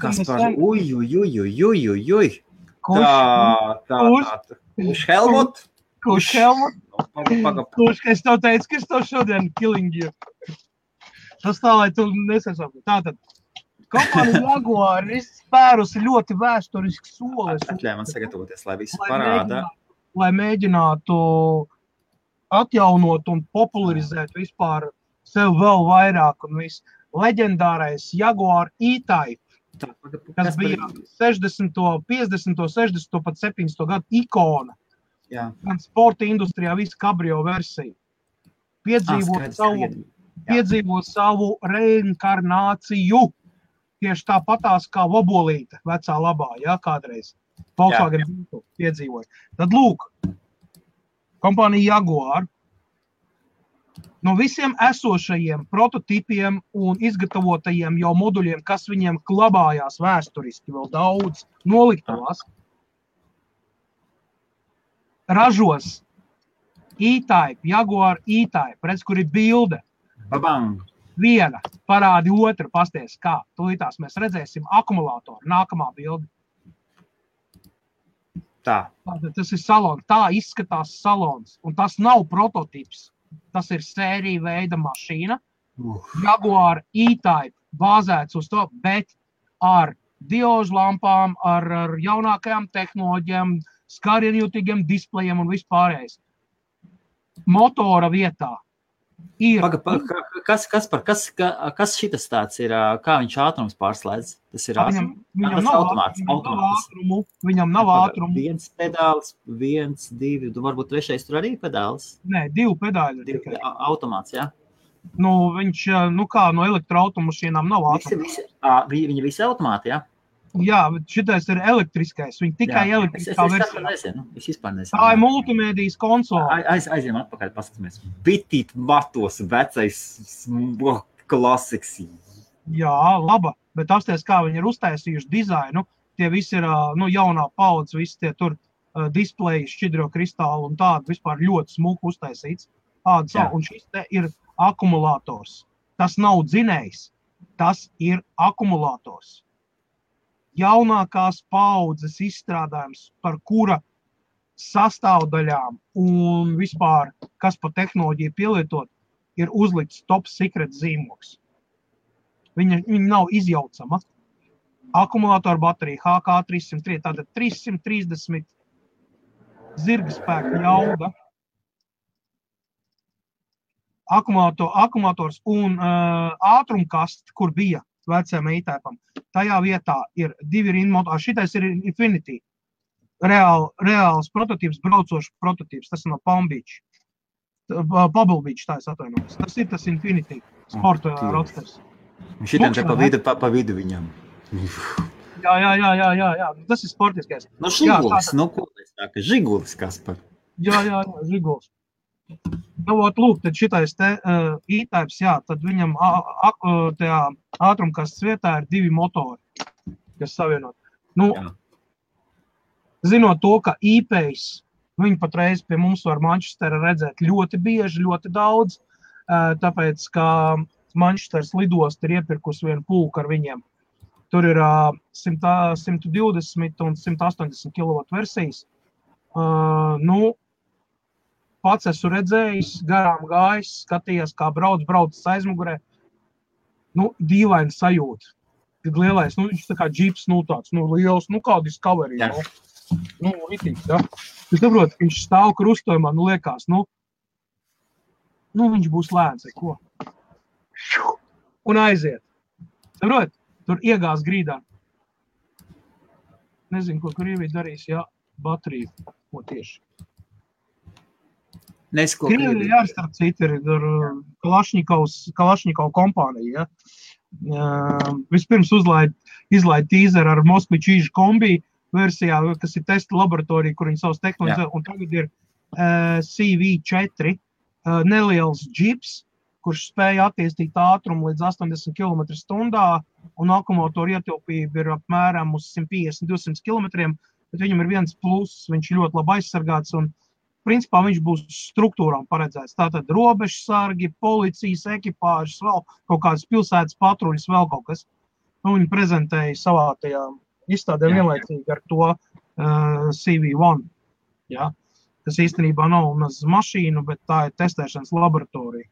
Kaspar, uj. Kurš Helmut? Kurš, es tev teicu, ka es tev šodien killing you. Tas tā, lai tu nesasauki. Tātad, kompānija Jaguar ir spērusi ļoti vēsturisku soli. Atļauj man sagatavoties, lai visu parāda. Lai mēģinātu atjaunot un popularizēt vispār sev vēl vairāk un visu. Leģendārais Jaguar E-Type, kas bija 60., 50., 60., pat 70. gadu ikona. Jā. Gan sporta industrijā visu kabrio versiju. Piedzīvot savu reinkarnāciju. Tieši tāpatās kā Vobolīte, vecā labā, kādreiz. Volkswagen piedzīvoja. Tad lūk, kompānija Jaguar no visiem esošajiem prototipiem un izgatavotajiem jau moduļiem, kas viņiem glabājās vēsturiski vēl daudz noliktavās, ražos E-Type, Jaguar E-Type, redz, kur ir bilde. Babang! Viena, parādi otru, pasties, kā. Tūlītās mēs redzēsim akumulātoru, nākamā bilde. Tā. Tas ir salons, tā izskatās salons, un tas nav prototips. Tas ir sērija veida mašīna, Jaguar E-Type, bāzēts uz to, bet ar diožu lampām, ar jaunākajām tehnoloģijām, skarienjūtīgiem displejiem un vispārējais. Motora vietā ir... Kas šitas tāds ir, kā viņš ātrums pārslēdz? Tas ir Viņam nav ātrumu. Viens pedāls, viens, divi, varbūt trešais tur arī pedāls? Nē, 2 pedāļi. Automāts, jā? Nu, viņš, kā no elektroautomašīnām nav ātrums. Viņi visi automāti, jā? Jā, šitais ir elektriskais. Viņi tikai elektriskā versijā. Es vispār nezinu. Tā ir multimēdijas konsole. Aizjām atpakaļ, paskatāmies. Bitīt matos, vecais klasiks. Jā, laba. Bet apsties, kā viņi ir uztaisījuši dizainu, tie visi ir jaunā paudze, visi tie tur displeji, šķidro kristāli un tādi vispār ļoti smuki uztaisīts. Un šis te ir akumulātors. Tas nav dzinējs, tas ir akumulātors. Jaunākās paudzes izstrādājums, par kura sastāvdaļām un vispār, kas pa tehnoloģiju pielietot, ir uzlikts top secret zīmogs. Viņa nav izjaucama. Akumulātora baterija HK303, tātad 330 zirgspēku jauda. Akumulators un ātrumkast, kur bija vecajam E-Typam. Tajā vietā ir 2 rinmotori. Šitais ir Infinity. Reāls prototips, braucošs prototips. Tas ir no Palm Beach. Pebble Beach, tā es atvainojos. Tas ir tas Infinity sporta roadsters. Šitam te pa vidu viņam. Jā. Tas ir sportiskais. No Žigulis, Žigulis, Kaspar. Jā, Žigulis. Lūk, tad šitais te E-Types, jā, tad viņam tajā ātrumkastes vietā ir 2 motori, kas savienot. Zinot to, ka E-Pace, viņi patreiz pie mums var Manchestera redzēt ļoti bieži, ļoti daudz, tāpēc, ka Manchesteras lidost ir iepirkus vienu pulku ar viņiem. Tur ir 120 un 180 kW versijas. Pats esmu redzējis, garām gājis, skatījās, kā brauc aizmugurē. Dīvaini sajūta. Tik lielais, viņš tā kā džips, tāds, liels, kā Discovery. Ritīgs, jā. Es saprotu, ka viņš stāv krustojumā, liekas, viņš būs lēns, ko? Un aiziet. Saprot, tur iegās grīdā. Nezinu, ko Krievija darīs, jā, bateriju, ko tieši. Krievija, jā, starp citu, ir Kalašņikov kompānija, ja. Vispirms izlaid tīzeru ar Moskvičīžu kombi versijā, kas ir testa laboratorija, kur viņi savas tehnoloģijas, un tagad ir CV4, neliels džips, kurš spēja attīstīt ātrumu līdz 80 km/h, un akumulātoru ietilpība ir apmēram uz 150-200 km, bet viņam ir viens pluss, viņš ir ļoti labi aizsargāts, un principā viņš būs struktūrām paredzēts. Tātad robežsargi, policijas ekipāžas, vēl kaut kādas pilsētas patruļas, vēl kaut kas. Viņi prezentēja savā tajā izstādē vienlaicīgi ar to CV1, ja? Kas īstenībā nav maz mašīnu, bet tā ir testēšanas laboratorija.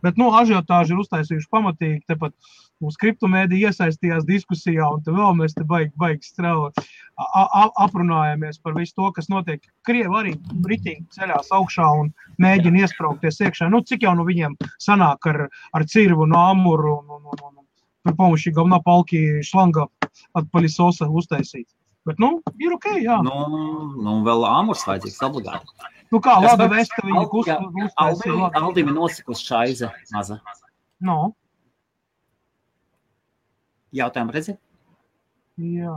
Bet, ažiotāži ir uztaisījuši pamatīgi, tepat mums kriptomēdija iesaistījās diskusijā, un te vēl mēs te baigi strāvot, aprunājamies par visu to, kas notiek. Krievi arī ritīgi ceļās augšā un mēģina iespraukties iekšā. Cik jau viņiem sanāk ar cirvu un āmuru un par pomoši galvenā palki šlanga atpaļisosa uztaisīt. Bet, ir okei, jā. Vēl āmurs vajadzīgs obligāti. Kā labi vesta viņa uztaisīja. Aldim ir nosikus šaize maza. Jautājumu redzi? Jā.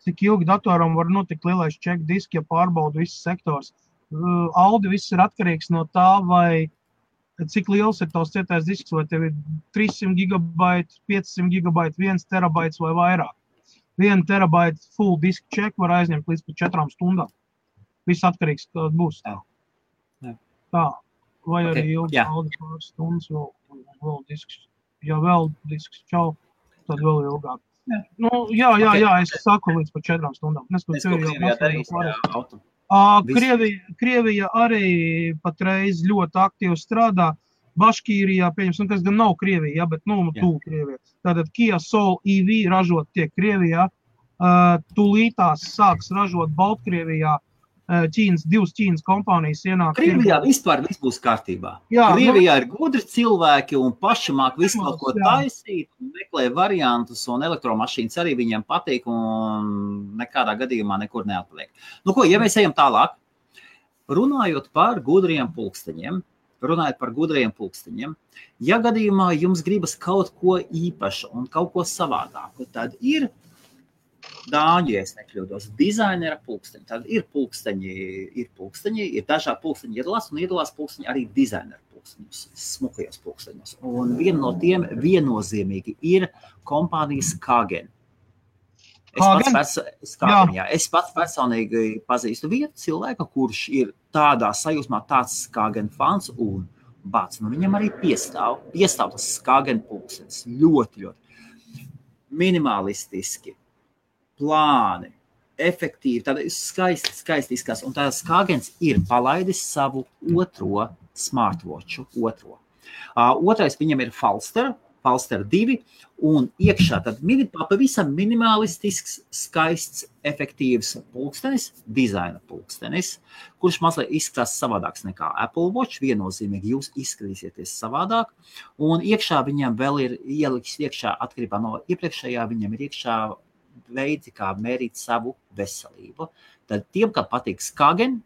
Cik ilgi datoram var notikt lielais check disk, ja pārbauda viss sektors? Audi viss ir atkarīgs no tā, vai cik liels ir tavs cietais disks, vai tev ir 300 gigabaiti, 500 gigabaiti, 1 terabaits vai vairāk. 1 terabaita full disk check var aizņemt līdz pat 4 stundām. Viss atkarīgs, kāda būs. Jā. Tā. Vai arī ilgi pāris stundas vēl disks. Ja vēl disks čau, tad vēl ilgāk. Es saku līdz pat 4 stundām. Krievija arī patreiz ļoti aktīvi strādā. Baškīrijā, pieņemsim, kas gan nav Krievija, bet tuvu Krievija. Tātad Kia Soul EV ražot tiek Krievijā. Tūlītās sāks ražot Baltkrievijā. Divas Ķīnas kompānijas ienāk. Krievijā vispār viss būs kārtībā. Krievijā ir gudri cilvēki un paši māk visu kaut ko taisīt, meklē variantus un elektromašīnas arī viņiem patīk un nekādā gadījumā nekur neatpaliek. Ja mēs ejam tālāk, runājot par gudriem pulksteņiem, ja gadījumā jums gribas kaut ko īpašu un kaut ko savādāku, tad ir dāņu, ja es nekļūdos, dizainera pulksteņi. Tad ir pulksteņi, ir dažādi pulksteņi iedalās pulksteņi arī dizainera pulksteņos, smukajos pulksteņos. Un viena no tiem viennozīmīgi ir kompānijas Skagen. Es pats personīgi pazīstu vienu cilvēku, kurš ir tādā sajūsmā tāds Skagen fans un viņam arī piestāv tas Skagen pulkstenis ļoti minimalistiski. Plāni, efektīvi, tāda skaisti izskatās. Un tāds Skagens ir palaidis savu otro smartwatchu. Otrais viņam ir Falster 2, un iekšā tad pavisam minimalistisks, skaists, efektīvs pulkstenis, dizaina pulkstenis, kurš mazliet izskatās savādāks nekā Apple Watch, viennozīmīgi jūs izskatīsieties savādāk, un iekšā viņam vēl ir ieliks iekšā, atkarībā no iepriekšējā, viņam ir iekšā veidi, kā mērīt savu veselību. Tad tiem, kam patīk Skagen,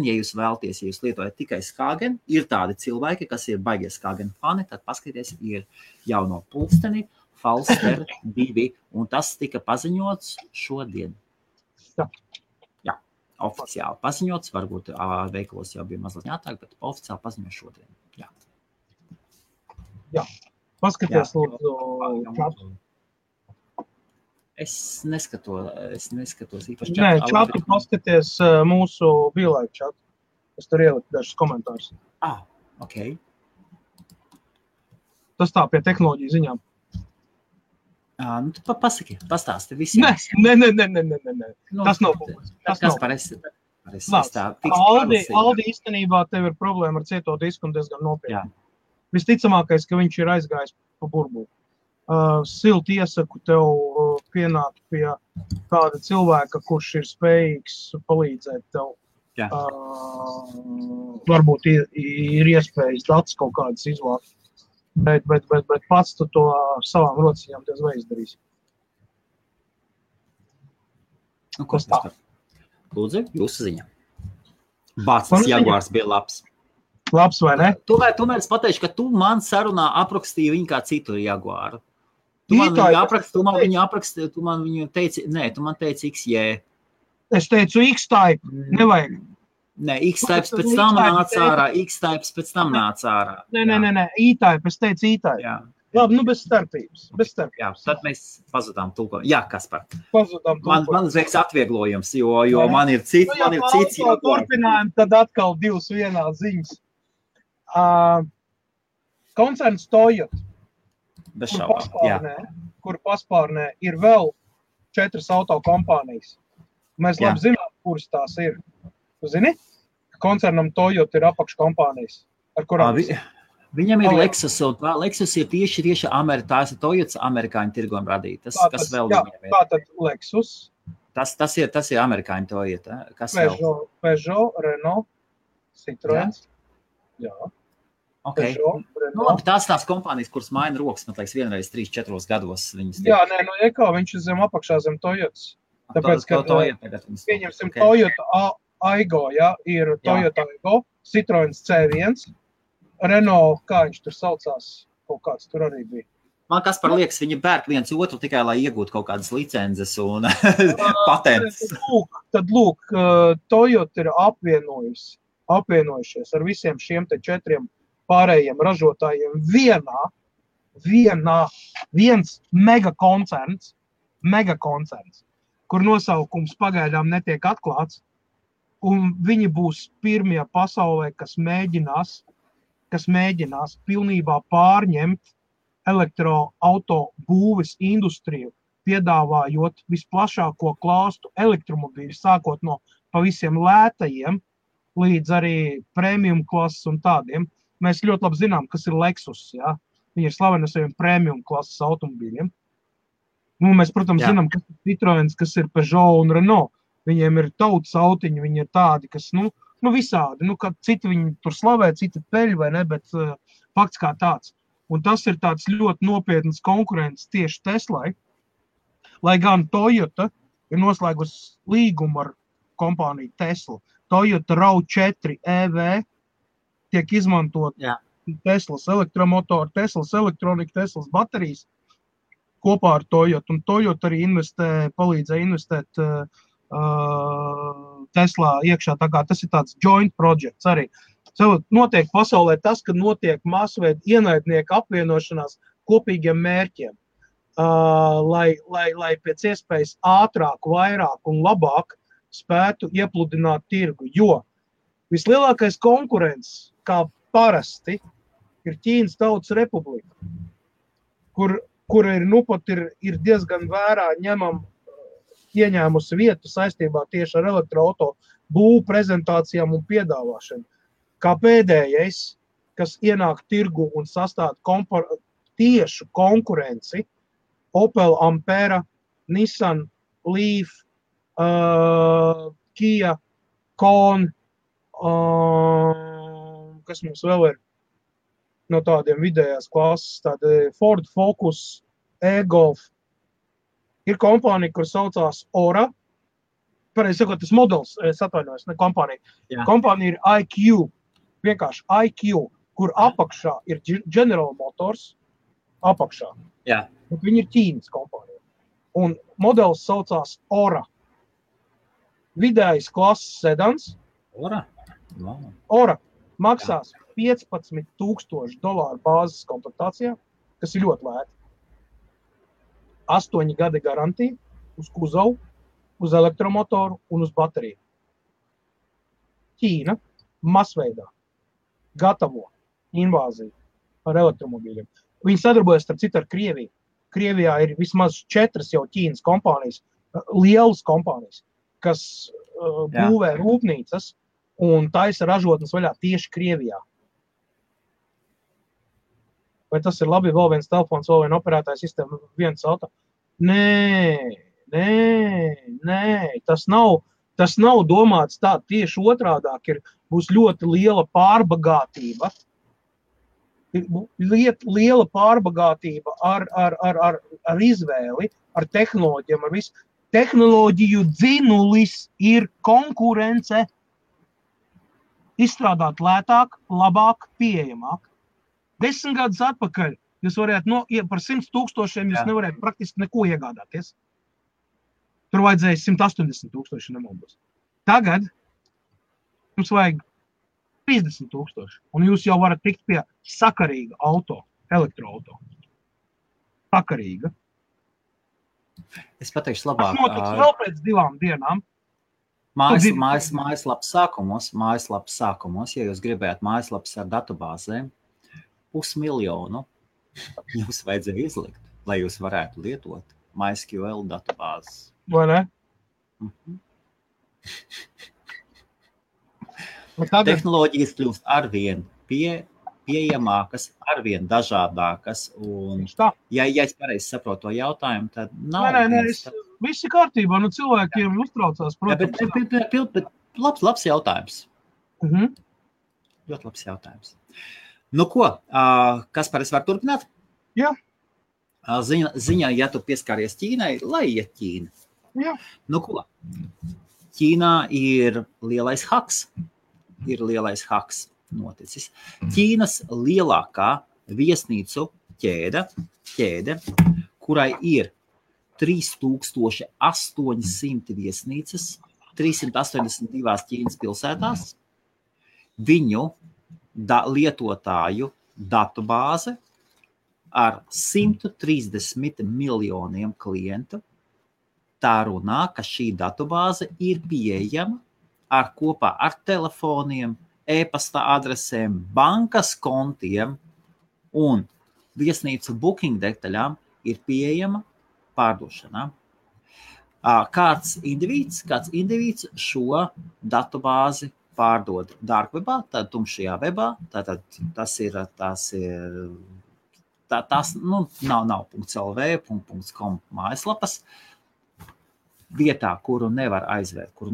ja jūs vēlties, ja jūs lietojat tikai Skagen, ir tādi cilvēki, kas ir baigie Skagen fani, tad paskaties, ir jauno pulksteni Falster 2, un tas tika paziņots šodien. Jā, oficiāli paziņots, varbūt veikalos jau bija mazliet jātāk, bet oficiāli paziņots šodien. Jā, paskaties lūdzu. Es neskatos īpaši čatu. Nē, čatu paskaties mūsu biolaiku čatu. Es tur ieliku dažus komentārus. Ok. Tas tā pie tehnoloģiju ziņām. Tu pastāsti visiem. Nē. Tas nav publiski. Kas par esi? Aldi īstenībā tev ir problēma ar cieto disku un diezgan nopietni. Visticamākais, ka viņš ir aizgājis pa burbuli. Silti iesaku tev pienākt pie kāda cilvēka, kurš ir spējīgs palīdzēt tev. Varbūt ir iespējas datus kaut kādas izvākt, bet pats tu to savām rociņām diez vai izdarīsi. Kas tā? Lūdzu, jūsu ziņa. Bācis Jaguars bija labs. Labs vai ne? Tomēr es pateikšu, ka tu man sarunā aprakstīji viņu kā citu Jaguāru. Tu man viņu teici, tu man teici XJ. Es teicu X-Type, nevajag. Nē, X-Types pēc tam nāca ārā. Nē, E-Type, es teicu E-Type. Jā. Labi, bez starpības. Jā, tad mēs pazudām tulkojumu. Jā, Kaspar. Pazudām tulkojumu. Man uzreiz atvieglojums, jo man ir cits. Turpinājumi, tad atkal 2 vienā ziņas. Koncerns Toyota. Kur paspārnē ir vēl 4 auto kompānijas. Mēs labi zinām, kuras tās ir. Tu zini? Koncernam Toyota ir apakškompānijas, ar kurām... Viņam ir Lexus, un Lexus ir tieši tās ir Toyotas amerikāņu tirgojuma radītas. Kas vēl viņam ir? Tātad Lexus. Tas ir amerikāņu Toyota. Peugeot, Renault, Citroens. Jā. Okay. Tās kompānijas, kuras maina rokas, man liekas, vienreiz 3-4 gados viņas... Jā, viņš ir zem apakšā zem Toyotas. Tāpēc, ka pieņemsim Toyota Aygo, ir Toyota Aygo, Citroens C1, Renault, kā viņš tur saucās, kaut kāds tur arī bija. Man Kaspar liekas, viņi pērk viens otru tikai, lai iegūtu kaut kādas licences un patents. Tad lūk, Toyota ir apvienojušies ar visiem šiem te 4 pārējiem ražotājiem viens megakoncerns, kur nosaukums pagaidām netiek atklāts, un viņi būs pirmie pasaulē, kas mēģinās pilnībā pārņemt elektroauto būves industriju, piedāvājot visplašāko klāstu elektromobīļu, sākot no pavisam lētajiem līdz arī premium klases un tādiem. Mēs ļoti labi zinām, kas ir Lexus, ja? Viņi ir slaveni ar saviem premium klases automobīļiem. Nu, mēs, protams, zinām, kas ir Citroens, kas ir Peugeot un Renault. Viņiem ir tautas autiņi, viņi ir tādi, kas, visādi, kad citi viņi tur slavē, citi peļ vai ne, bet fakts kā tāds. Un tas ir tāds ļoti nopietnas konkurences tieši Teslai, lai gan Toyota ir noslēgusi līgumu ar kompāniju Tesla. Toyota RAV4 EV tiek izmantot Teslas elektromotori, Teslas elektronika, Teslas baterijas kopā ar Toyota. Un Toyota arī palīdzēja investēt Teslā iekšā. Tā kā tas ir tāds joint projects arī. Notiek pasaulē tas, ka notiek masveida ienaidnieku apvienošanās kopīgiem mērķiem, lai pēc iespējas ātrāk, vairāk un labāk spētu iepludināt tirgu, jo vislielākais konkurents, kā parasti, ir Ķīnas Tautas Republika, kur ir diezgan vērā ieņēmusi vietu saistībā tieši ar elektroauto būvu prezentācijām un piedāvāšanu. Kā pēdējais, kas ienāk tirgu un sastāda tiešu konkurenci, Opel Ampera, Nissan Leaf, Kia, Kon, kas mums vēl ir no tādiem vidējās klases, tādi Ford Focus, e-Golf. Ir kompānija, kur saucās Ora. Pareizi sakot, tas modelis, es atvainojos, ne kompānija. Jā. Kompānija ir IQ, vienkārši IQ, kur apakšā ir General Motors, apakšā. Jā. Bet viņi ir Ķīnas kompānija. Un modelis saucās Ora. Vidējais klases sedans. Ora? Wow. Ora maksās $15,000 bāzes komplektācijā, kas ir ļoti lēti. 8 gadi garantija uz kuzavu, uz elektromotoru un uz bateriju. Ķīna masveidā gatavo invāziju ar elektromobīļiem. Viņi sadarbojas starp citu ar Krieviju. Krievijā ir vismaz 4 jau Ķīnas kompānijas, lielas kompānijas, kas būvē rūpnīcas un taisa ražotnes vaļā tieši Krievijā. Vai tas ir labi, vēl viens telefons, vēl viena operētāja sistēma, viens auto? Nē, tas nav domāts tā, tieši otrādāk būs ļoti liela pārbagātība. Liela pārbagātība ar izvēli, ar tehnoloģiem, ar visu. Tehnoloģiju dzinulis ir konkurence. Izstrādāt lētāk, labāk, pieejamāk. 10 gadus atpakaļ jūs varētu par 100,000 jūs nevarētu praktiski neko iegādāties. Tur vajadzēja 180,000 nemaldos. Tagad jums vajag 30,000, un jūs jau varat tikt pie sakarīga auto, elektroauto. Sakarīga. Es pateikšu labāk. Tas notiks vēl pēc 2 dienām. Mājaslapas sākumos, ja jūs gribētu mājaslapas ar datubāzēm, 500,000 jums vajadzēja izlikt, lai jūs varētu lietot MySQL datubāzes. Vai ne? Tehnoloģijas kļūst arvien pieejamākas, arvien dažādākas. Un, ja es pareizi saprotu to jautājumu, tad nav... Nē, viss ir kārtībā, cilvēkiem uztraucās, protams. Bet labs jautājums. Ļoti labs jautājums. Nu ko, Kaspar, es varu turpināt? Jā. Ziņā, ja tu pieskāries Ķīnai, lai iet Ķīna. Jā. Nu ko, Ķīnā ir lielais haks noticis. Ķīnas lielākā viesnīcu ķēde, kurai ir 3800 viesnīcas, 382 Ķīnas pilsētās, viņu lietotāju datubāze ar 130 miljoniem klientu. Tā runā, ka šī datubāze ir pieejama kopā ar telefoniem, e-pasta adresēm, bankas kontiem un viesnīcu booking detaļām ir pieejama pārdošanā. Kāds indivīds šo datubāzi pārdod darkwebā, tad tumšajā webā, tātad tas nav .lv, .com mājaslapas, vietā, kuru nevar aizvērt, kur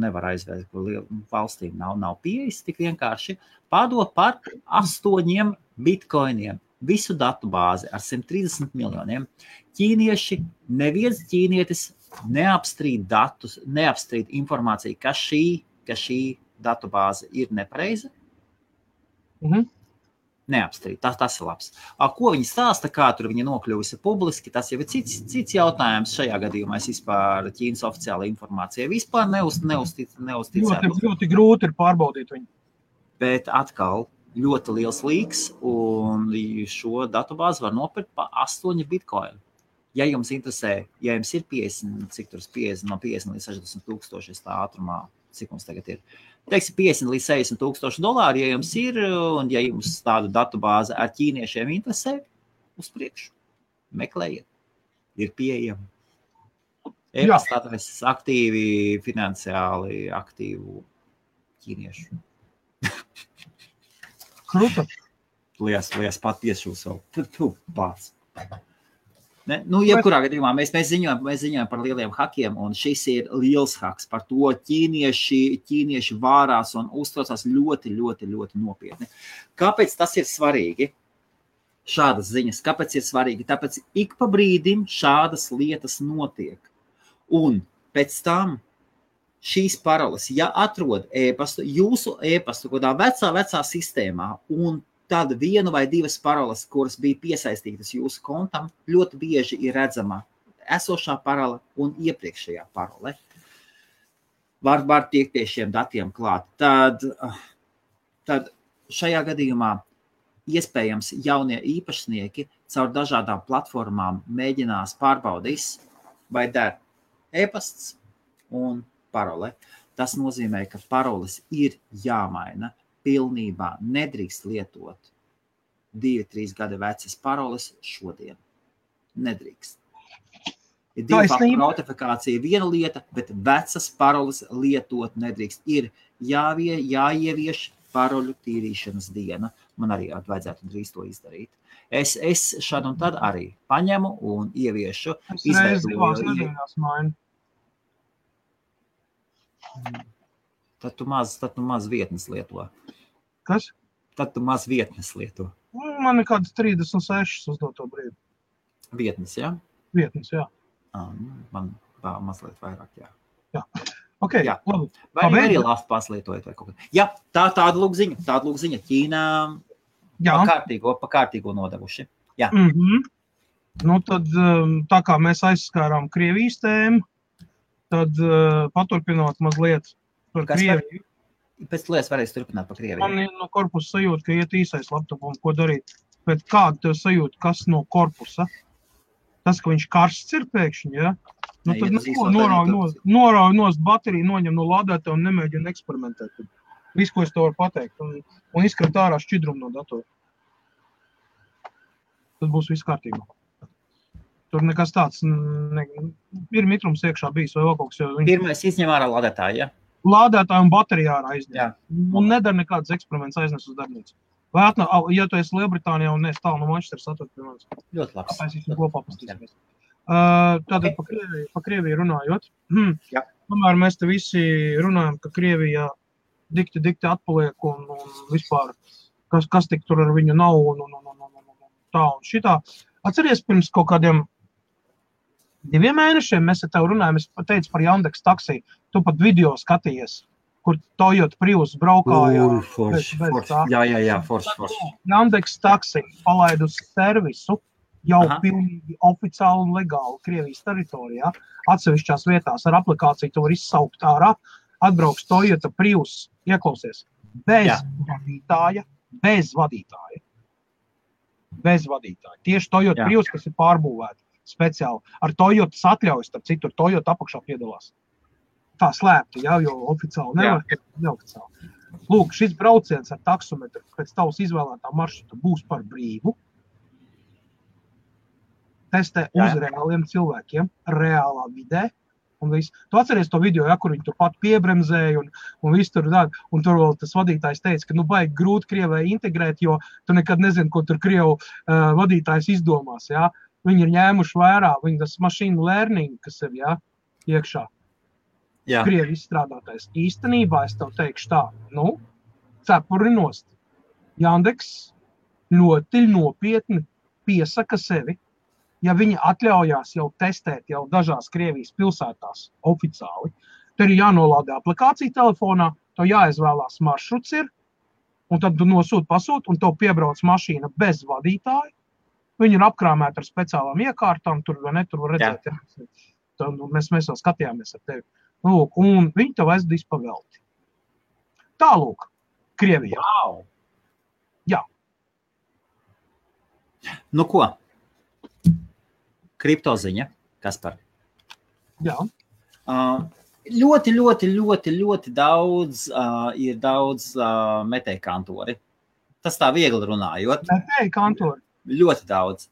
valstīm nav pieejas tik vienkārši, pārdod par 8 bitcoiniem visu datubāzi ar 130 miljoniem. Neviens ķīnietis neapstrīd datus, neapstrīd informāciju, ka šī datubāze ir nepareiza. Neapstrīd, tas ir labs. Ko viņi stāsta, kā tur viņa nokļuvusi publiski, tas jau ir cits jautājums. Šajā gadījumā es vispār Ķīnas oficiāla informācija vispār neuzticētu. Ļoti grūti ir pārbaudīt viņu. Bet atkal ļoti liels līks, un šo datubāzi var nopirkt pa 8 bitcoin. Ja jums interesē, ja jums ir 50, no 50 līdz 60 tūkstoši tā ātrumā, cik mums tagad ir, teiksim, 50 līdz 60 tūkstoši dolāri, ja jums ir, un ja jums tādu datubāzi ar ķīniešiem interesē, uz priekšu, meklējiet, ir pieejama. E-pasta adreses aktīvi, finansiāli aktīvu ķīniešu. Kruta. Lies pat piešūs vēl. Tu pats. Jebkurā gadījumā mēs ziņojam par lieliem hakiem, un šis ir liels haks. Par to ķīnieši vārās un uztraucās ļoti, ļoti, ļoti nopietni. Kāpēc tas ir svarīgi? Šādas ziņas. Kāpēc ir svarīgi? Tāpēc ik pa brīdim šādas lietas notiek. Un pēc tam šīs paroles, ja atrod e-pastu, jūsu e-pastu kādā vecā sistēmā, un tad 1 vai 2 paroles, kuras bija piesaistītas jūsu kontam, ļoti bieži ir redzama esošā parole un iepriekšējā parole. Var tiekt pie šiem datiem klāt. Tad šajā gadījumā iespējams jaunie īpašnieki caur dažādām platformām mēģinās pārbaudīs, vai der e-pasts un parole. Tas nozīmē, ka paroles ir jāmaina. Pilnībā nedrīkst lietot 2-3 gada vecas paroles šodien. Nedrīkst. Ir 2-faktoru autentifikācija viena lieta, bet vecas paroles lietot nedrīkst. Ir jāievieš paroļu tīrīšanas diena. Man arī vajadzētu drīz to izdarīt. Es šad un tad arī paņemu un ieviešu. Es reiz divās nedēļās mainu. Tad tu maz vietnes lieto. Kas? Tad tu maz vietnes lieto. Man ir kādas 36 uz to brīdi. Vietnes, jā? Vietnes, jā. Man mazliet vairāk, jā. Jā. Ok, jā. Labi. Vai arī labi paslietojat vai kaut kā. Jā, tāda lūk ziņa. Ķīnā pa kārtīgo nodevuši. Jā. Nu, tad tā kā mēs aizskārām Krievijas tēmu, tad paturpinot mazliet par Krieviju. Pēc lietas varēs turpināt par Krieviju. Man ir no korpusa sajūta, ka iet īsais laptopam, ko darīt. Bet kāda tev sajūta, kas no korpusa? Tas, ka viņš karsts ir pēkšņi, ja? Nu, tad norauj nost bateriju, noņem no lādētā un nemēģina eksperimentēt. Visu, ko es to varu pateikt. Un izkrat ārā šķidrumu no datora. Tad būs viss kārtībā. Tur nekas tāds, ir mitrums iekšā bijis vai vēl kaut kas. Pirmais izņem ārā lādētāju, ja? Lādētāju un bateriju ārā izņem. Un nedara nekādas eksperiments aiznes uz darbnīcu. Vai ja tu esi Lielbritānijā un neesi tālu no Manchesteras, atver pie manis. Ļoti labs. Tāpēc viņš kopā pastīsimies. Tātad pa Krieviju runājot. Tomēr mēs te visi runājam, ka Krievijā dikti atpaliek un vispār, kas tik tur ar viņu nav un tā un šitā. Atceries pirms kaut kādiem 2 mēnešiem mēs ar tev runājam, es teicu par Yandex taksī. Tu pat video skatījies, kur Toyota Prius braukāja. Forši. Jā, forši. Yandex taksi palaid uz servisu jau pilnīgi oficiāli un legāli Krievijas teritorijā. Atsevišķās vietās ar aplikāciju tu var izsaukt ārā, atbrauks Toyota Prius, ieklausies, bez vadītāja. Tieši Toyota Prius, kas ir pārbūvēta speciāli. Ar Toyotas atļaujas, starp citu, Toyota apakšā piedalās. Tā slēpta, jo oficiāli nevar, neoficiāli. Lūk, šis brauciens ar taksometru pēc tavas izvēlētā maršruta būs par brīvu. Testē uz reāliem cilvēkiem, reālā vidē. Un viss. Tu atceries to video, kur viņi tur pat piebremzēja un viss tur dara. Un tur vēl tas vadītājs teica, ka baigi grūti Krievai integrēt, jo tu nekad nezini, ko tur Krievu vadītājs izdomās. Ja? Viņi ir ņēmuši vērā, viņi tas machine learning, kas ir iekšā. Krievi izstrādātais. Īstenībā es tev teikšu tā, cepuri nost. Jandeks ļoti nopietni piesaka sevi. Ja viņi atļaujās jau testēt jau dažās Krievijas pilsētās oficiāli, tad ir jānolādē aplikācija telefonā, to jāizvēlās maršruts ir, un tad tu pasūti, un tev piebrauc mašīna bez vadītāja. Viņi ir apkrāmēti ar speciālām iekārtām, tur vai ne, tur var redzēt. Ja. Mēs vēl skatījāmies ar tevi. Lūk, un viņi tev aizdīs pavelti. Tālūk, Krievijā. Wow. Jā. Nu ko? Kriptoziņa, Kaspar. Jā. Ļoti daudz ir daudz metēju kantori. Tas tā viegli runājot. Metēju kantori. Ļoti daudz.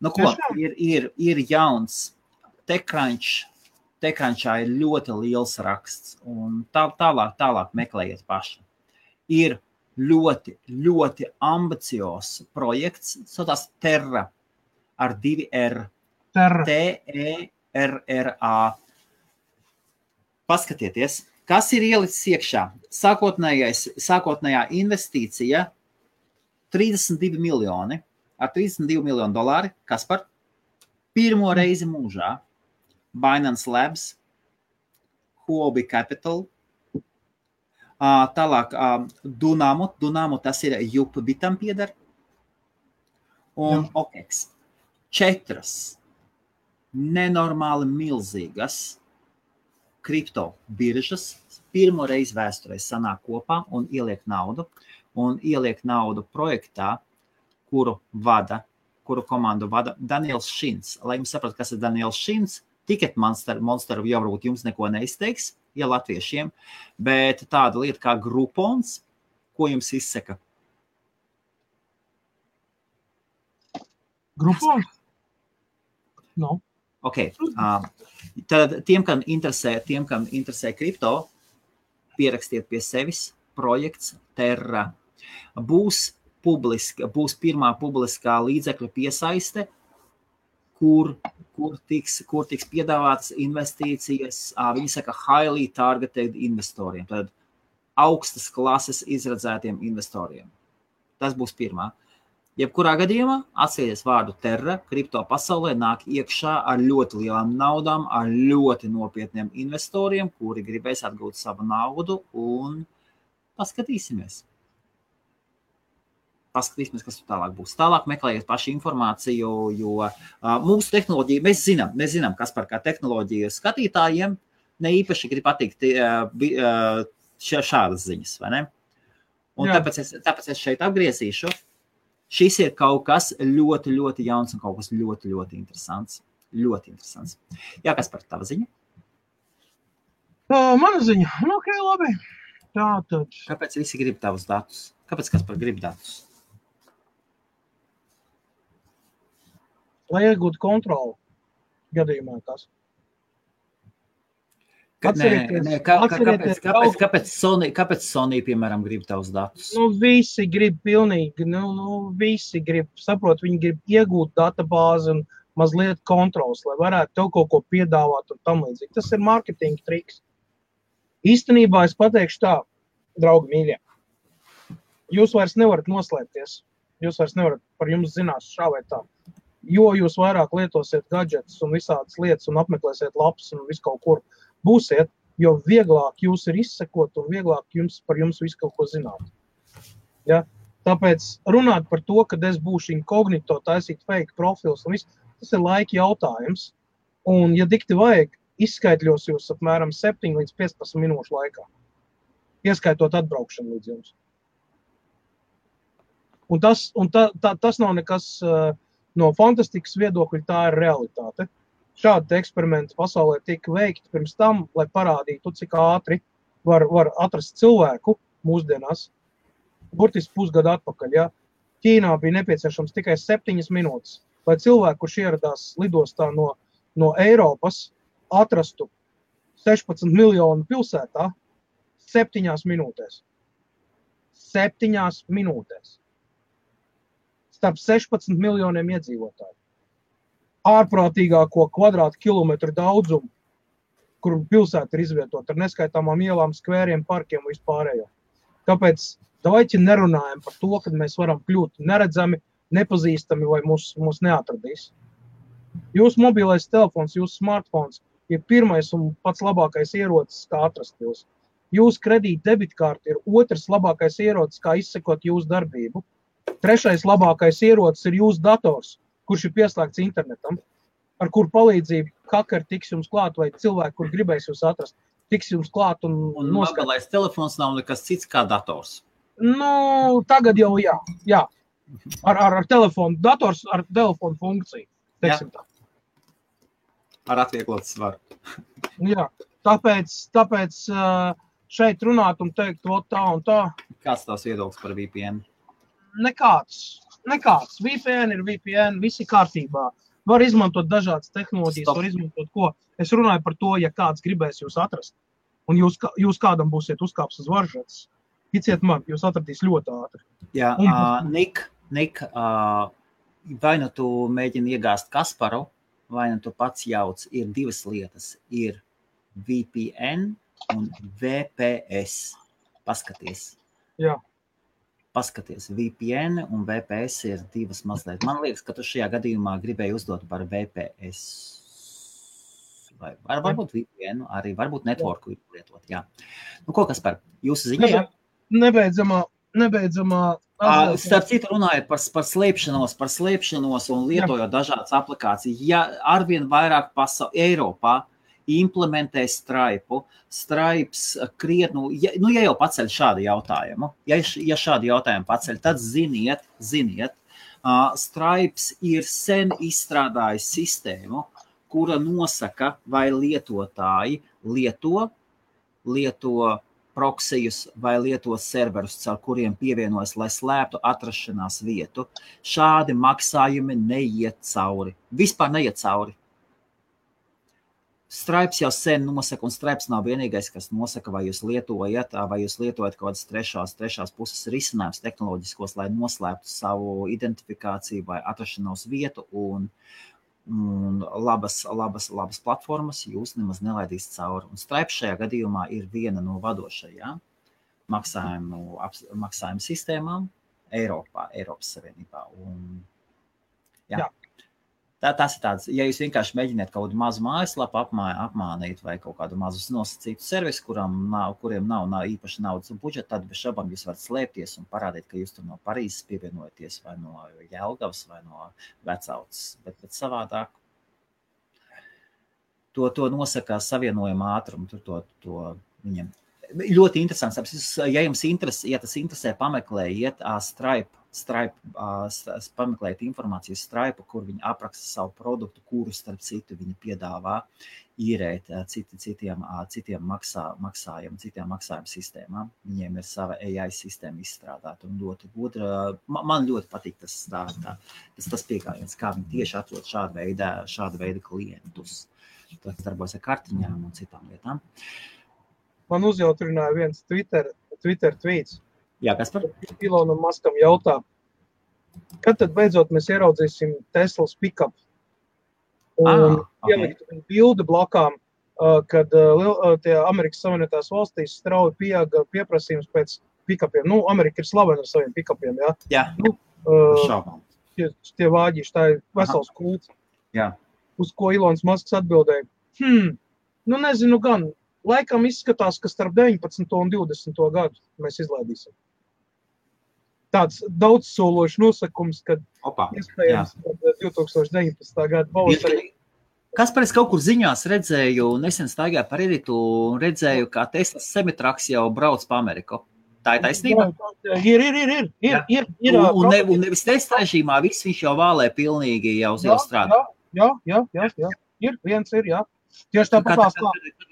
Nu ko, ir jauns TechCrunch. TechCrunchā ir ļoti liels raksts. Un tālāk meklējiet paši. Ir ļoti ambiciozs projekts, saucās Terra ar 2 R. T-E-R-R-A. Paskatieties, kas ir ielicis iekšā. Sākotnējā investīcija 32 miljoni, ar 32 miljonu dolāri, Kaspar, pirmo reizi mūžā, Binance Labs, Huobi Capital, tālāk Dunamo, tas ir Jupbitam pieder, un OKEX. 4 nenormāli milzīgas kripto biržas pirmo reizi vēsturē sanāk kopā un ieliek naudu projektā, kuru komandu vada Daniels Šins. Lai jums saprat, kas ir Daniels Šins, Ticket Monster jau varbūt jums neko neizteiks, ja latviešiem, bet tāda lieta kā Groupons, ko jums izsaka? Groupons? No. Okay. Tad tiem, kam interesē kripto, pierakstiet pie sevis projekts Terra. Būs pirmā publiskā līdzekļu piesaiste, kur tiks piedāvātas investīcijas, viņi saka highly targeted investoriem, tad augstas klases izredzētiem investoriem. Tas būs pirmā. Jebkurā gadījumā atcerieties vārdu Terra, kripto pasaulē nāk iekšā ar ļoti lielām naudām, ar ļoti nopietniem investoriem, kuri gribēs atgūt savu naudu, un paskatīsimies. Kas tur tālāk būs. Tālāk meklējiet paši informāciju, jo mūsu tehnoloģija, mēs zinām, kas par kā tehnoloģiju skatītājiem ne īpaši grib patikt šādas ziņas, vai ne? Un tāpēc es šeit apgriezīšu. Šis ir kaut kas ļoti jauns un kaut kas ļoti interesants. Ļoti interesants. Jā, kas par tava ziņa? Mana ziņa? Nu, ok, labi. Tātad. Kāpēc visi grib tavus datus? Kāpēc Kaspar grib datus? Lai iegūtu kontroli gadījumā kas. Kāpēc Sony, piemēram, grib tavus datus? Nu, visi grib pilnīgi, visi grib, saprot, viņi grib iegūt databāzi un mazliet kontrols, lai varētu tev kaut ko piedāvāt un tam līdzīgi. Tas ir marketinga triks. Īstenībā es pateikšu tā, draugi mīļie, jūs vairs nevarat noslēpties, jūs vairs nevarat par jums zinās šā vai tā, jo jūs vairāk lietosiet gadžetus un visādas lietas un apmeklēsiet lapas un visu kaut kur. Būsiet, jo vieglāk jūs ir izsekot un vieglāk par jums visu kaut ko zināt. Ja? Tāpēc runāt par to, kad es būšu inkognito, taisīt fake profils un viss, tas ir laika jautājums. Un, ja dikti vajag, izskaitļos jūs apmēram 7 līdz 15 minūšu laikā, ieskaitot atbraukšanu līdz jums. Un tas nav nekas no fantastikas viedokļa, tā ir realitāte. Šādi eksperimenti pasaulē tika veikti pirms tam, lai parādītu, cik ātri var atrast cilvēku mūsdienās. Burtiski pusgadu atpakaļ, ja? Ķīnā bija nepieciešams tikai 7 minūtes, lai cilvēku, kurš ieradās lidostā no Eiropas, atrastu 16 miljonu pilsētā 7 minūtēs. 7 minūtēs. Starp 16 miljoniem iedzīvotāju. Ārprātīgāko kvadrātkilometru daudzumu, kur pilsēta ir izvietota ar neskaitāmām ielām, skvēriem, parkiem un vispārējo. Tāpēc davaiķi nerunājam par to, kad mēs varam kļūt neredzami, nepazīstami vai mūs neatradīs. Jūsu mobilais telefons, jūsu smartphones ir pirmais un pats labākais ierocis, kā atrast jūs. Jūsu kredīta debitkārta ir otrs labākais ierocis, kā izsekot jūsu darbību. Trešais labākais ierocis ir jūsu dators, kurš ir pieslēgts internetam, ar kur palīdzību hakeri tiks jums klāt vai cilvēki, kur gribēs jūs atrast, tiks jums klāt un noskatīt. Mobilais telefons nav nekas cits kā dators. Nu, tagad jau jā. Ar telefonu, dators ar telefonu funkciju, teiksim tā. Ar atvieglotu svaru. Jā, tāpēc šeit runāt un teikt, tā un tā. Kāds tavs viedoklis par VPN? Nekāds. VPN ir VPN, visi kārtībā. Var izmantot dažādas tehnoloģijas, var izmantot ko. Es runāju par to, ja kāds gribēs jūs atrast. Un jūs kādam būsiet uzkāps uz varžetes. Ticiet man, jūs atradīs ļoti ātri. Jā, Nik, vai nu tu mēģini iegāzt Kasparu, vai nu tu pats jauc, ir divas lietas. Ir VPN un VPS. Paskaties. Jā. Paskaties, VPN un VPS ir divas mazliet. Man liekas, ka tu šajā gadījumā gribēji uzdot par VPS. Vai varbūt VPN, arī varbūt networku lietot, jā. Nu, ko Kaspar, jūsu ziņā, jā? Nebeidzamā. Starp citu runājot par slēpšanos un lietojot dažādas aplikācijas. Ja arvien vairāk Eiropā implementē Stripe. Stripes krietnu, ja jau paceļ šādu jautājumu, ja šādu jautājumu paceļ, tad ziniet, Stripes ir sen izstrādājis sistēmu, kura nosaka, vai lietotāji lieto proksijus vai lieto serverus, caur kuriem pievienojas, lai slēptu atrašanās vietu. Šādi maksājumi neiet cauri. Vispār neiet cauri. Stripes jau sen nosaka, un Stripes nav vienīgais, kas nosaka, vai jūs lietojat kaut kādas trešās puses risinājums tehnoloģiskos, lai noslēptu savu identifikāciju vai atrašanos vietu, un labas platformas jūs nemaz nelaidīs cauri. Un Stripes šajā gadījumā ir viena no vadošajām maksājumu sistēmām Eiropas Savienībā. Un, jā. Tas ir tāds, ja jūs vienkārši mēģiniet kaut kādu mazu mājaslapu apmānīt vai kaut kādu mazu nosacītu servisu, kuriem nav īpaši naudas un budžeta, tad bez šaubām jūs varat slēpties un parādīt, ka jūs tur no Parīzes pievienojaties vai no Jelgavas vai no Vecauces. Bet savādāk to nosaka savienojuma ātrumu, to viņam. Ļoti interesants, ja tas interesē, pameklējiet Stripe, pameklēt informāciju Stripe, kur viņi apraksta savu produktu, kuru starp citu viņi piedāvā īrēt citiem maksājumu sistēmām. Viņiem ir sava AI sistēma izstrādāta un ļoti gudra. Man ļoti patīk tas piegājiens, kā viņi tieši atrod šāda veida klientus. Tas darbojas ar kartiņām un citām lietām. Man uzjautrināja viens Twitter tweets. Jā, kas par? Ilonam Maskam jautā, kad tad beidzot mēs ieraudzīsim Teslas pick-up? Un ieliktu viņu bildi blakām, kad tie Amerikas Savienotās valstīs strauji pieauga pieprasījums pēc pick-upiem. Nu, Amerika ir slavena ar saviem pick-upiem, jā? Jā, šaubām. Tie vāģīši, tā ir vesels kults. Jā. Uz ko Ilons Masks atbildēja? Nu nezinu gan, laikam izskatās, ka starp 19. un 20. gadu mēs izlaidīsim. tāds daudzsološs nosakums, kad iespējams 2019. Gada pavasarī. Kaspar, es kaut kur ziņās redzēju, nesen staigāju par Eritu un redzēju, kā Teslas semitraks jau brauc pa Ameriku. Tā ir taisnība? Ir. Un nevis testa režīmā, viss viņš jau vālē pilnīgi jau strādā. Jā. Ir, viens ir, jā. Tieši tāpatās kā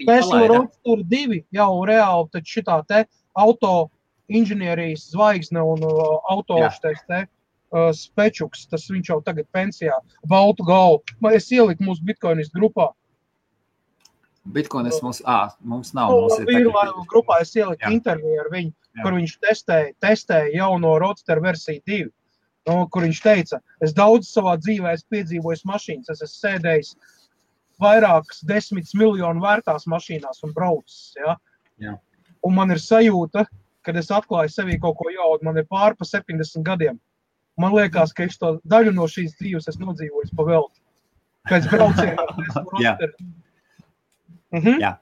Tesla Roadster 2 jau reāli taču šitā te auto inženierijas zvaigzne un autoštais te Spečuks, tas viņš jau tagad pensijā, baltu galvu. Es ieliku mūsu Bitcoinistu grupā. Bitcoinis mums nav. Vīru grupā es ieliku interviju ar viņu, kur viņš testēja jauno Roadster versiju 2, kur viņš teica, es daudz savā dzīvē esmu piedzīvojis mašīnas, es esmu sēdējis vairākas 10 miljonu vērtās mašīnās un braucis, ja? Jā. Un man ir sajūta, kad es atklāju sevī kaut ko jaudu, man ir pār pa 70 gadiem. Man liekas, ka es to daļu no šīs dzīves esmu nodzīvojis pa velti. Pēc brauciena ar Tesla Roadster. Jā.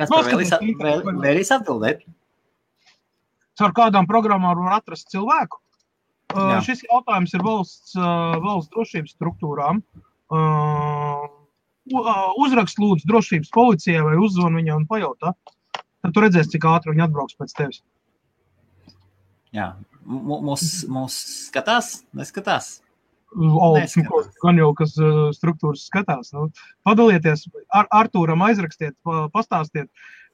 Kaspar, vēlīs atbildēt? Caur kādām programmām var atrast cilvēku? Šis jautājums ir valsts drošības struktūrām. Uzrakst lūdzu drošības policijai vai uzzvan viņai un pajautā. Tad tu redzēsi, cik ātri viņi atbrauks pēc tevis. Jā. Mūs skatās? Neskatās? Gan jau, kas struktūras skatās. Padalieties, Artūram aizrakstiet, pastāstiet,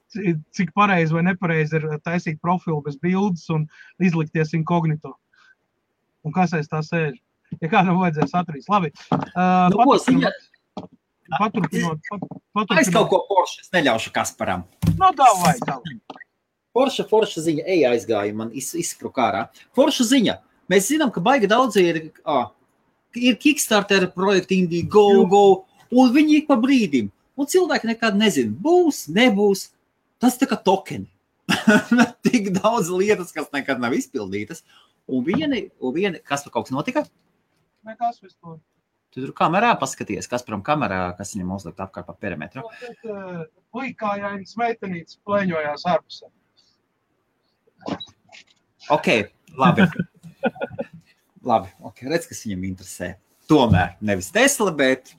cik pareizi vai nepareizi ir taisīt profilu bez bildes un izlikties inkognito. Un kas aiz tā sēž? Ja kādam vajadzēs atrīs. Labi. Paturpinot. Es kaut ko Porsche, es neļaušu Kasparam. Davai. Forša ziņa, aizgāja, man izspruka ārā. Forša ziņa. Mēs zinām, ka baigi daudzi ir Kickstarter projekti Indiegogo, un viņi ik pa brīdim. Un cilvēki nekad nezina, būs, nebūs. Tas tā kā tokeni. Tik daudz lietas, kas nekad nav izpildītas. Un viena, kas par kaut kas notika? Nekas vispār. Tu tur kamerā paskaties, Kasparam kamerā, kas viņam uzlikt apkārt pa perimetru. Puikājainas meitenītes plēņojās ārpusē. Ok, labi. Redz, kas viņam interesē. Tomēr nevis Tesla, bet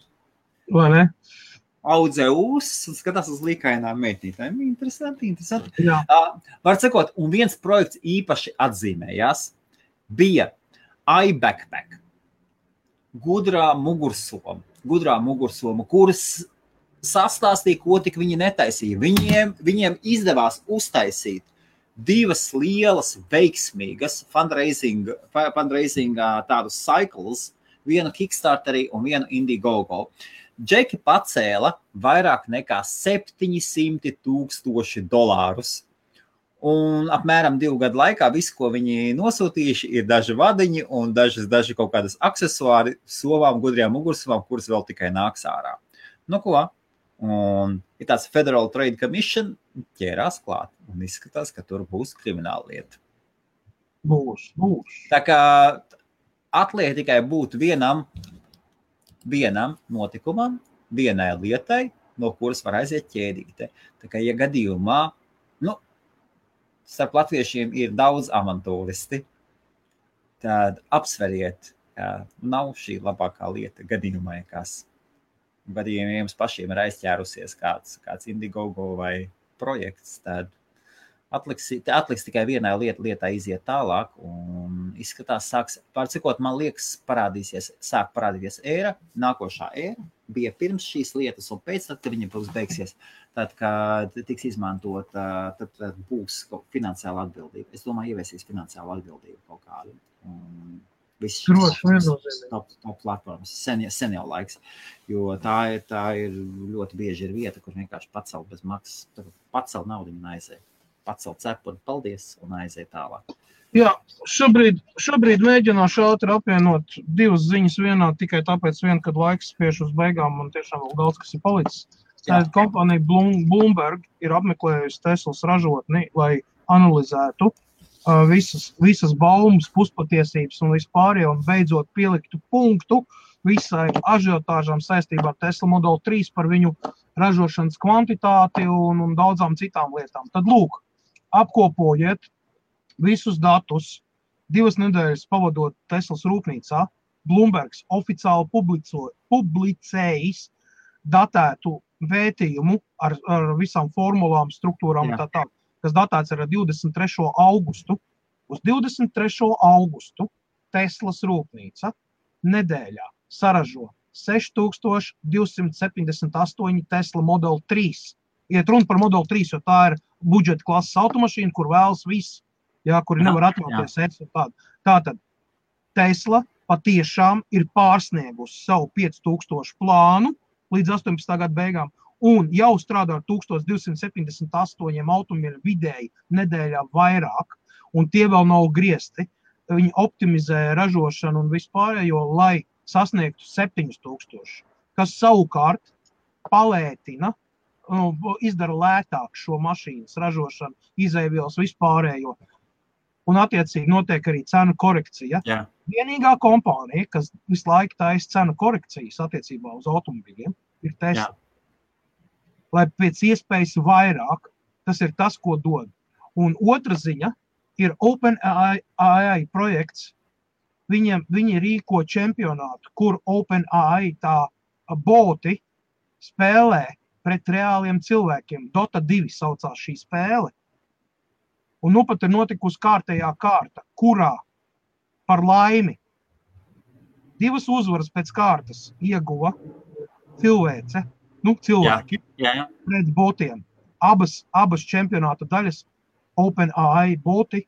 audzē un skatās uz līkainām meitnītēm. Interesanti. Jā. Var sakot, un viens projekts īpaši atzīmējās, bija iBackpack. Gudrā mugursoma, kuras sastāstīja, ko tik viņi netaisīja. Viņiem izdevās uztaisīt 2 lielas, veiksmīgas fundraising tādus cycles, vienu Kickstarterī un vienu Indiegogo. Džeki pacēla vairāk nekā $700,000. Un apmēram 2 gadu laikā visu, ko viņi nosūtījuši, ir daži vadiņi un daži kaut kādas aksesuāri sovām, gudrajām mugursomām, kuras vēl tikai nāks ārā. Ko? Un ir tāds Federal Trade Commission ķērās klāt un izskatās, ka tur būs krimināla lieta. Būs. Tā kā atliek tikai būt vienam notikumam, vienai lietai, no kuras var aiziet ķēdīte. Tā kā, ja gadījumā, starp latviešiem ir daudz avantūristi, tad apsveriet, ka nav šī labākā lieta gadījumā, kas gadījumā jums pašiem ir aizķērusies kāds Indiegogo vai projekts, tad atliks tikai vienai lietai iziet tālāk un izskatās, man liekas, sāk parādīties ēra, nākošā ēra bija pirms šīs lietas un pēc tad, kad viņa būs beigsies, tad, kad tiks izmantot, tad būs finansiāla atbildība. Es domāju, ieviesīs finansiālu atbildību kaut kādu. Viss top platformas, sen jau laiks, jo tā ir ļoti bieži ir vieta, kur vienkārši pacelt bez maksas, pacelt naudu un aiziet. Pacelt cepu un paldies un aiziet tālāk. Jā, šobrīd mēģināšu ātri apvienot 2 ziņas vienā, tikai tāpēc kad laiks spiež uz beigām un tiešām vēl daudz, kas ir palicis. Kompānija Bloomberg ir apmeklējusi Teslas ražotni, lai analizētu visas baumas, puspatiesības un vispārējo un beidzot pieliktu punktu visai ažiotāžām saistībā ar Tesla Model 3 par viņu ražošanas kvantitāti un daudzām citām lietām. Tad lūk, apkopojiet visus datus, 2 nedēļas pavadot Teslas rūpnīcā, Bloombergs oficiāli publicējis datētu vētījumu ar visām formulām, struktūrām un tā, kas datēts ar 23. augustu. Uz 23. augustu Teslas rūpnīca nedēļā saražo 6278 Tesla Model 3. Iet runa par Model 3, jo tā ir budžeta klases automašīna, kur vēlas viss, kuri nevar atļauties. Tātad Tesla patiešām ir pārsniegusi savu 5000 plānu līdz 18. gada beigām un jau strādā ar 1278 automobīļu vidēji nedēļā vairāk, un tie vēl nav griezti. Viņi optimizē ražošanu un vispārējo, lai sasniegtu 7000, kas savukārt palētina, izdara lētāk šo mašīnas ražošanu, izēvielas vispārējo. Un attiecīgi notiek arī cenu korekcija. Jā. Vienīgā kompānija, kas visu laiku taisa cenu korekcijas attiecībā uz automobīļiem, ir Tesla. Lai pēc iespējas vairāk, tas ir tas, ko dod. Un otra ziņa ir OpenAI projekts. Viņi rīko čempionātu, kur OpenAI tā boti spēlē pret reāliem cilvēkiem. Dota 2 saucās šī spēle. Un nu pat ir notikusi kārtējā kārta, kurā par laimi 2 uzvaras pēc kārtas ieguva cilvēce, cilvēki pret botiem. Abas čempionāta daļas OpenAI boti,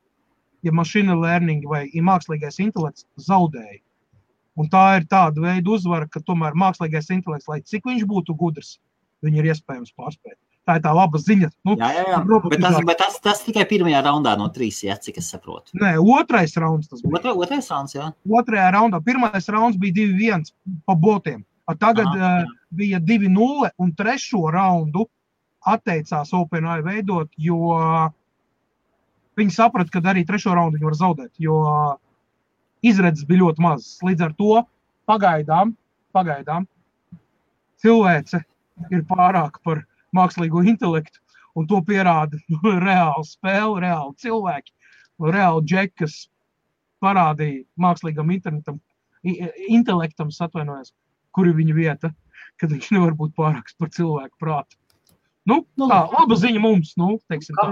ja machine learning vai mākslīgais intelekts zaudēja. Un tā ir tāda veida uzvara, ka tomēr mākslīgais intelekts, lai cik viņš būtu gudrs, viņi ir iespējams pārspēt. Tā ir tā laba ziņa. Bet tas tikai pirmajā raundā no 3, cik es saprotu. Nē, otrais rauns tas bija. Otrais rauns, jā. Otrajā raundā. Pirmais rauns bija 2-1 pa botiem. Tagad bija 2-0 un 3. raundu atteicās OpenAI veidot, jo viņi saprata, ka arī 3. raundu viņi var zaudēt, jo izredzes bija ļoti mazas. Līdz ar to pagaidām cilvēce ir pārāk par mākslīgo intelektu, un to pierāda reāli spēle, reāli cilvēki, reāli džeki, kas parādīja mākslīgam intelektam, kur ir viņa vieta, kad viņš nevar būt pārāks par cilvēku prātu. Laba ziņa mums, teiksim tā.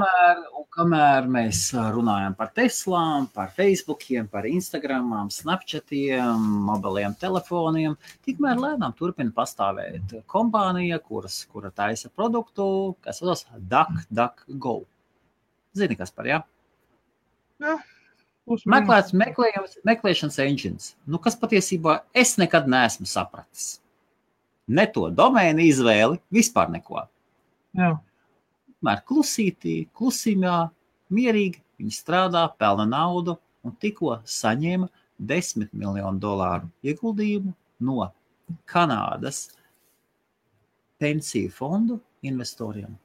Kamēr mēs runājam par Teslām, par Facebookiem, par Instagramām, Snapchatiem, mobiliem telefoniem, tikmēr lēnām turpina pastāvēt kompānija, kura taisa produktu, kas saucas DuckDuckGo. Zini, kas par, jā? Jā. Meklēšanas engines, kas patiesībā es nekad neesmu sapratis. Ne to domēnu izvēli, vispār neko. Jā. Mēr klusīmā, mierīgi, viņi strādā, pelna naudu un tikko saņēma $10 miljonu ieguldījumu no Kanādas pensiju fondu investoriem.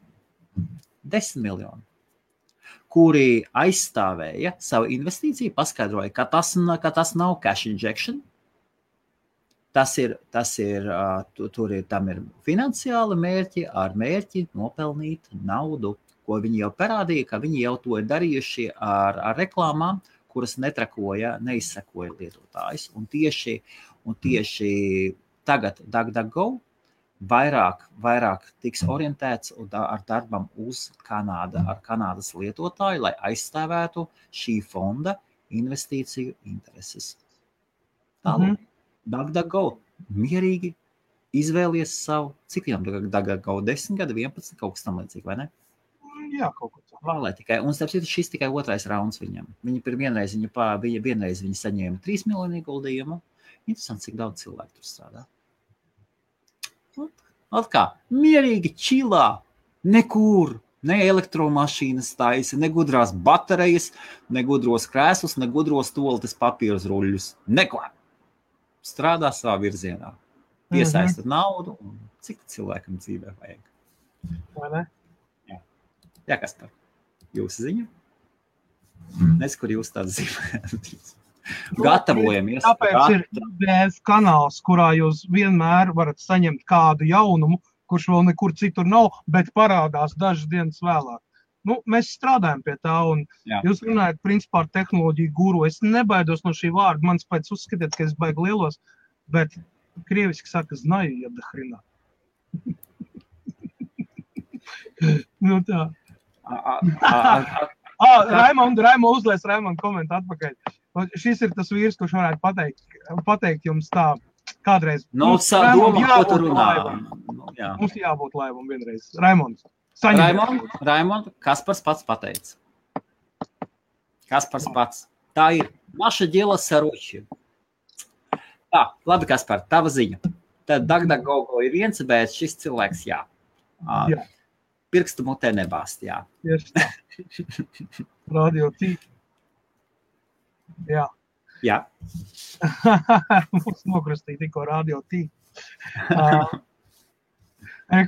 10 miljoni, kuri aizstāvēja savu investīciju, paskaidroja, ka tas nav cash injection. Tam ir finansiāli mērķi ar mērķi nopelnīt naudu, ko viņi jau parādīja, ka viņi jau to ir darījuši ar reklāmām, kuras neizsekoja lietotājs. Un tieši tagad DuckDuckGo vairāk tiks orientēts ar darbam uz ar Kanādas lietotāju, lai aizstāvētu šī fonda investīciju intereses. Tālāk. DuckDuckGo mierīgi izvēlies savu, cik viņam DuckDuckGo 10 gadi, 11, kaut kas tam līdzīgi, vai ne? Jā, kaut ko tā. Un šis tikai otrais rauns viņam. Vienreiz viņi saņēma 3 miljonu ieguldījumu. Interesanti, cik daudz cilvēku tur strādā. Kā, mierīgi, čilā, nekur, ne elektromašīnas taisa, ne gudrās baterijas, ne gudros krēslus, ne gudros toaletes papīrus ruļļus. Neko. Strādā savā virzienā. Piesaista naudu un cik cilvēkam dzīvē vajag. Vai ne? Jā, kas par jūsu ziņu? Nes, kur jūs tādu zīmējat. Gatavojamies. Tāpēc ir IBF kanāls, kurā jūs vienmēr varat saņemt kādu jaunumu, kurš vēl nekur citur nav, bet parādās dažas dienas vēlāk. mēs strādājam pie tā, un jūs runājat, principā, ar tehnoloģiju guru. Es nebaidos no šī vārda, mans pēc uzskatiet, ka es baigi lielos, bet krieviski saka, znaju, ja dahrina. Tā. Raimond uzlies, Raimond komenta atpakaļ. Šis ir tas vīrs, kurš varētu pateikt jums tā kādreiz. Mums jābūt laivam. Mums jābūt laivam vienreiz. Raimonds. Raimond, Kaspars pats pateica. Kaspars pats. Tā ir. Naša dela saroči. Tā, labi, Kaspar, tava ziņa. Tad DuckDuckGo ir viens, bet šis cilvēks, jā. Pirkstu mutē nebāst, jā. Tieši tā. Radio T. Jā. Jā. Mums nokrustīja tikko Radio T.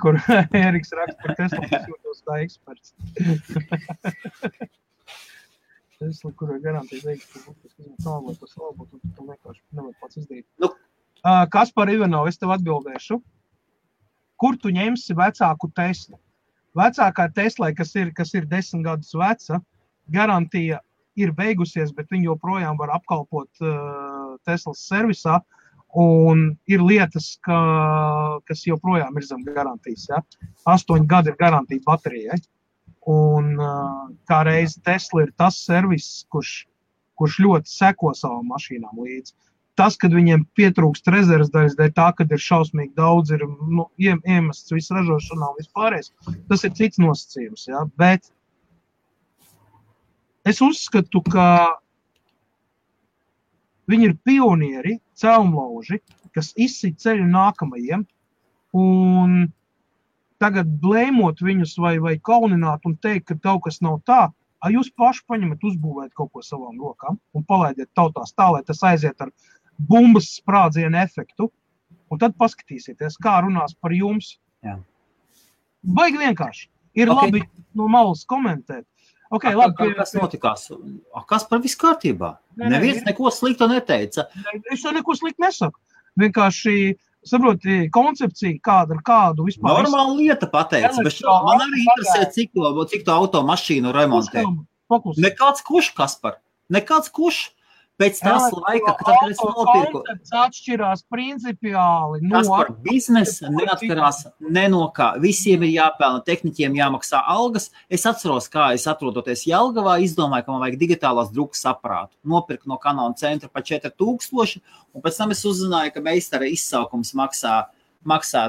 Kur Eriks raksta par Tesla, kas jūtos kā eksperts. Tesla, kur ir garantija veikt, ka būtu tālāk par savu, un tu vienkārši nevar pats izdarīt. Kaspar Ivanov, es tev atbildēšu. Kur tu ņemsi vecāku Teslu? Vecākā Tesla, kas ir 10 gadus veca, garantija ir beigusies, bet viņi joprojām var apkalpot Teslas servisā, un ir lietas, kas joprojām ir zem garantijas. Ja? 8 gadi ir garantija baterijai. Un kā reiz Tesla ir tas servis, kurš ļoti seko savām mašīnām līdzi. Tas, kad viņiem pietrūkst rezerves daļas, dēļ tā, kad ir šausmīgi daudz, ir iemests visu ražošanā un vispārējais, tas ir cits nosacījums. Ja? Bet es uzskatu, ka viņi ir pionieri, celmlauži, kas izsit ceļu nākamajiem, un tagad blēmot viņus vai kaunināt un teikt, ka kaut kas nav tā, jūs paši paņemat uzbūvēt kaut ko savām rokām un palaidiet tautās tā, lai tas aiziet ar bumbas sprādzienu efektu, un tad paskatīsieties, kā runās par jums. Jā. Baigi vienkārši. Ir labi no malas komentēt. Labi, kas notikās? Kas par visu kārtībā? Neviens neko sliktu neteica. Es to neko sliktu nesaku. Vienkārši, saproti, koncepcija kādu vispār. Normāla lieta pateica, bet man arī interesē, cik to automašīnu remontē. Nekāds kuš, Kaspar? Nekāds kuš? Pēc tās laika, kad es nopirku. Koncepts atšķirās principiāli. Kaspar, biznesa neatkarās ne no kā. Visiem ir jāpelna, tehniķiem jāmaksā algas. Es atceros, kā es atrodoties Jelgavā, izdomāju, ka man vajag digitālās drukas aparātu. Nopirku no Canon centra pa 4000, un pēc tam es uzzināju, ka meistara izsaukums maksā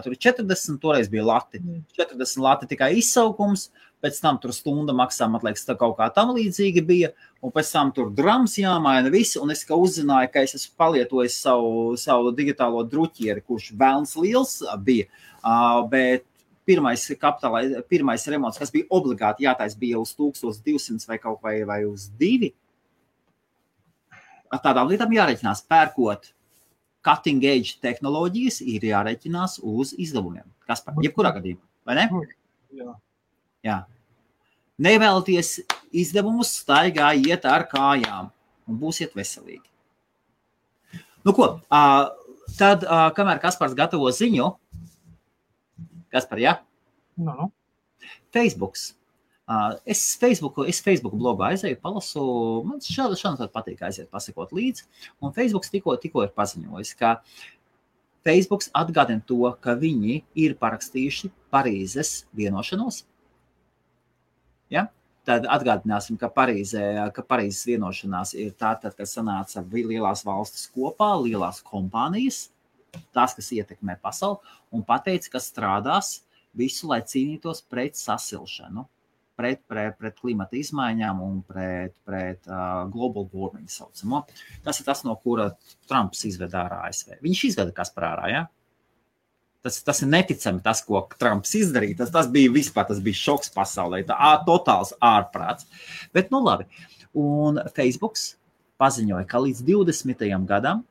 tur 40, toreiz bija lati. 40 lati tikai izsaukums. Pēc tam tur stunda maksā, man liekas, tā kaut kā tam līdzīgi bija, un pēc tam tur drams jāmaina visi, un es kā uzzināju, ka es esmu palietojis savu digitālo druķieri, kurš vēlns liels bija, bet pirmais remonts, kas bija obligāti jātais, bija uz 1200 vai kaut vai uz 2. Tādām lietām jāreķinās, pērkot cutting edge tehnoloģijas, ir jāreķinās uz izdevumiem. Kas par jebkurā gadījumā, vai ne? Jā. Jā. Nevēlaties izdevumus, staigā iet ar kājām un būsiet veselīgi. Nu ko, tad, kamēr Kaspars gatavo ziņu, Kaspar, jā? No. Facebooks. Es Facebook blogu aizēju, palasu, man šādi patīk aiziet pasakot līdzi, un Facebooks tikko ir paziņojis, ka Facebooks atgādina to, ka viņi ir parakstījuši Parīzes vienošanos. Ja? Tad atgādināsim, ka Parīzes vienošanās ir tātad, kad sanāca lielās valstis kopā, lielās kompānijas, tās, kas ietekmē pasauli, un pateica, ka strādās visu, lai cīnītos pret sasilšanu, pret klimata izmaiņām un pret global warming saucamo. Tas ir tas, no kura Trumps izveda ārā ASV. Viņš izveda Kaspar ārā, ja? Tas ir neticami tas, ko Trumps izdarīja. Tas bija vispār, tas bija šoks pasaulē. Totāls ārprāts. Bet, nu labi. Un Facebooks paziņoja, ka līdz 20. gadam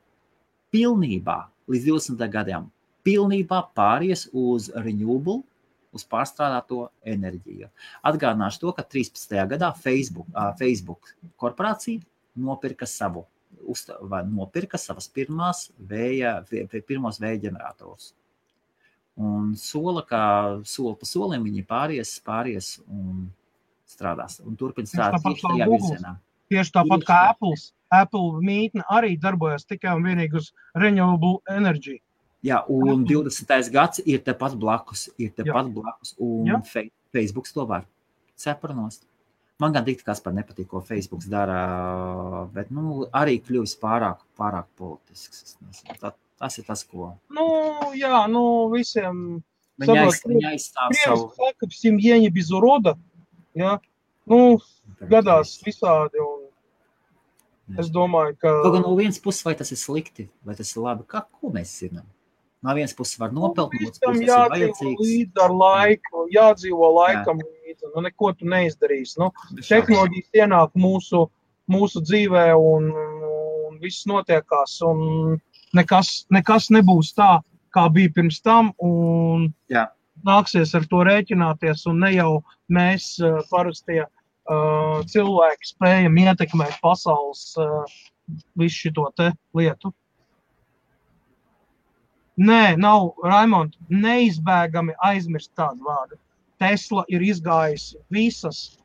pilnībā pāries uz renewable, uz pārstrādāto enerģiju. Atgādināšu to, ka 13. gadā Facebook korporācija nopirka savas pirmos vēja ģeneratorus. Un soli pa solim viņi pāries un strādās un turpina strādāt tieši tajā virzienā. Tieši tāpat kā Apple mītne arī darbojas tikai un vienīgi uz renewable energy. Jā, un 20. gads ir tepat blakus, un Facebooks to var cepranost. Man gan dikti, kas par nepatīk, ko Facebooks dara, bet, arī kļuvis pārāk politisks. Tas ir tas, ko... Visiem... Viņa aizstāv savu... Saka, семья без урода, jā, gadās visādi, un es domāju, ka... Kaut no vienas puses, vai tas ir slikti, vai tas ir labi, ko mēs zinām? No vienas puses var nopelt, no otras puses ir vajadzīgs. Līdz ar laiku, jādzīvo laikam līdzi, neko tu neizdarīsi. Tehnoloģijas ienāk mūsu dzīvē un viss notiekās, un nekas nebūs tā, kā bija pirms tam, un nāksies ar to rēķināties, un ne jau mēs parastie cilvēki spējam ietekmēt pasaules visu šito te lietu. Nē, nav, Raimond, neizbēgami aizmirst tādu vārdu. Tesla ir izgājusi visas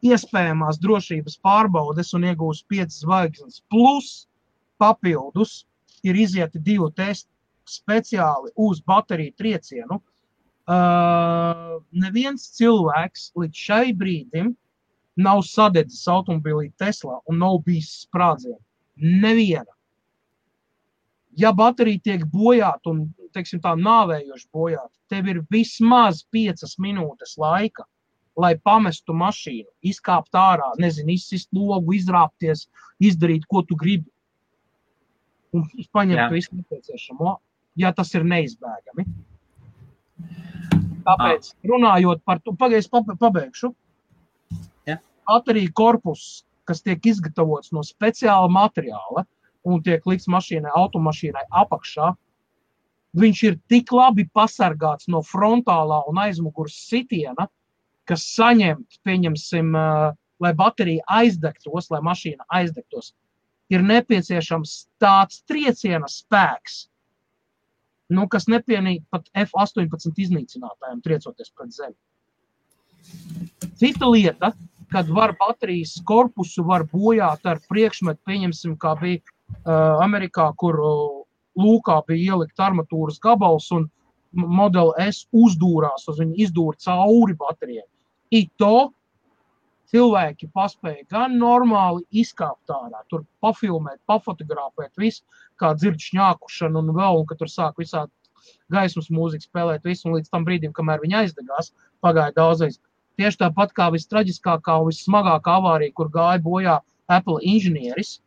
iespējamās drošības pārbaudes un iegūst 5 zvaigznes. Plus papildus ir izieti 2 testi speciāli uz bateriju triecienu. Neviens cilvēks līdz šai brīdim nav sadedzis automobilī Tesla un nav bijis sprādzienu. Neviena. Ja baterija tiek bojāta un, teiksim tā, nāvējoši bojāta, tev ir vismaz 5 minūtes laika, lai pamestu mašīnu, izkāpt ārā, izsist logu, izrāpties, izdarīt, ko tu gribi. Un paņemt visu nepieciešamo, ja tas ir neizbēgami. Tāpēc, runājot par to, pabeigšu. Baterija korpus, kas tiek izgatavots no speciāla materiāla, un tiek likts automašīnai apakšā, viņš ir tik labi pasargāts no frontālā un aizmugures sitiena, kas saņemt, pieņemsim, lai baterija aizdegtos, lai mašīna aizdegtos, ir nepieciešams tāds trieciena spēks, kas nepienīt pat F-18 iznīcinātājiem triecoties pret zemi. Cita lieta, kad var baterijas korpusu var bojāt ar priekšmetu, pieņemsim, kā bija Amerikā, kur lūkā bija ielikt armatūras gabals un Model S uzdūrās, uz viņu izdūra cauri baterijai. To cilvēki paspēja gan normāli izkāpt ārā, tur pafilmēt, pafotografēt visu, kā dzird šņākušanu un vēl, un ka tur sāk visādi gaismas mūziku spēlēt visu, un līdz tam brīdim, kamēr viņi aizdegās, pagāja daudzreiz. Tieši tāpat kā vistraģiskākā un vissmagākā avārija, kur gāja bojā Apple inženieris,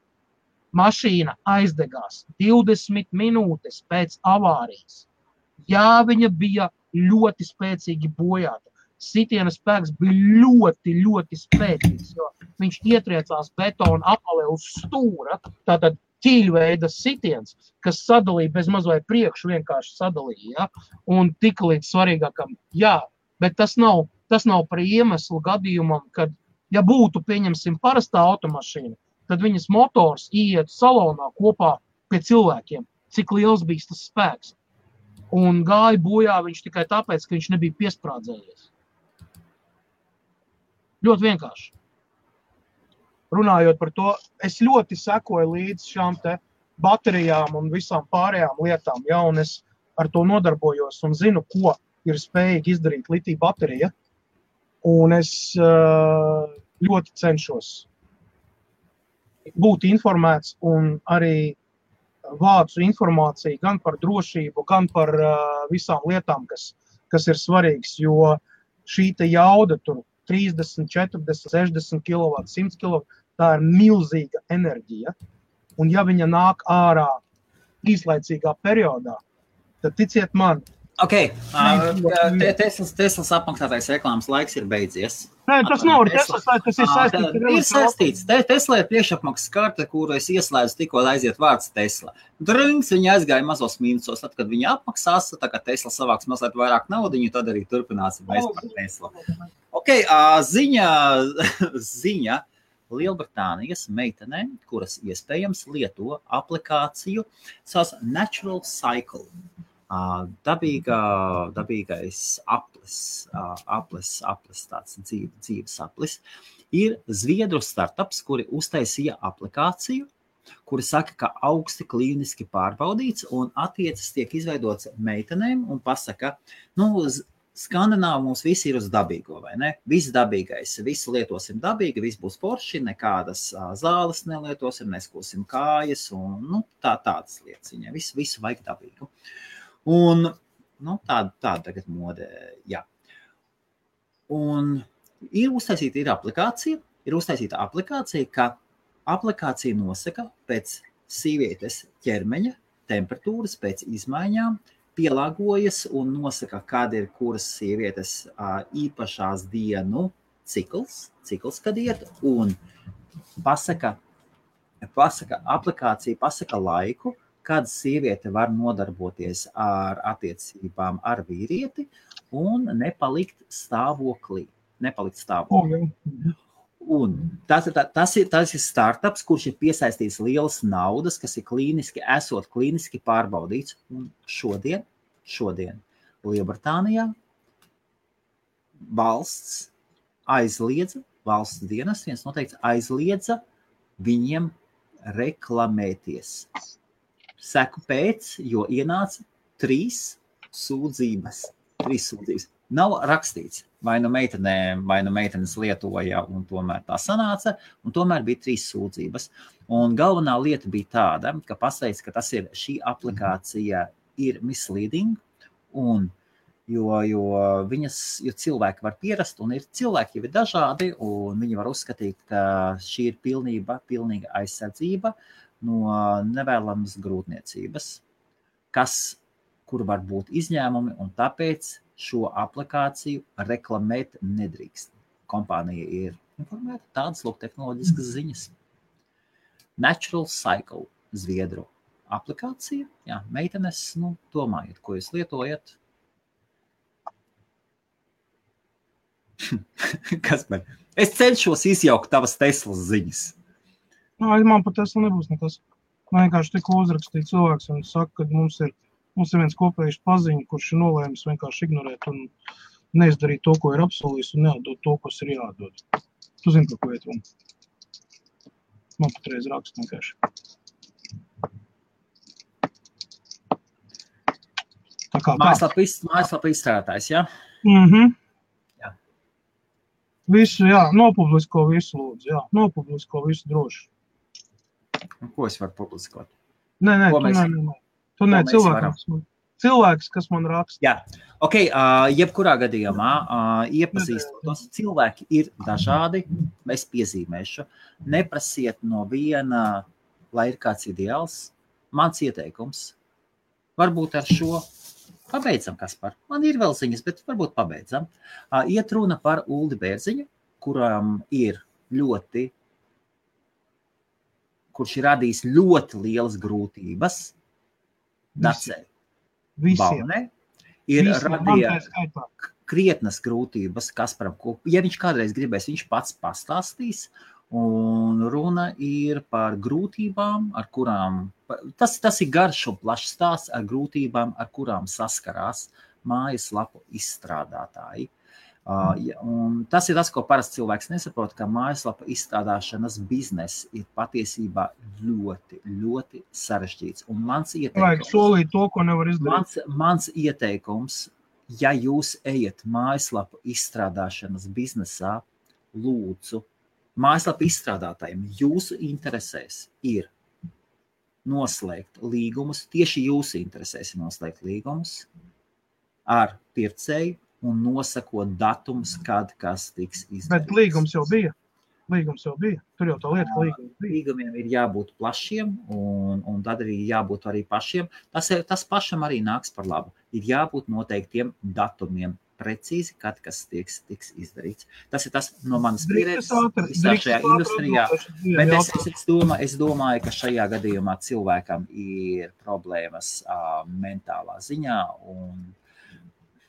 mašīna aizdegās 20 minūtes pēc avārijas. Jā, viņa bija ļoti spēcīgi bojāta. Sitiena spēks bija ļoti, ļoti spēcīgs, jo viņš ietriecās betona apalē uz stūra, tātad ķīļveida sitiens, kas sadalīja bez maz vai priekšu vienkārši sadalīja, ja? Un tika līdz svarīgākam, bet tas nav par iemeslu gadījumam, kad, ja būtu, pieņemsim, parastā automašīna, tad viņas motors iet salonā kopā pie cilvēkiem, cik liels bija tas spēks. Un gāja bojā viņš tikai tāpēc, ka viņš nebija piesprādzējies. Ļoti vienkārši. Runājot par to, es ļoti sekoju līdz šām te baterijām un visām pārējām lietām, un es ar to nodarbojos un zinu, ko ir spējīgi izdarīt litija baterija. Un es ļoti cenšos būt informēts un arī vācu informāciju gan par drošību, gan par visām lietām, kas ir svarīgas, jo šī te jauda tur 30, 40, 60 kW, 100 kW, tā ir milzīga enerģija. Un ja viņa nāk ārā īslaicīgā periodā, tad ticiet man, Teslas apmaksātais reklāmas laiks ir beidzies. Nē, tas nav Teslas, tas ir saistīts. Ir saistīts. Tesla ir priekšapmaksas karte, kuru es ieslēdzu tikko aiziet vārds Tesla. Drings, viņa aizgāja mazos mīnusos, tad, kad viņa apmaksās, tā kā Tesla savāks mazliet vairāk naudiņu, tad arī turpināsim mēs par Tesla. Ziņa Lielbritānijas meitenēm, kuras iespējams lieto aplikāciju sauc Natural Cycle. Dabīgais apli. aplis tāds dzīves aplis, ir Zviedru startups, kuri uztaisīja aplikāciju, kuri saka, ka augsti klīniski pārbaudīts un attiecas tiek izveidots meitenēm un pasaka, Skandināvi mums visi ir uz dabīgo, vai ne? Viss dabīgais, visu lietosim dabīgi, viss būs forši, nekādas zāles nelietosim, neskūsim kājas un tādas lietas viņai. Visu vajag dabīgu. Un tāda tagad mode, jā. Un ir uztaisīta aplikācija, ka aplikācija nosaka pēc sievietes ķermeņa temperatūras, pēc izmaiņām, pielāgojas un nosaka, kāda ir kuras sievietes īpašās dienu cikls, kad iet, un aplikācija pasaka laiku, kad sieviete var nodarboties ar attiecībām ar vīrieti un nepalikt stāvoklī. Un tas ir startups, kurš ir piesaistījis lielas naudas, kas ir klīniski pārbaudīts. Un šodien Lielbritānijā valsts dienas viens noteikti aizliedza viņiem reklamēties. Seku pēc, jo ienāca 3 sūdzības. Nav rakstīts, vai nu meitenes lietoja, un tomēr tā sanāca, un tomēr bija 3 sūdzības. Un galvenā lieta bija tāda, ka pasveic, ka šī aplikācija ir misleading, un jo cilvēki var pierast, un cilvēki jau ir dažādi, un viņi var uzskatīt, ka šī ir pilnīga aizsardzība no nevēlamas grūtniecības, kur var būt izņēmumi, un tāpēc šo aplikāciju reklamēt nedrīkst. Kompānija ir informēta, tādas tehnoloģiskas ziņas. Natural Cycle, Zviedru aplikācija. Jā, meitenes, domājiet, ko jūs lietojat. Kas man? Es cenšos izjaukt tavas Teslas ziņas. Man par Tesla nebūs nekas. Man vienkārši tikko uzrakstīja cilvēks un saka, ka mums ir viens kopējs paziņa, kurš ir nolēmis vienkārši ignorēt un neizdarīt to, ko ir apsolījis, un neatdot to, kas ir jādod. Tu zini, par ko iet runa. Man patreiz raksta vienkārši. Mājaslapa izstrādātājs, jā? Jā. Visu, jā, nopublisko visu lūdzu, jā. Nopublisko visu droši. Un ko es varu publiskot? Nē, tu ne, cilvēks, kas man raksta. Jā, jebkurā gadījumā iepazīstotos. Cilvēki ir dažādi, es piezīmēšu. Neprasiet no viena, lai ir kāds ideāls. Mans ieteikums. Varbūt ar šo pabeidzam, Kaspar. Man ir vēl ziņas, bet varbūt pabeidzam. Iet runa par Uldi Bērziņu, kurš ir radījis ļoti lielas grūtības. Dacē. Balnē ir radīja krietnas grūtības Kasparam. Ja viņš kādreiz gribēs, viņš pats pastāstīs. Un runa ir par grūtībām, ar kurām, tas ir garš un plašs stāsts ar grūtībām, ar kurām saskarās mājaslapu izstrādātāji. Un tas ir tas, ko parasti cilvēks nesaprot, ka mājaslapa izstrādāšanas bizness ir patiesībā ļoti, ļoti sarežģīts. Un mans ieteikums, vajag solīt to, ko nevar izdarīt. Mans ieteikums, ja jūs ejat mājaslapu izstrādāšanas biznesā, lūdzu, mājaslapu izstrādātājiem jūsu interesēs ir noslēgt līgumus, tieši jūsu interesēs ir noslēgt līgumus ar pircēju, un nosakot datumus, kad kas tiks izdarīts. Bet līgums jau bija. Tur jau tā lieta, ka līgums bija. Līgumiem ir jābūt plašiem, un tad arī jābūt arī pašiem. Tas pašam arī nāks par labu. Ir jābūt noteiktiem datumiem precīzi, kad kas tiks izdarīts. Tas ir tas no manas pieredzes visā šajā industrijā. Bet es domāju, ka šajā gadījumā cilvēkam ir problēmas mentālā ziņā un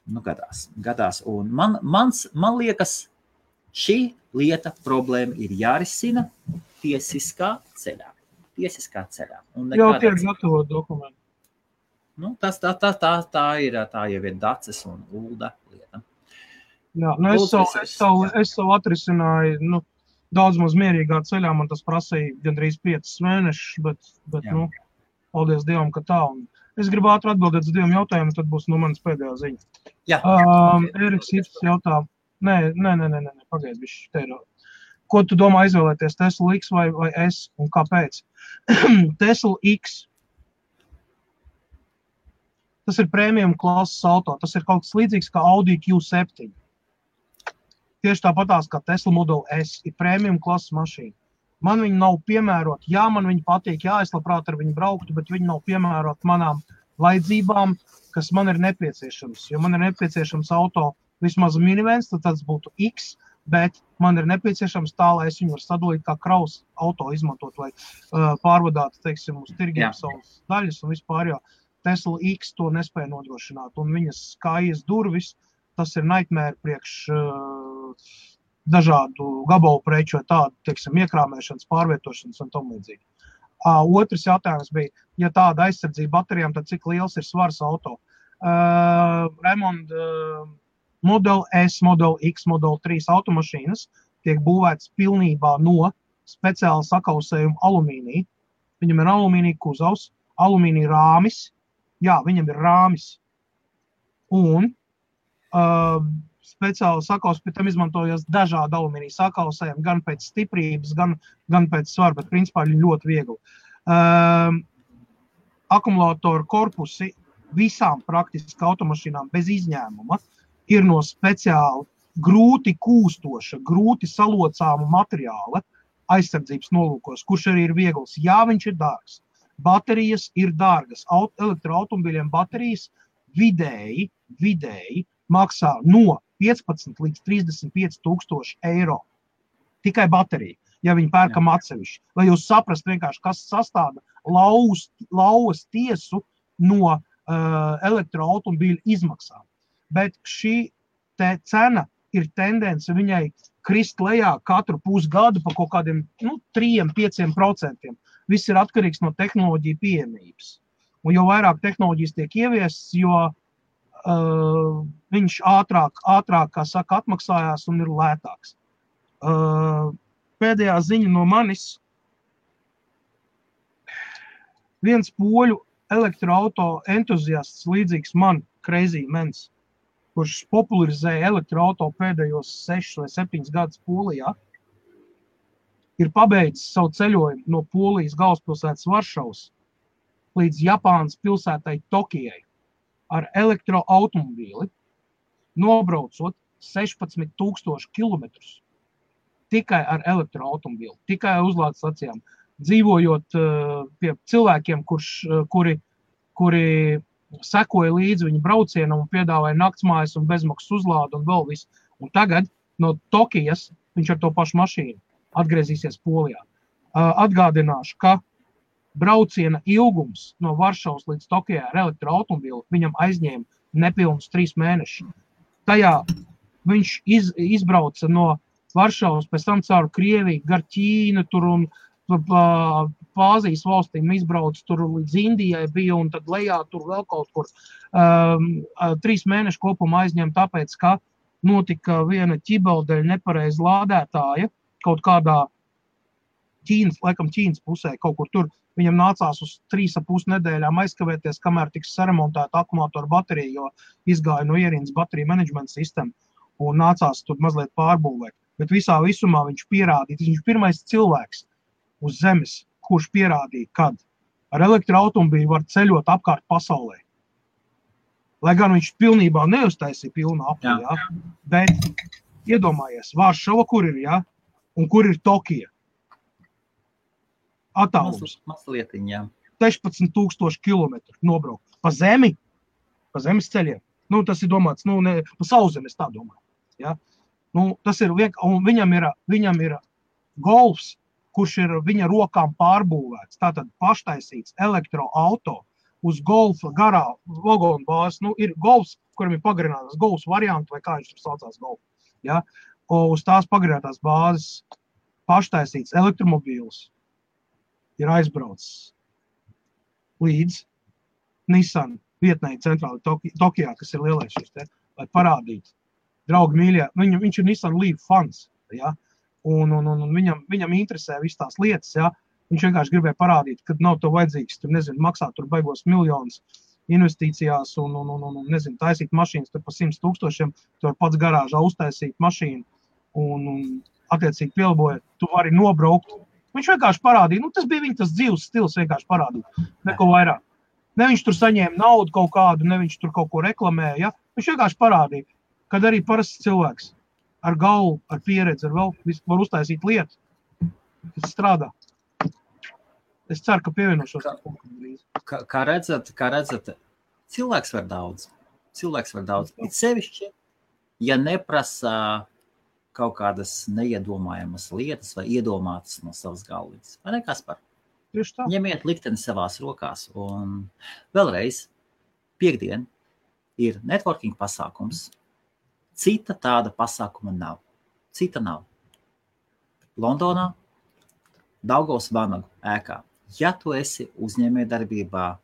gadās. Un man liekas, šī lieta problēma ir jārisina tiesiskā ceļā. Jau tiek gatavot dokumentu. Tā jau ir Daces un Ulda lieta. Jā, nu es savu atrisināju, daudz maz mierīgā ceļā, man tas prasīja gandrīz 5 mēnešus, bet paldies Dievam, ka tā. Un es gribu ātri atbildēt uz 2 jautājumiem, tad būs manas pēdējā ziņa. Jā. Eriks Ips jautā, nē, pagaid, bišķi, te ir. Ko tu domā izvēlēties, Tesla X vai S, un kāpēc? Tesla X. Tas ir premium klases auto, tas ir kaut kas līdzīgs kā Audi Q7. Tieši tāpatās kā Tesla Model S ir premium klases mašīna. Man viņi nav piemēroti, jā, man viņi patīk, jā, es labprāt ar viņu brauktu, bet viņi nav piemēroti manām vajadzībām, kas man ir nepieciešams. Jo man ir nepieciešams auto vismaz minivens, tad tas būtu X, bet man ir nepieciešams tā, lai es viņu var sadalīt kā kraus auto izmantot, lai pārvadātu, teiksim, uz tirgiem savas daļas un vispār, jo Tesla X to nespēja nodrošināt, un viņas kājas durvis, tas ir nightmare priekš dažādu gabalu preču vai tādu, teiksim, iekrāmēšanas, pārvietošanas un tam līdzīgi. Otrs jautājums bija, ja tāda aizsardzība baterijām, tad cik liels ir svars auto? Raimond, Model S, Model X, Model 3 automašīnas tiek būvētas pilnībā no speciāla sakausējuma alumīnija. Viņam ir alumīnija kuzavs, alumīnija rāmis, jā, viņam ir rāmis. Un speciāli sakaus, pie tam izmantojas dažādi alumīnija sakausējumi, gan pēc stiprības, gan pēc svara, bet principā viņi ļoti viegli. Akumulātoru korpusi visām praktiski automašīnām bez izņēmuma ir no speciāli grūti kūstoša, grūti salocāma materiāla aizsardzības nolūkos, kurš arī ir viegls. Jā, viņš ir dārgs. Baterijas ir dārgas. Elektroautomobīļiem baterijas vidēji maksā no 15 līdz 35 000 eiro. Tikai baterija, ja viņi pērkam atsevišķi. Lai jūs saprast vienkārši, kas sastāda lauvas tiesu no elektroautomobīļu izmaksām. Bet šī te cena ir tendence viņai krist lejā katru pusgadu pa kaut kādiem 3–5%. Viss ir atkarīgs no tehnoloģiju pieejamības. Un jo vairāk tehnoloģijas tiek ieviests, jo viņš ātrāk, kā saka, atmaksājās un ir lētāks. Pēdējā ziņa no manis. Viens poļu elektroauto entuziasts līdzīgs man, Crazy Mens, kurš popularizēja elektroauto pēdējos 6 vai 7 gadus Polijā, ir pabeidzis savu ceļojumu no Polijas galvaspilsētas Varšavas līdz Japānas pilsētai Tokijai ar elektroautomobīli, nobraucot 16 000 kilometrus tikai ar elektroautomobīli, tikai uzlādes stacijām, dzīvojot pie cilvēkiem, kuri sekoja līdzi viņa braucienam un piedāvāja naktsmājas un bezmaksas uzlādu un vēl visu. Un tagad no Tokijas viņš ar to pašu mašīnu atgriezīsies Polijā. Atgādināšu, ka brauciena ilgums no Varšavas līdz Tokijai ar elektroautomobīli viņam aizņēma nepilnus 3 mēnešus. Tajā viņš izbrauca no Varšavas, pēc tam caur Krieviju, gar Ķīnu tur un Āzijas valstīm izbrauc tur līdz Indijai bija un tad lejā tur vēl kaut kur. 3 mēnešu kopumā aizņem tāpēc, ka notika viena ķibeldeļa nepareiza lādētāja kaut kādā Ķīnas pusē, kaut kur tur. Viņam nācās uz 3,5 nedēļām aizkavēties, kamēr tiks saremontēta akumulātoru baterija, jo izgāja no ierīnas bateriju menedžmenta sistēma un nācās tur mazliet pārbūvēt. Bet visā visumā viņš pierādīja, viņš ir pirmais cilvēks uz zemes, kurš pierādīja, kad ar elektroautomobīlu var ceļot apkārt pasaulē. Lai gan viņš pilnībā neuztaisīja pilnu apli, jā. Bet iedomājies, Varšava, kur ir, jā, un kur ir Tokija. Attālums. 16 000 kilometru nobraukt. Pa zemi, pa zemes ceļiem. Tas ir domāts, pa sauszemes tā domāju. Ja? Tas ir un viņam ir golfs, kurš ir viņa rokām pārbūvēts. Tātad paštaisīts elektroauto uz golfa garā vagonu bāzes. Ir golfs, kuram ir pagarinātās golfs varianti, vai kā viņš tur saucās golfu. Ja? Uz tās pagarinātās bāzes paštaisīts elektromobīls ir aizbraucis līdz Nissan vietnei centrāli Tokijā, kas ir lielais šis te, lai parādītu, draugi mīļie, viņš ir Nissan Leaf fans, ja? Un viņam interesē viss tās lietas, ja? Viņš vienkārši gribēja parādīt, ka nav to vajadzīgs, tur, nezinu, maksāt tur baigos miljonus investīcijās un nezinu, taisīt mašīnas tur pa 100 000, tu var pats garāžā uztaisīt mašīnu un attiecīgi pielabojot, tu vari nobraukt. Viņš vienkārši parādīja, tas bija viņa tas dzīves stils vienkārši parādīja, neko vairāk. Ne viņš tur saņēma naudu kaut kādu, ne viņš tur kaut ko reklamēja, ja? Viņš vienkārši parādīja, kad arī parasts cilvēks ar galvu, ar pieredzi, ar vēl var uztaisīt lietu, kas strādā. Es ceru, ka pievienošos. Kā redzat, cilvēks var daudz. It sevišķi, ja neprasa kaut kādas neiedomājamas lietas vai iedomātas no savas galvas. Vai ne, Kaspar? Ņemiet likteni savās rokās. Un vēlreiz, piekdien ir networking pasākums. Cita tāda pasākuma nav. Londonā, Daugavas Vanagu ēkā. Ja tu esi uzņēmējdarbībā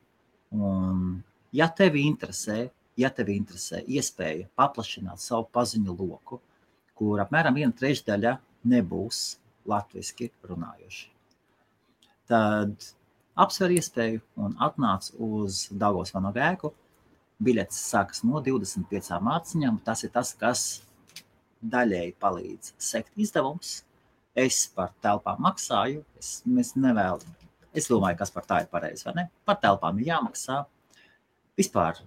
un ja tevi interesē iespēja paplašināt savu paziņu loku, kur apmēram 1/3 nebūs latviski runājoši, tad apsver iespēju un atnāc uz Daugavas Vanagu ēku. Biļetes sākas no 25 mārciņām. Tas ir tas, kas daļēji palīdz sekt izdevums. Es par telpām maksāju. Es domāju, kas par tā ir pareizi, vai ne? Par telpām ir jāmaksā. Vispār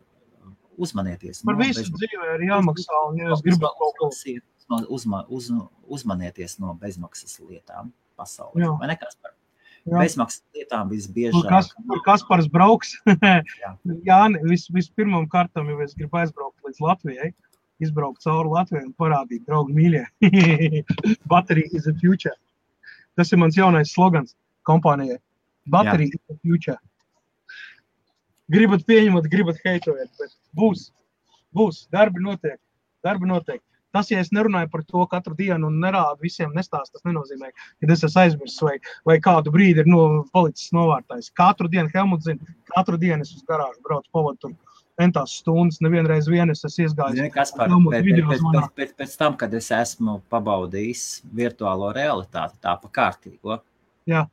uzmanieties. Par visu dzīvē ir jāmaksā, un ja es gribu kaut ko. Uzmanieties no bezmaksas lietām pasaulē. Vai ne, Kaspar? Bezmaksas lietām visbiežāk. Kur Kaspars brauks? Jā, vispirmām kārtām, ja es gribu aizbraukt līdz Latvijai, izbraukt cauri Latvijai un parādīt, draugi mīļie. Battery is the future. Tas ir mans jaunais slogans kompānijai. Battery is the future. Gribat pieņemat, gribat heitojat, bet būs. Darbi notiek. Tas, ja es nerunāju par to katru dienu un nerādu visiem nestāst, tas nenozīmē, ka es esmu aizmirsis vai kādu brīdi ir palicis novārtājs. Katru dienu, Helmuts zina, katru dienu es uz garāžu braucu, pavadu tur entās stundas, nevienreiz es esmu iesgājis. Kaspar, pēc tam, kad es esmu pabaudījis virtuālo realitāti, tā pa kārtīgo. Jā.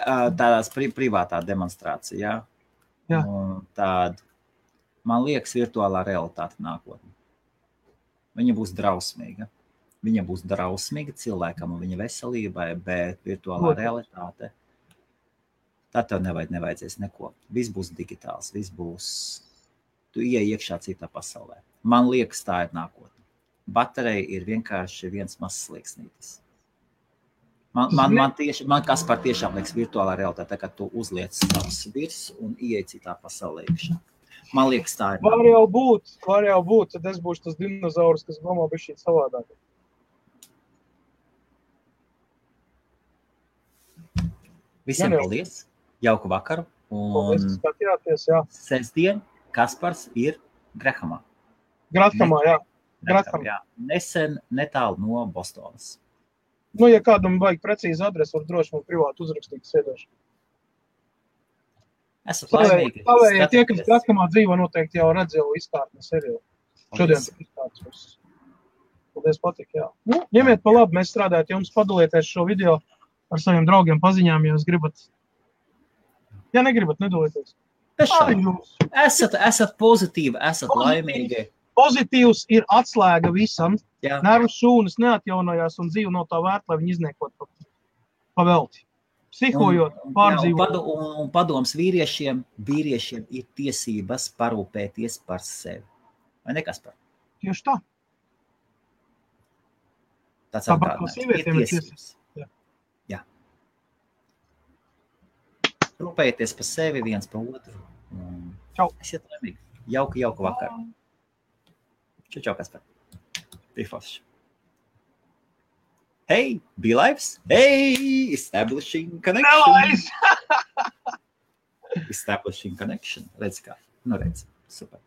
Tādās privātā demonstrācijā. Jā. Tāda, man liekas, virtuālā realitāte nākotnē. Viņa būs drausmīga. Viņa būs drausmīga cilvēkam un viņa veselībai, bet virtuālā realitāte, tad tev nevajadzēs neko. Viss būs digitāls, tu ieej iekšā citā pasaulē. Man liekas, tā ir nākotne. Baterija ir vienkārši viens mazs slieksnītis. Man Kaspar tiešām liekas virtuālā realitāte, kad tu uzliec savus virs un ieej citā pasaulē iekšā. Man liekas, tā ir. Var jau būt, tad es būšu tas dinozaurs, kas domā bišķīt savādāk. Visiem paldies, jauku vakaru. Paldies, skatījāties, jā. Sestdien Kaspars ir Grahamā. Grathamā, jā. Nesen netālu no Bostonas. Ja kādam vajag precīzi adresi, var droši man privāti uzrakstīt sēdēšu. Esat laimīgi. Tie, kas Grathamā dzīvo, noteikti jau redz jau izkārtni seriālu. Šodien izkārtnes. Paldies, patīk, jā. Ņemiet pa labi, mēs strādājat jums, padalieties šo video ar saviem draugiem paziņām, ja jūs gribat. Ja negribat, nedalieties. Esat pozitīvi, esat laimīgi. Pozitīvs ir atslēga visam. Nervu šūnas neatjaunojās un dzīve nav tā vērta, lai viņi izniekot pa velti. Psihojot, pārdzīvot. Un padoms vīriešiem ir tiesības parūpēties par sevi. Vai ne, Kaspar? Tieši tā. Tas ir tiesības. Jā. Rūpējieties par sevi, viens par otru. Čau. Esiet laimīgi. Jauku vakaru. Čau, Kaspar. Pifoši. Hey, BeLives. Hey, establishing connection. Establishing connection. Redz kā. Redz. Super.